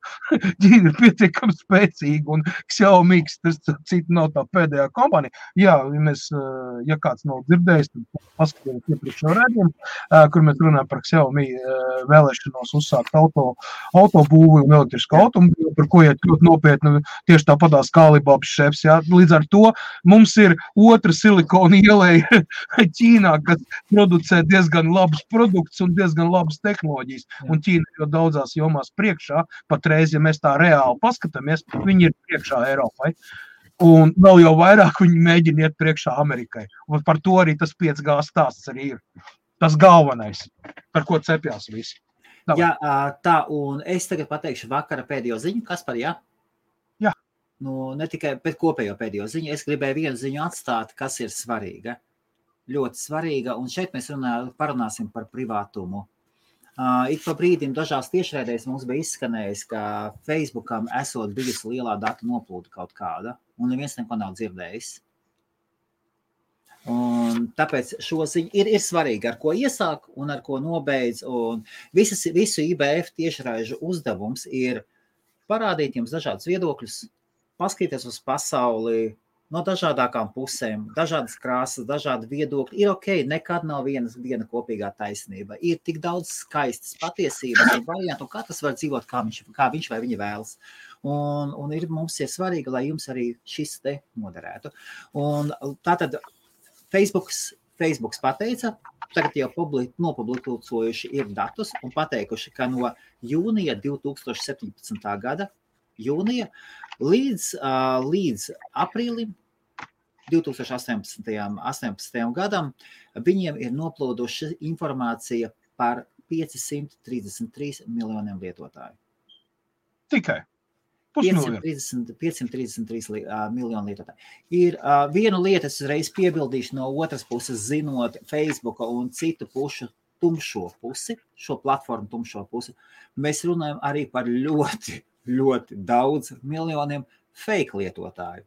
Ķīna ir pietiekami spēcīga un Xiaomi, tas cita nav tā pēdējā kompānija. Jā, ja kāds nav dzirdējis, tad paskatījums iepriekšējo redzējumu, kur mēs runājam par Xiaomi vēlēšanos uzsākt autobūvi un elektrisku autobūvi, par ko iet ļoti nopietni tieši tāpatās kā Alibabas šefs. Jā. Līdz ar to mums ir otra silikona ieleja Ķīnā, kas producē diezgan labus produktus un diezgan labas tehnoloģijas. Un Ķīna jau daudzās jomās priekšā, patreiz, ja mēs tā reāli paskatāmies, viņi ir priekšā Eiropai. Un vēl jau vairāk viņi mēģina iet priekšā Amerikai. Un par to arī tas 5G stāsts arī ir. Tas galvenais, par ko cepjās visi. Jā, tā, un es tagad pateikšu vakara pēdējo ziņu. Kaspar, jā? Jā. Nu, ne tikai pēc kopējo pēdējo ziņu, es gribēju vienu ziņu atstāt, kas ir svarīga. Ļoti svarīga, un šeit mēs parunāsim par privātumu. Ik pa brīdim dažās tiešraidēs mums bija izskanējis, ka Facebookam esot bijusi lielā datu noplūda kaut kāda, un neviens neko nav dzirdējis. Un tāpēc šo ziņu ir svarīgi, ar ko iesāk un ar ko nobeidz, un visu IBF tiešraižu uzdevums ir parādīt jums dažādus viedokļus, paskatīties uz pasauli, no dažādākām pusēm, dažādas krāsas, dažādi viedokļi. Ir ok, nekad nav viena kopīgā taisnība. Ir tik daudz skaistas patiesības un variantu, un katrs var dzīvot, kā viņš vai viņa vēlas. Un mums ir svarīgi, lai jums arī šis te noderētu. Un tātad Facebooks pateica, tagad jau nopublikojuši ir datus un pateikuši, ka no jūnija 2017. gada jūnija līdz aprīlim 2018. gadam viņiem ir noplūduši informācija par 533 miljoniem lietotāju. Tikai? 533 miljonu lietotāju. Ir viena lieta, es uzreiz piebildīšu no otras puses, zinot Facebooka un citu pušu tumšo pusi, šo platformu tumšo pusi, mēs runājam arī par ļoti, ļoti daudz miljoniem fake lietotāju,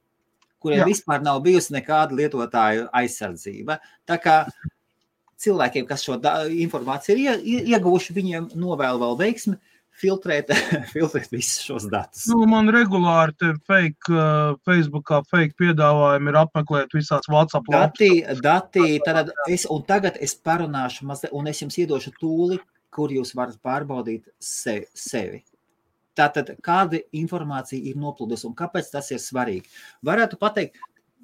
kuriem vispār nav bijusi nekāda lietotāju aizsardzība. Tā kā cilvēkiem, kas šo informāciju ir ieguvuši, viņiem novēl vēl veiksmi filtrēt visus šos datus. Man regulāri te Facebookā fake piedāvājumi ir apmeklēt visās WhatsApp Dati, tagad es parunāšu mazliet, un es jums iedošu tūli, kur jūs varat pārbaudīt sevi. Tātad, kāda informācija ir noplūdus un kāpēc tas ir svarīgi? Varētu pateikt,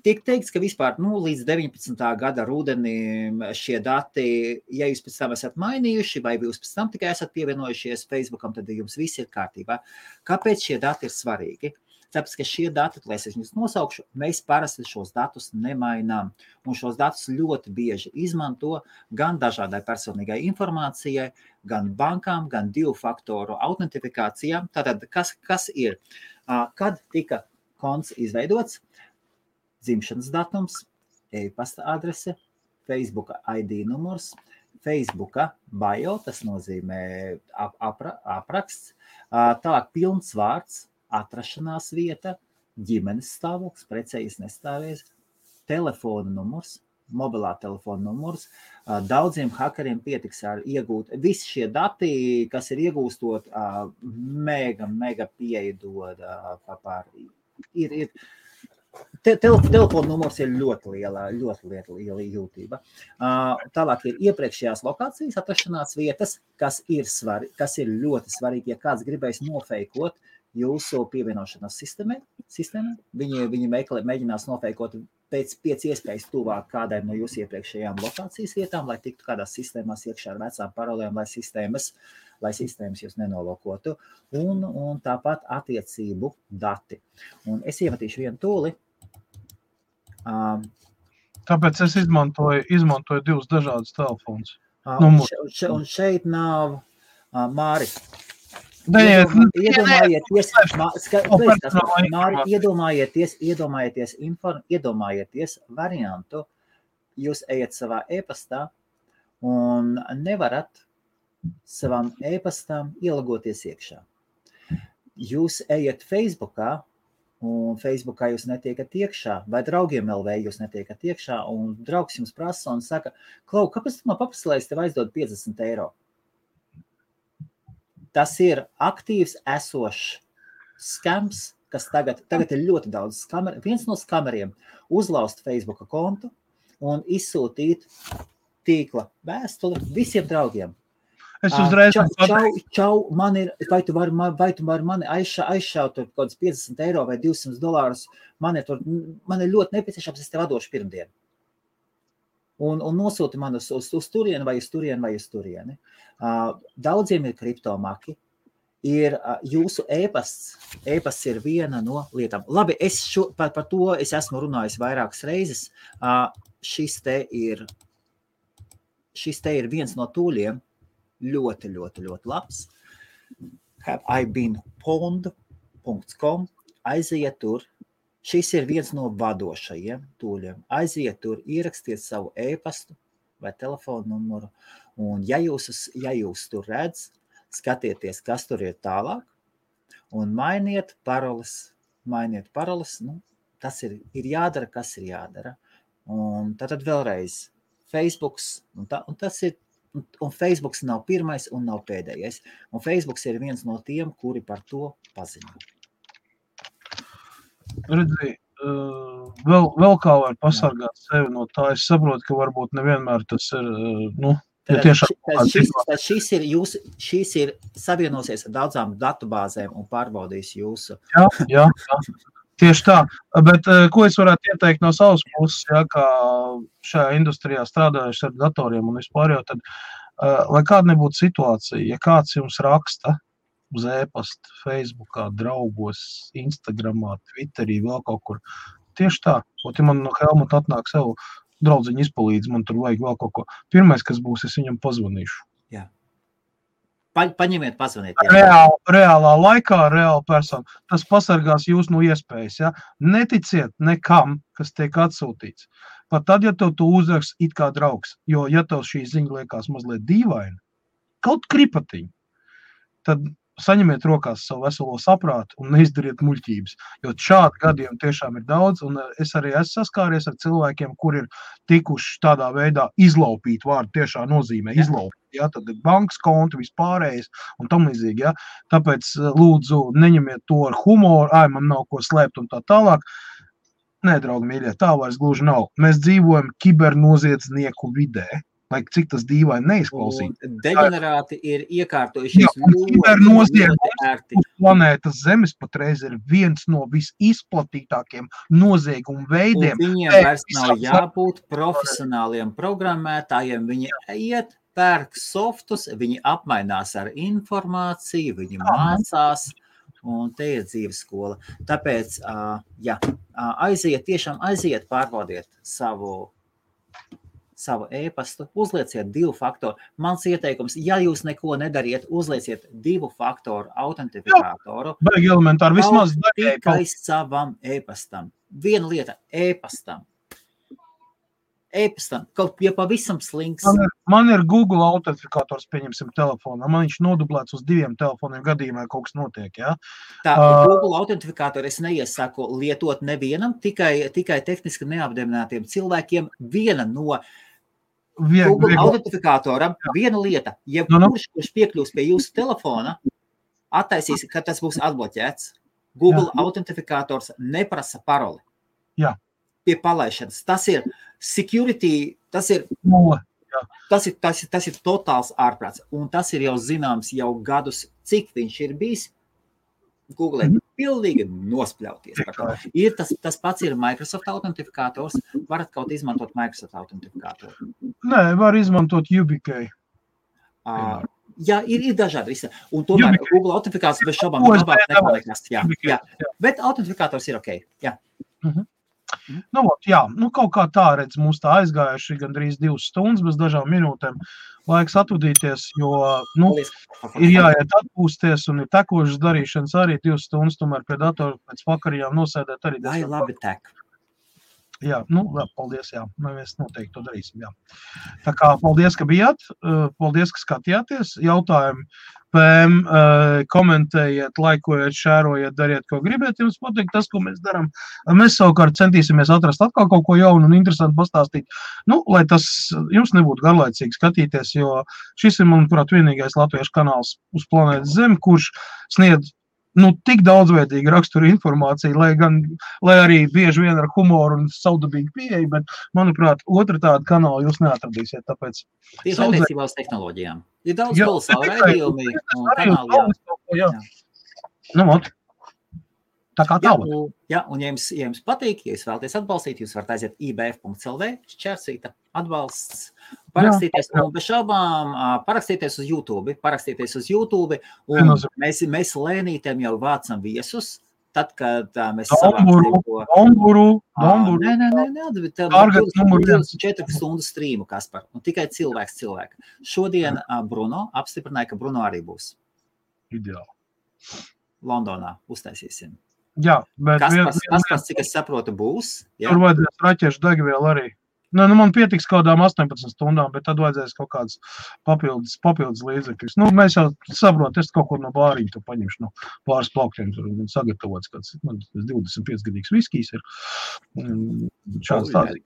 tiek teikts, ka vispār līdz 19. gada rudenim šie dati, ja jūs pēc tam esat mainījuši, vai jūs pēc tam tikai esat pievienojušies Facebookam, tad jums viss ir kārtībā. Kāpēc šie dati ir svarīgi? Tāpēc, ka šie dati, lai es viņus nosaukšu, mēs parasti šos datus nemainām. Un šos datus ļoti bieži izmanto gan dažādai personīgai informācijai, gan bankām, gan 2-faktoru autentifikācijām. Tātad, kas ir? Kad tika konts izveidots? Dzimšanas datums, e-pasta adrese, Facebooka ID numurs, Facebooka bio, tas nozīmē apraksts, tālāk pilns vārds, atrašanās vieta, ģimenes stāvoklis, precējies nestāvies, telefona numurs, mobilā telefona numurs. Daudziem hakeriem pietiks ar iegūt. Visi šie dati, kas ir iegūstot, mega pieeja dod par Telefona numurs ir ļoti liela jūtība. Tālāk ir iepriekšējās lokācijas atrašanās vietas, kas ir ļoti svarīgi, ja kāds gribēs nofeikot jūsu pievienošanās sistēmai. Viņi mēģinās nofeikot pēc iespējas tuvāk kādai no jūsu iepriekšējām lokācijas vietām, lai tiktu kādās sistēmās iekšā ar vecām parolēm, lai sistēmas jūs nenolokotu. Un tāpat attiecību dati. Un es iemetīšu vienu tūli. Tāpēc es izmantoju 2 dažādus telefonus. Un šeit nav Māri. Iedomājieties variantu. Jūs ejat savā e-pastā un nevarat savam e-pastam ielagoties iekšā. Jūs ejat Facebookā, un Facebookā jūs netiekat iekšā, vai draugiem LV jūs netiekat iekšā, un draugs jums prasa un saka, Klau, kāpēc tu man paprasti, lai es tev aizdod 50 €? Tas ir aktīvs esošs skams, kas tagad ir ļoti daudz skameru. Viens no skameriem uzlauzt Facebooka kontu un izsūtīt tīkla vēstuli visiem draugiem. Es uzreiz Čau, vai tu vari mani aizšaut kaut kāds 50 € vai $200, man ir ļoti nepieciešams, es tev atdošu pirmdien. Un nosūti man uz turieni vai uz turieni. Daudziem ir kriptomaki, ir jūsu e-pasts ir viena no lietām. Labi, par to es esmu runājis vairākas reizes. Šis te ir viens no tūļiem, ļoti labs. Have I been pwned.com. Aiziet tur. Šis ir viens no vadošajiem tūļiem. Aiziet tur, ierakstiet savu e-pastu vai telefonu numuru. Un ja jūs tur redz, skatieties, kas tur ir tālāk, un mainiet paroles. Tas ir jādara, kas ir jādara. Un tad vēlreiz Facebooks, un Facebooks nav pirmais un nav pēdējais. Un Facebooks ir viens no tiem, kuri par to paziņo. Redzi, vēl kā var pasargāt sevi no tā. Es saprotu, ka varbūt nevienmēr tas ir, Šīs ir savienosies ar daudzām datubāzēm un pārbaudīs jūsu. Jā. Tieši tā, bet ko es varētu ieteikt no savas puses, kā šajā industrijā strādājuši ar datoriem un vispār jau tad, lai kāda nebūtu situācija, ja kāds jums raksta uz e-pasta, Facebookā, draugos, Instagramā, Twitterī, vēl kaut kur, tieši tā, ja man no Helmuta atnāk savu draudziņu izpalīdz, man tur vajag vēl kaut ko. Pirmais, kas būs, es viņam pazvanīšu. Jā. Paņemiet, pazvaniet. Reālā laikā, reāla persona. Tas pasargās jūs no iespējas. Ja? Neticiet nekam, kas tiek atsūtīts. Pat tad, ja tev tu uzrakst it kā draugs, jo ja tev šī ziņa liekas mazliet dīvaina, kaut kripatiņa, tad saņemiet rokās savu veselo saprātu un neizdariet muļķības, jo šādi gadiem tiešām ir daudz, un es arī esmu saskāries ar cilvēkiem, kur ir tikuši tādā veidā izlaupīt vārdu tiešā nozīmē, izlaupīt, ja, tad bankas konti, vispārējais un tam līdzīgi, ja, tāpēc lūdzu neņemiet to ar humoru, man nav ko slēpt un tā tālāk. Nē, draugi mīļie, tā vairs gluži nav. Mēs dzīvojam kibernoziedznieku vidē, lai cik tas dīvaini neizklausīt. Deģenerāti ir iekārtojušies ļoti ērti. Uz planētas Zemes patreiz ir viens no visizplatītākiem noziegumu veidiem. Un viņiem vairs nav jābūt profesionāliem programmētājiem. Viņi iet, pērk softus, viņi apmainās ar informāciju, viņi mācās. Un te ir dzīves skola. Tāpēc, aiziet, pārbaudiet savu e-pastu, uzlieciet 2 faktoru. Mans ieteikums, ja jūs neko nedariet, uzlieciet 2 faktoru autentifikātoru. Baigi elementāri, vismaz tikai savam e-pastam. Viena lieta, e-pastam, kaut ja pavisam slinks. Man ir Google autentifikators, pieņemsim, telefonā. Man viņš nodublēts uz 2 telefoniem gadījumā, kaut kas notiek, ja? Tā, Google autentifikatori es neiesaku lietot nevienam, tikai tehniski neapdeminātiem cilvēkiem. Viena no Google autentifikatora, viena lieta, ja kurš piekļūs pie jūsu telefona, attaisīs, ka tas būs atbloķēts. Google autentifikators neprasa paroli. Jā. Pie palaišanas. Tas ir security, tas ir totāls ārprāts. Un tas ir jau zināms jau gadus, cik viņš ir bijis. Google ir pilnīgi nospļauties par to. Tas pats ir Microsoft autentifikators. Varat kaut izmantot Microsoft autentifikatoru? Nē, var izmantot UBK. Jā, ir dažādi visi. Un tomēr Google autentifikators bez šobām ir labāk nekā nekas. Jā. Bet autentifikators ir ok. Jā. Kaut kā tā redz, mums tā aizgājuši gandrīz 2 stundas bez dažām minūtēm. Laiks atvadīties, jo ir jāiet atpūsties un ir tekošas darīšanas arī 2 stundas, tomēr pie datora pēc vakarījām nosēdēt arī. Vai labi tek. Jā, paldies, jā. Mēs noteikti to darīsim, jā. Tā kā paldies, ka bijāt, paldies, ka skatījāties. Jautājumi PM, komentējiet, laikojiet, šērojiet, dariet, ko gribiet jums pateikt, tas, ko mēs darām. Mēs savukārt centīsimies atrast atkal kaut ko jaunu un interesantu pastāstīt, lai tas jums nebūtu garlaicīgi skatīties, jo šis ir, manuprāt, vienīgais latviešu kanāls uz planētas Zemi, kurš sniedz tik daudzveidīgi rakstura informāciju, lai arī bieži vien ar humoru un saudabīgu pieeju, bet, manuprāt, otra tāda kanāla jūs neatradīsiet, tāpēc... Tieši attiecībā uz tehnoloģijām. Ir daudz kolosālu raidījumi un kanāli. Jā. Tā kā tālāk. Jā, un ja jums patīk, ja jūs vēlaties atbalstīt, jūs varat aiziet ibf.lv, šķērsīta atbalsts, parakstīties, un bez šaubām parakstīties uz YouTube, un mēs lēnītiem jau vācam viesus, tad, kad mēs Domburu. Nē, 24 stundu strīmu, Kaspar, un tikai cilvēks. Šodien Bruno apstiprināja, ka Bruno arī būs. Ideāli. Londonā uztaisīsim. Jā, bet... Kaspars, cik es saprotu, būs. Tur vajadzēs raķešu degvielu arī. Man pietiks kādām 18 stundām, bet tad vajadzēs kaut kādas papildus līdzekļus. Mēs jau saprotu, es kaut ko no bāriņa to paņemšu, pāris plaukļiem tur sagatavots, kāds 25-gadīgs viskijs ir. Šāds tāds.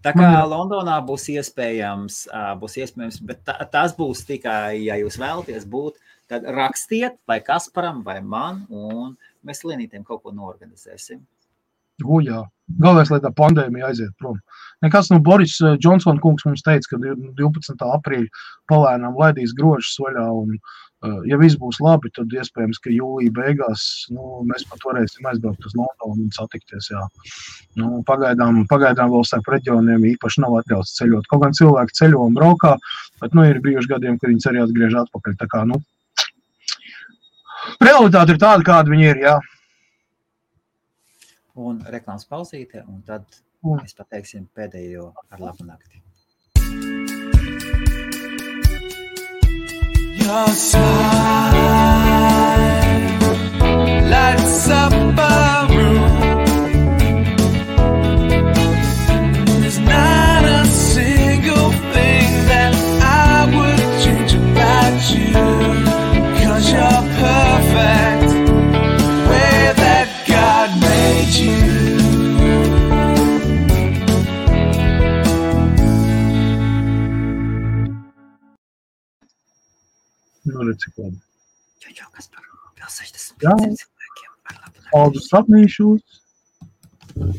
Tā kā Londonā būs iespējams, bet tas būs tikai, ja jūs vēlaties būt, tad rakstiet vai Kasparam vai man, un mēs Lienītiem kaut ko noorganizēsim. Jā. Galvenais, lai tā pandēmija aiziet prom. Nekas Boris Johnson kungs mums teica, ka 12. aprīļa palēnām laidīs grožus vaļā, un ja viss būs labi, tad iespējams, ka jūlija beigās mēs pat varēsim aizbraukt uz Londonu un satikties. Jā. Pagaidām vēl starp reģioniem īpaši nav atļauts ceļot. Kaut gan cilvēki ceļo un braukā, bet ir bijuši gadiem, kad viņas arī atgriež atpakaļ. Tā kā, realitāte ir tāda, kāda viņi ir, jā. Un reklāmas pauzīte, un tad mēs pateiksim pēdējo ar labu nakti. Your smile lights up a room. There's not a single thing that I would change about you, 'cause Un ir cik labi. Čau, Kaspar, vēl 60 Jā. cilvēkiem ar labu nakti. Paldies, sapnīšos!